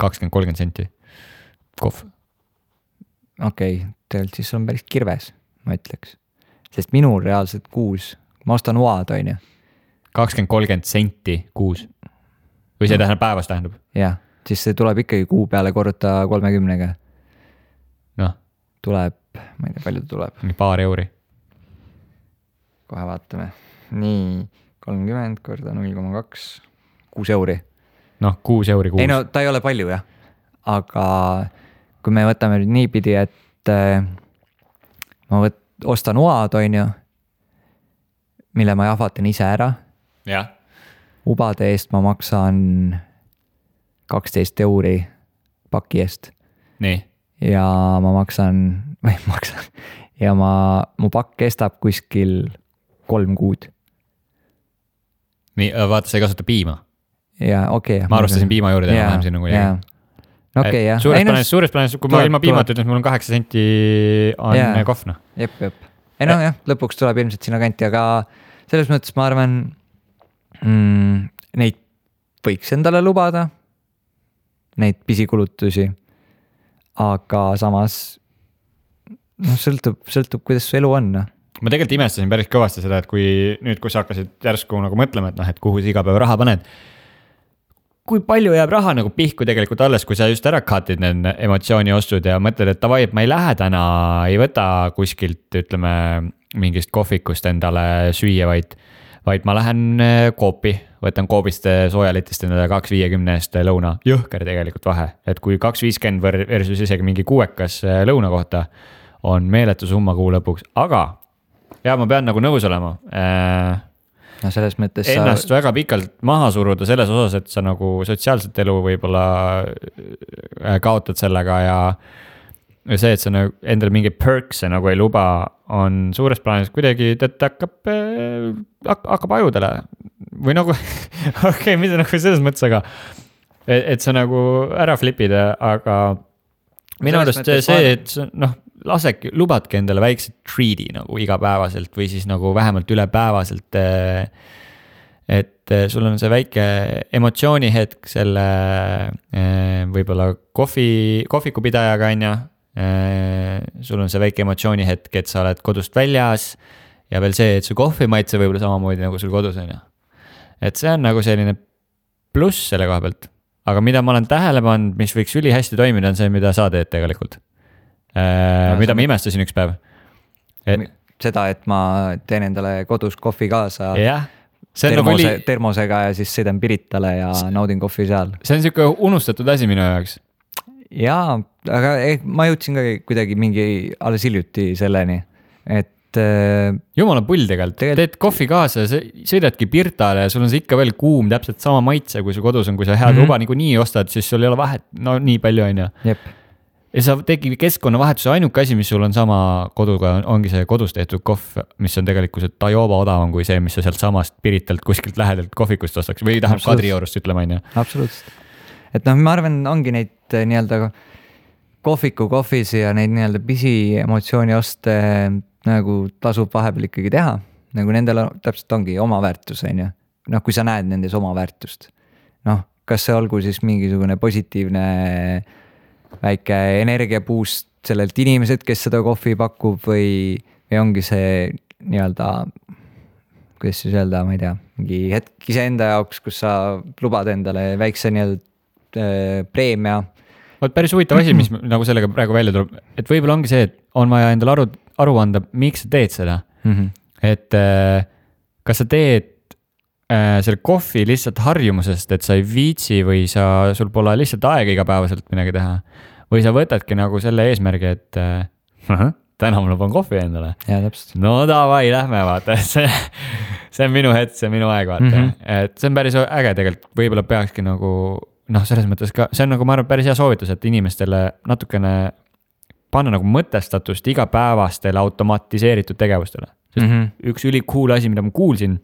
20-30 senti kohv. Okei, tegelikult siis on päris kirves, ma ütleks. Sest minul reaalselt kuus, ma ostan oad, on ju. 20-30 senti kuus. Või see tähendab päevast tähendab? Jah, siis see tuleb ikkagi kuu peale korruta 30-ga. Tuleb, ma ei tea, palju tuleb. Nii paar euri. Kohe vaatame. Nii, 30 korda 0,2, 6 euri. 6 euri kuus. Ei ta ei ole palju, jah. Aga... Kui me võtame nüüd niipidi, et ma ostan oad, on ju, mille ma jahvatan ise ära. Ja. Ubade eest ma maksan 12 euri paki eest. Nii. Ja ma ja mu pakk kestab kuskil 3 kuud. Nii, vaata, sa ei kasuta piima. Ja, okei. Ma arvastasin piima juurde ja vähem siin nagu jäi. Okay, jah. Suures plaanis, kui ma ilma piimata ütlen, mul on 8 senti on kohvna. Jep. Ei jah, lõpuks tuleb ilmselt sinna kanti, aga selles mõttes ma arvan, neid võiks endale lubada, neid pisikulutusi, aga samas sõltub, kuidas su elu on. Ma tegelikult imestasin päris kõvasti seda, et kui sa hakkasid järsku nagu mõtlema, et kuhu sa iga päev raha paned, kui palju jääb raha nagu pihku tegelikult alles, kui sa just ära katid need emotsiooni ostud ja mõtled, et tavai, et ma ei lähe täna, ei võta kuskilt, ütleme, mingist kohvikust endale süüa, vaid ma lähen koopi, võtan koobist soojalitist endale 2.50 eest lõuna. Jõhker tegelikult vahe, et kui 2.50 versus isegi mingi 6 lõuna kohta on meeletu summa kuu lõpuks, aga ja ma pean nagu nõus olema. No selles mõttes ennast väga pikalt maha suruda selles osas, et sa nagu sotsiaalset elu võib-olla kaotad sellega ja see, et sa nagu endale mingi perks'e nagu ei luba, on suures plaanis kuidagi, et hakkab ajudele või nagu okei, mida nagu selles mõttes, aga et sa nagu ära flipid, aga minu arust see, et noh, lubadki endale väikse treat'i nagu igapäevaselt või siis nagu vähemalt ülepäevaselt, et sul on see väike emotsioonihetk selle võib-olla kohvikupidajaga on ju, sul on see väike emotsioonihetk, et sa oled kodust väljas ja veel see, et su kohvi maitse võib-olla samamoodi nagu sul kodus on ju. Et see on nagu selline pluss selle koha pealt, aga mida ma olen tähele pannud, mis võiks ülihästi toimida, on see, mida sa teed tegelikult. Mida ma imestasin üks päev. Seda, et ma teen endale kodus kohvi kaasa termosega ja siis sõidan Piritale ja naudin kohvi seal. See on siuke unustatud asi minu jaoks. Jaa, aga ma jõudsin ka kuidagi mingi alles hiljuti selleni, et jumala pull tegelikult, teed kohvi kaasa ja sõidadki Pirtale ja sul on see ikka veel kuum, täpselt sama maitse, kui su kodus on, kui sa head luba nagu nii ostad, siis sul ei ole vahet, no nii palju on ju. Jep. Ja sa tegi keskkonnavahetuse, ainuke asi, mis sul on sama koduga, ongi see kodus tehtud kohv, mis on tegelikult tajoba odavam kui see, mis sa sealt samast Piritalt kuskilt lähedalt kohvikust ostaks või tahab Kadriorust ütlema, on ju. Absoluutselt. Et noh, ma arvan, ongi neid nii-öelda kohvisi ja neid nii-öelda pisi emotsiooni oste nagu tasub vahepeal ikkagi teha. Nagu nendel täpselt ongi oma väärtus, on ju. Noh, kui sa näed nendes oma väärtust. Noh, kas see olgu siis mingisugune positiivne väike energiapuust sellelt inimesed, kes seda kohvi pakub või ongi see nii-öelda, kuidas siis öelda, ma ei tea, mingi hetk iseenda jaoks, kus sa lubad endale väikse nii-öelda preemia. Päris huvitav asi, mis nagu sellega praegu välja tuleb, et võib-olla ongi see, et on vaja endale aru anda, miks sa teed seda. Et kas sa teed selle kohvi lihtsalt harjumusest, et sa ei viitsi või sul pole lihtsalt aega igapäevaselt midagi teha. Või sa võtadki nagu selle eesmärgi, et täna ma luban kohvi endale. Ja, täpselt. No davai, lähme vaata, see on minu hetk, see on minu aeg vaata. Et see on päris äge tegelikult, võib-olla peakski nagu, noh, selles mõttes ka, see on nagu ma arvan päris hea soovitus, et inimestele natukene panna nagu mõtestatust igapäevastele automatiseeritud tegevustele. Üks ülikool asi, mida ma kuulsin,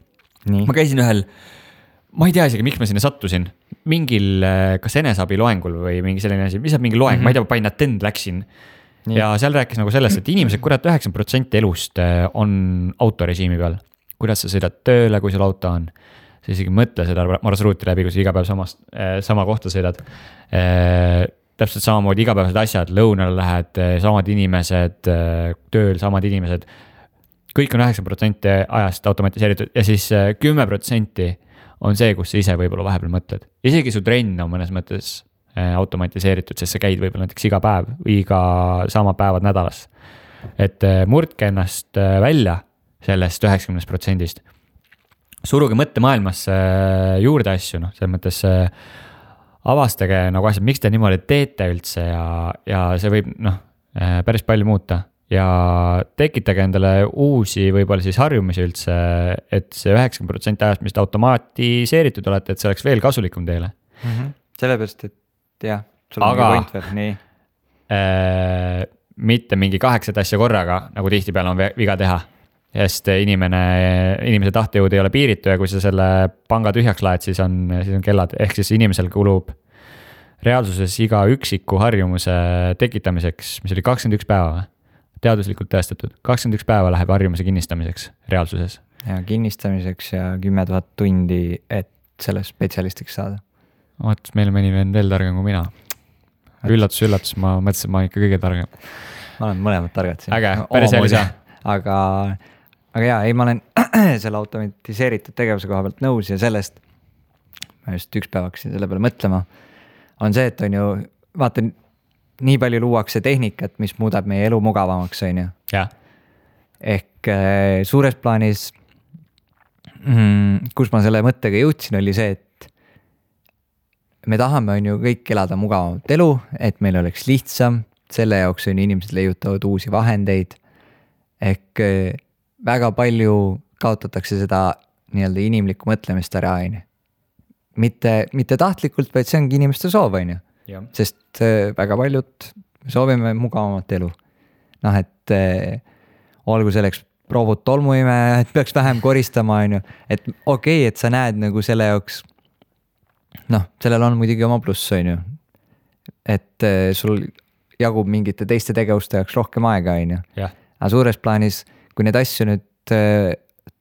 ma käisin ühel, ma ei tea isegi, miks ma sinna sattusin, mingil kas enesabi loengul või mingi selline asi, mis on mingi loeng, ma ei tea, ma panin attend läksin. Ja seal rääkis nagu sellest, et inimesed, kurat 90% elust on autorežiimi peal. Kuidas sa sõidad tööle, kui sul auto on. Sa isegi mõtle seda marsruuti läbi, kui sa iga päev sama kohta sõidad. Täpselt samamoodi igapäevased asjad, lõunal lähed, samad inimesed, tööl samad inimesed. Kõik on 9% ajast automatiseeritud ja siis 10% on see, kus sa ise võib-olla vahepeal mõtled. Isegi su trenn on mõnes mõttes automatiseeritud, sest sa käid võib-olla näiteks iga päev või iga sama päevad nädalas. Et murdke ennast välja sellest 90%. Suruge mõttemaailmasse juurde asju, noh, selles mõttes avastage nagu asjad, miks te niimoodi teete üldse ja see võib päris palju muuta. Ja tekitage endale uusi võib-olla siis harjumisi üldse, et see 90% ajast, mis te automatiseeritud olete, et see oleks veel kasulikum teile. Sellepärast, et jah, sul on mingi point veel, nii. Mitte mingi 8 asja korraga, nagu tihtipeale on viga teha. Sest inimese tahtejõud ei ole piiritu ja kui sa selle panga tühjaks laed, siis on kellad. Ehk siis inimesel kulub reaalsuses iga üksiku harjumuse tekitamiseks, mis oli 21 päeva. Teaduslikult tõestatud. 21 päeva läheb harjumuse kinnistamiseks reaalsuses. Ja kinnistamiseks ja 10 000 tundi, et selle spetsialistiks saada. Oot, meil mõni veel targem kui mina. Üllatus, ma mõtlesin, ma ikka kõige targem. Ma olen mõlemad targad siin. Äge, päris hea lisa. Aga jaa, ma olen selle automatiseeritud tegevuse koha pealt nõus ja sellest, ma just üks päev hakkasin selle peale mõtlema, on see, et on ju, vaata, nii palju luuakse tehnikat, mis muudab meie elu mugavamaks, on ju. Ja. Ehk suures plaanis, kus ma selle mõttega jõudsin, oli see, et me tahame on ju kõik elada mugavamat elu, et meil oleks lihtsam, selle jaoks on inimesed leiutavad uusi vahendeid. Ehk väga palju kaotatakse seda nii-öelda inimlikku mõtlemist ära, on ju. Mitte tahtlikult, vaid see ongi inimeste soov, on ju. Sest väga paljud soovime mugavamat elu. Noh, et olgu selleks proovud tolmuime, et peaks vähem koristama, on ju. Et okei, et sa näed nagu selle jaoks, noh, sellel on muidugi oma pluss, on ju. Et sul jagub mingite teiste tegevuste jaoks rohkem aega, on ju. Aga suures plaanis, kui neid asju nüüd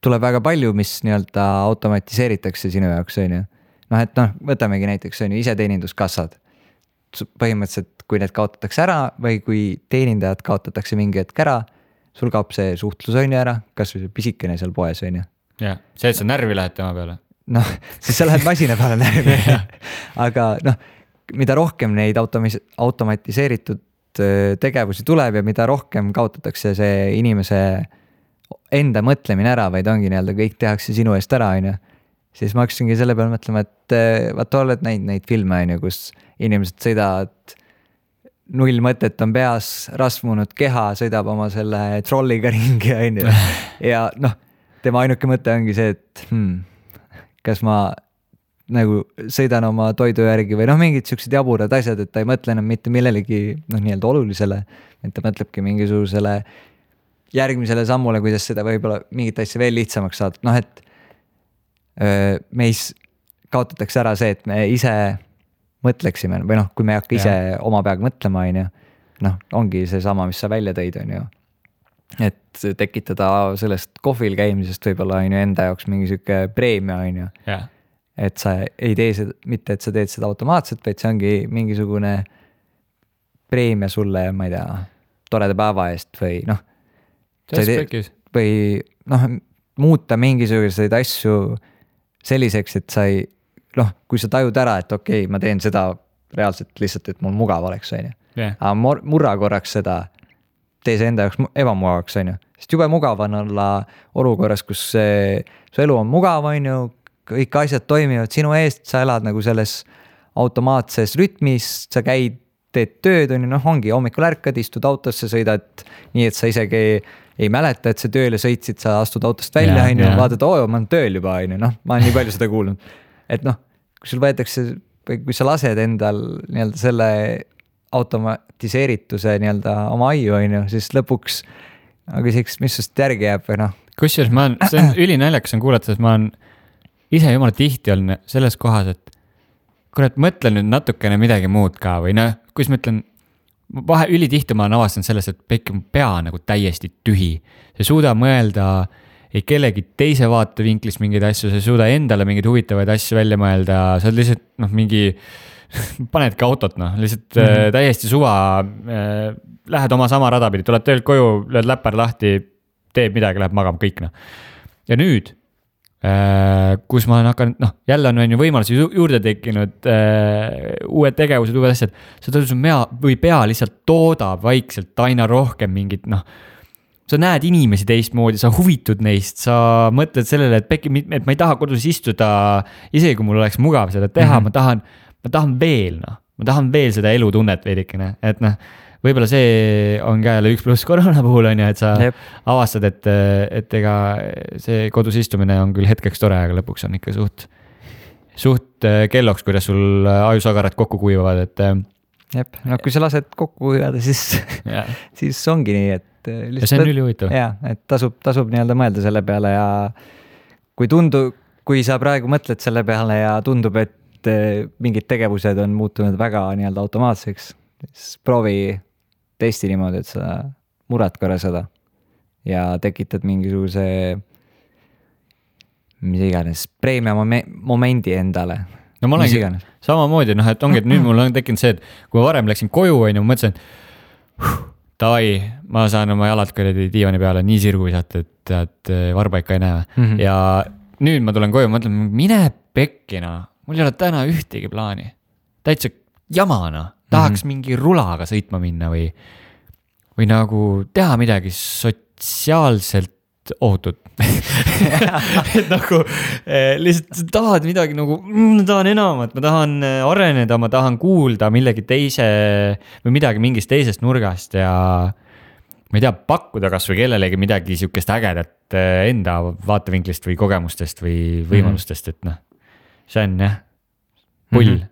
tuleb väga palju, mis nii-öelda automatiseeritakse sinu jaoks, on ju. Noh, et noh, võtamegi näiteks on ju iseteeninduskassad. Põhimõtteliselt, kui need kaotatakse ära või kui teenindajad kaotatakse mingi hetk ära, sul kaob see suhtlus on ju ära, kas või see pisikene seal poes on ju. Jah, see, et sa närvi lähed tema peale. Noh, siis sa lähed masina peale närvi. Aga noh, mida rohkem neid automatiseeritud tegevusi tuleb ja mida rohkem kaotatakse see inimese enda mõtlemine ära, vaid ongi nii-öelda kõik tehakse sinu eest ära, on ju. Siis ma hakkasingi selle peale mõtlema, et vaata oled neid filme, on ju, kus inimesed sõidavad, null mõtet on peas, rasvunud keha, sõidab oma selle trolliga ringi, on ju. Ja noh, tema ainuke mõte ongi see, et kas ma nagu sõidan oma toidu järgi või noh, mingid siuksed jaburad asjad, et ta ei mõtle enam mitte millelegi noh, nii-öelda olulisele, et ta mõtlebki mingisugusele järgmisele sammule, kuidas seda võib-olla mingit asja veel lihtsamaks saada. Noh, et meis kaotatakse ära see, et me ise mõtleksime või noh, kui me ei hakka ise oma peaga mõtlema, on ju, noh, ongi see sama, mis sa välja tõid, on ju. Et tekitada sellest kohvil käimisest võib-olla on ju enda jaoks mingi siuke preemia, on ju. Et sa ei tee seda, mitte et sa teed seda automaatselt, vaid see ongi mingisugune preemia sulle, ma ei tea, toreda päeva eest või noh. Või noh, muuta mingisuguseid asju selliseks, et sa ei, noh, kui sa tajud ära, et okei, ma teen seda reaalselt lihtsalt, et mul mugav oleks, on ju. Aga murra korraks seda, tee see enda jaoks ebamugavaks, on ju. Sest jube mugav on olla olukorras, kus su elu on mugav, on ju, kõik asjad toimivad sinu eest, sa elad nagu selles automaatses rütmis, sa käid, teed tööd, on ju, noh, ongi hommikul ärkad, istud autosse, sõidad nii, et sa isegi ei mäleta, et sa tööle sõitsid, sa astud autost välja, on ju, vaatad, ma olen tööl juba, on ju, noh, ma olen nii palju seda kuulnud. Et noh, kui sul võetakse, kui sa lased endal nii-öelda selle automatiseerituse nii-öelda oma aiu, on ju, siis lõpuks küsiks, mis sust järgi jääb või noh. Kusjuures see on ülinäljakas on kuulata, et ma olen ise jumala tihti olnud selles kohas, et kurat, mõtlen nüüd natukene midagi muud ka või noh, kus ma ütlen, ülitihti ma olen avastanud sellest, et pekki mu pea nagu täiesti tühi. Sa ei suuda mõelda ei kellegi teise vaatevinklist mingeid asju, sa ei suuda endale mingeid huvitavaid asju välja mõelda, sa oled lihtsalt noh, mingi panedki autot, noh, lihtsalt täiesti suva, lähed oma sama rada pidi, tuled töölt koju, lööd läppar lahti, teeb midagi, läheb magama, kõik noh. Ja nüüd kus ma olen hakanud, noh, jälle on ju võimalusi juurde tekkinud, uued tegevused, uued asjad, sa tõusud või pea lihtsalt toodab vaikselt aina rohkem mingit, noh, sa näed inimesi teistmoodi, sa huvitud neist, sa mõtled sellele, et ma ei taha kodus istuda, isegi kui mul oleks mugav seda teha, ma tahan veel, noh, ma tahan veel seda elutunnet veidikene, et noh, võib-olla see on ka jälle 1+ koroona puhul on ju, et sa avastad, et ega see kodus istumine on küll hetkeks tore, aga lõpuks on ikka suht kelloks, kuidas sul ajusagarad kokku kuivavad, et jep, no kui sa lased kokku kuivada, siis ongi nii, et ja see on ülihuvitav. Jaa, et tasub nii-öelda mõelda selle peale ja kui sa praegu mõtled selle peale ja tundub, et mingid tegevused on muutunud väga nii-öelda automaatseks, siis proovi testi niimoodi, et sa murrad korra seda ja tekitad mingisuguse mis iganes preemia momendi endale. No ma olengi samamoodi, noh, et ongi, et nüüd mul on tekkinud see, et kui ma varem läksin koju, on ju, ma mõtlesin, davai, ma saan oma jalad kõredi diivani peale nii sirgu visata, et varba ikka ei näe. Ja nüüd ma tulen koju, ma mõtlen, mine pekkina, mul ei ole täna ühtegi plaani. Täitsa jamana. Tahaks mingi rulaga sõitma minna või nagu teha midagi sotsiaalselt ohutud et nagu lihtsalt tahad midagi nagu, ma tahan enamat, ma tahan areneda, ma tahan kuulda millegi teise või midagi mingist teisest nurgast ja ma ei tea, pakkuda kas või kellelegi midagi sihukest ägedat enda vaatevinklist või kogemustest või võimalustest, et noh, see on jah, pull.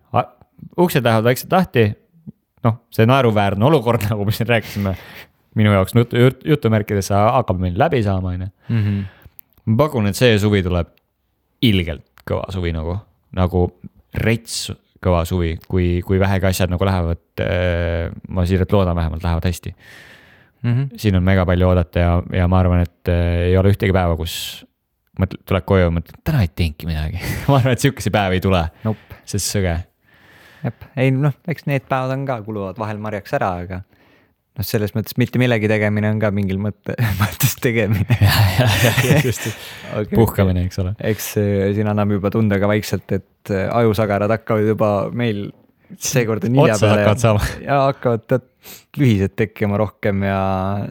Uksed lähevad vaikselt lahti, noh, see naeruväärne olukord, nagu me siin rääkisime, minu jaoks jutumärkides hakkab meil läbi saama, ma pakun, et see suvi tuleb ilgelt kõva suvi nagu rets kõva suvi, kui vähegi asjad nagu lähevad, ma siiralt loodan vähemalt, lähevad hästi. Siin on mega palju oodata ja ma arvan, et ei ole ühtegi päeva, kus tuleb koju ja mõtled, täna ei teengi midagi. Ma arvan, et sihukese päev ei tule, sest sõge. Jep, ei noh, eks need päevad on ka, kuluvad vahel marjaks ära, aga noh, selles mõttes mitte millegi tegemine on ka mingil mõttes tegemine. Just, puhkamine, eks ole. Eks siin annab juba tunda ka vaikselt, et ajusagarad hakkavad juba meil seekord on hilja peale ja hakkavad lühised tekkima rohkem ja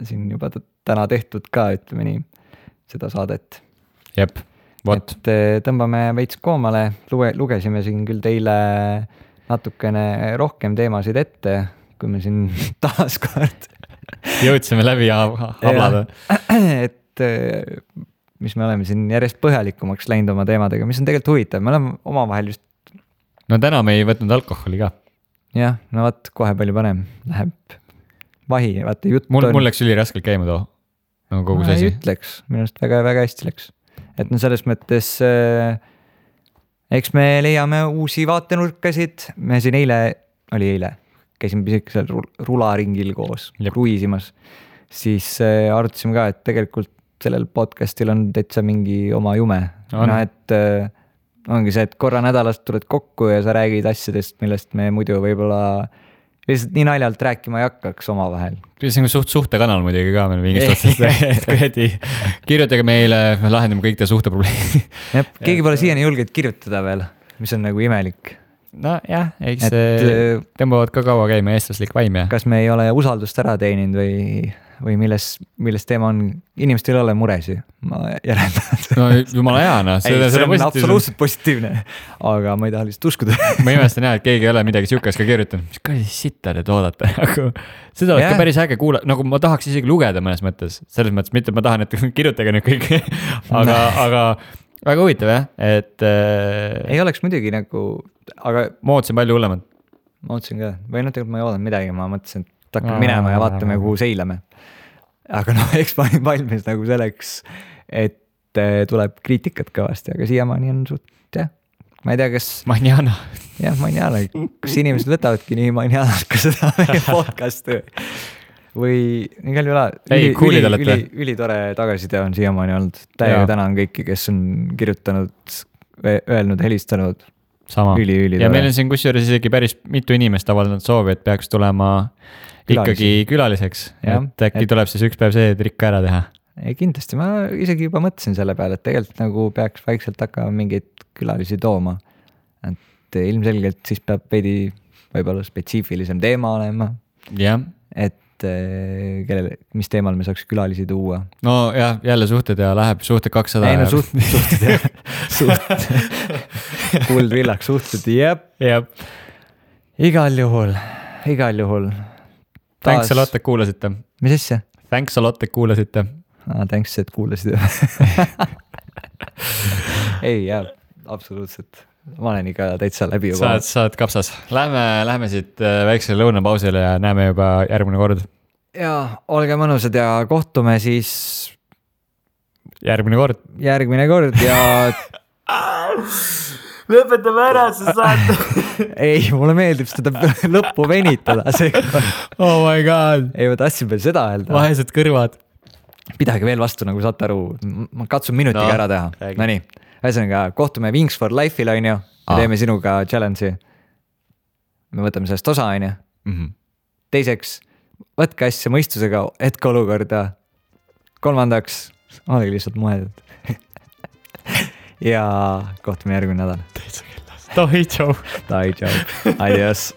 siin juba täna tehtud ka, ütleme nii, seda saadet. Jep, vot. Et tõmbame veits koomale, lugesime siin küll teile natukene rohkem teemasid ette, kui me siin taas kord jõudsime läbi ja hablada. Et mis me oleme siin järjest põhjalikumaks läinud oma teemadega, mis on tegelikult huvitav, me oleme omavahel just. No täna me ei võtnud alkoholi ka. Jah, no vaat kohe palju panem, läheb vahi, vaata jutt mul läks üli raskelt käima too, nagu kogu see asi. Jutt läks, minu arust väga, väga hästi läks. Et no selles mõttes eks me leiame uusi vaatenurkasid, me siin eile, käisime pisikesel rularingil koos, kruiisimas, siis arutasime ka, et tegelikult sellel podcastil on täitsa mingi oma jume. No, et ongi see, et korra nädalast tuled kokku ja sa räägid asjadest, millest me muidu võib-olla lihtsalt nii naljalt rääkima ei hakkaks omavahel. See on suhtekanal muidugi ka meil mingist otsast. Kirjutage meile, me lahendame kõik te suhteprobleemi. Keegi pole siiani julgeid kirjutada veel, mis on nagu imelik. No jah, eks tõmbavad ka kaua käima eestlaslik vaim ja. Kas me ei ole usaldust ära teeninud või milles teema on, inimestel ei ole muresi, ma järeldan. No jumala hea, no. See on absoluutselt positiivne, aga ma ei taha lihtsalt uskuda. Ma imestan jah, et keegi ei ole midagi sihukest ka kirjutanud. Mis ka sitta te toodate? Seda oleks ka päris äge kuula, nagu ma tahaks isegi lugeda mõnes mõttes. Selles mõttes mitte, et ma tahan, et kirjutage nüüd kõik. Aga väga huvitav jah, et ei oleks muidugi nagu, aga ma ootsin palju hullemad. Ma ootsin ka, või tegelikult ma ei oodan midagi, ma mõtlesin, et hakkame minema ja vaatame, kuhu seilame. Aga noh, eks ma olin valmis nagu selleks, et tuleb kriitikat kõvasti, aga siiamaani on suht, jah. Ma ei tea, kas Manjana. Jah, Manjana, kas inimesed võtavadki nii Manjanat ka seda meie podcasti või igal juhul ülitore tagasiside on siiamaani olnud. Täiega tänan kõiki, kes on kirjutanud, öelnud, helistanud. Sama. Üli ja meil on siin kusjuures isegi päris mitu inimest avaldanud soovi, et peaks tulema ikkagi külaliseks. Et äkki tuleb siis üks päev see trikk ära teha. Ei, kindlasti, ma isegi juba mõtlesin selle peale, et tegelikult nagu peaks vaikselt hakkama mingeid külalisi tooma. Et ilmselgelt siis peab veidi võib-olla spetsiifilisem teema olema. Jah. Et mis teemal me saaks külalisi tuua. No jah, jälle suhted ja läheb suhted 200. Ei no suhted ja kuldvillaks suhted, jep. Igal juhul. Thanks a lot, et kuulasite. Mis asja? Thanks a lot, et kuulasite. Thanks, et kuulasite. Ei, jah, absoluutselt. Ma olen ikka täitsa läbi juba. Saad kapsas. Lähme siit väiksele lõunapausile ja näeme juba järgmine kord. Jaa, olge mõnusad ja kohtume siis järgmine kord ja lõpetame ära, sa saad. Ei, mulle meeldib seda lõppu venitada. Oh my god. Ei, ma tahtsin veel seda öelda. Vahesed kõrvad. Pidage veel vastu, nagu saate aru. Ma katsun minutiga ära teha. No nii. Ühesõnaga, kohtume Wings for Life'il, on ju. Me teeme sinuga challenge'i. Me võtame sellest osa, on ju. Teiseks, võtke asja mõistusega hetke olukorda. Kolmandaks, olegi lihtsalt mõeldud. Ja kohtume järgmine nädal. Toi, tšau. Adios.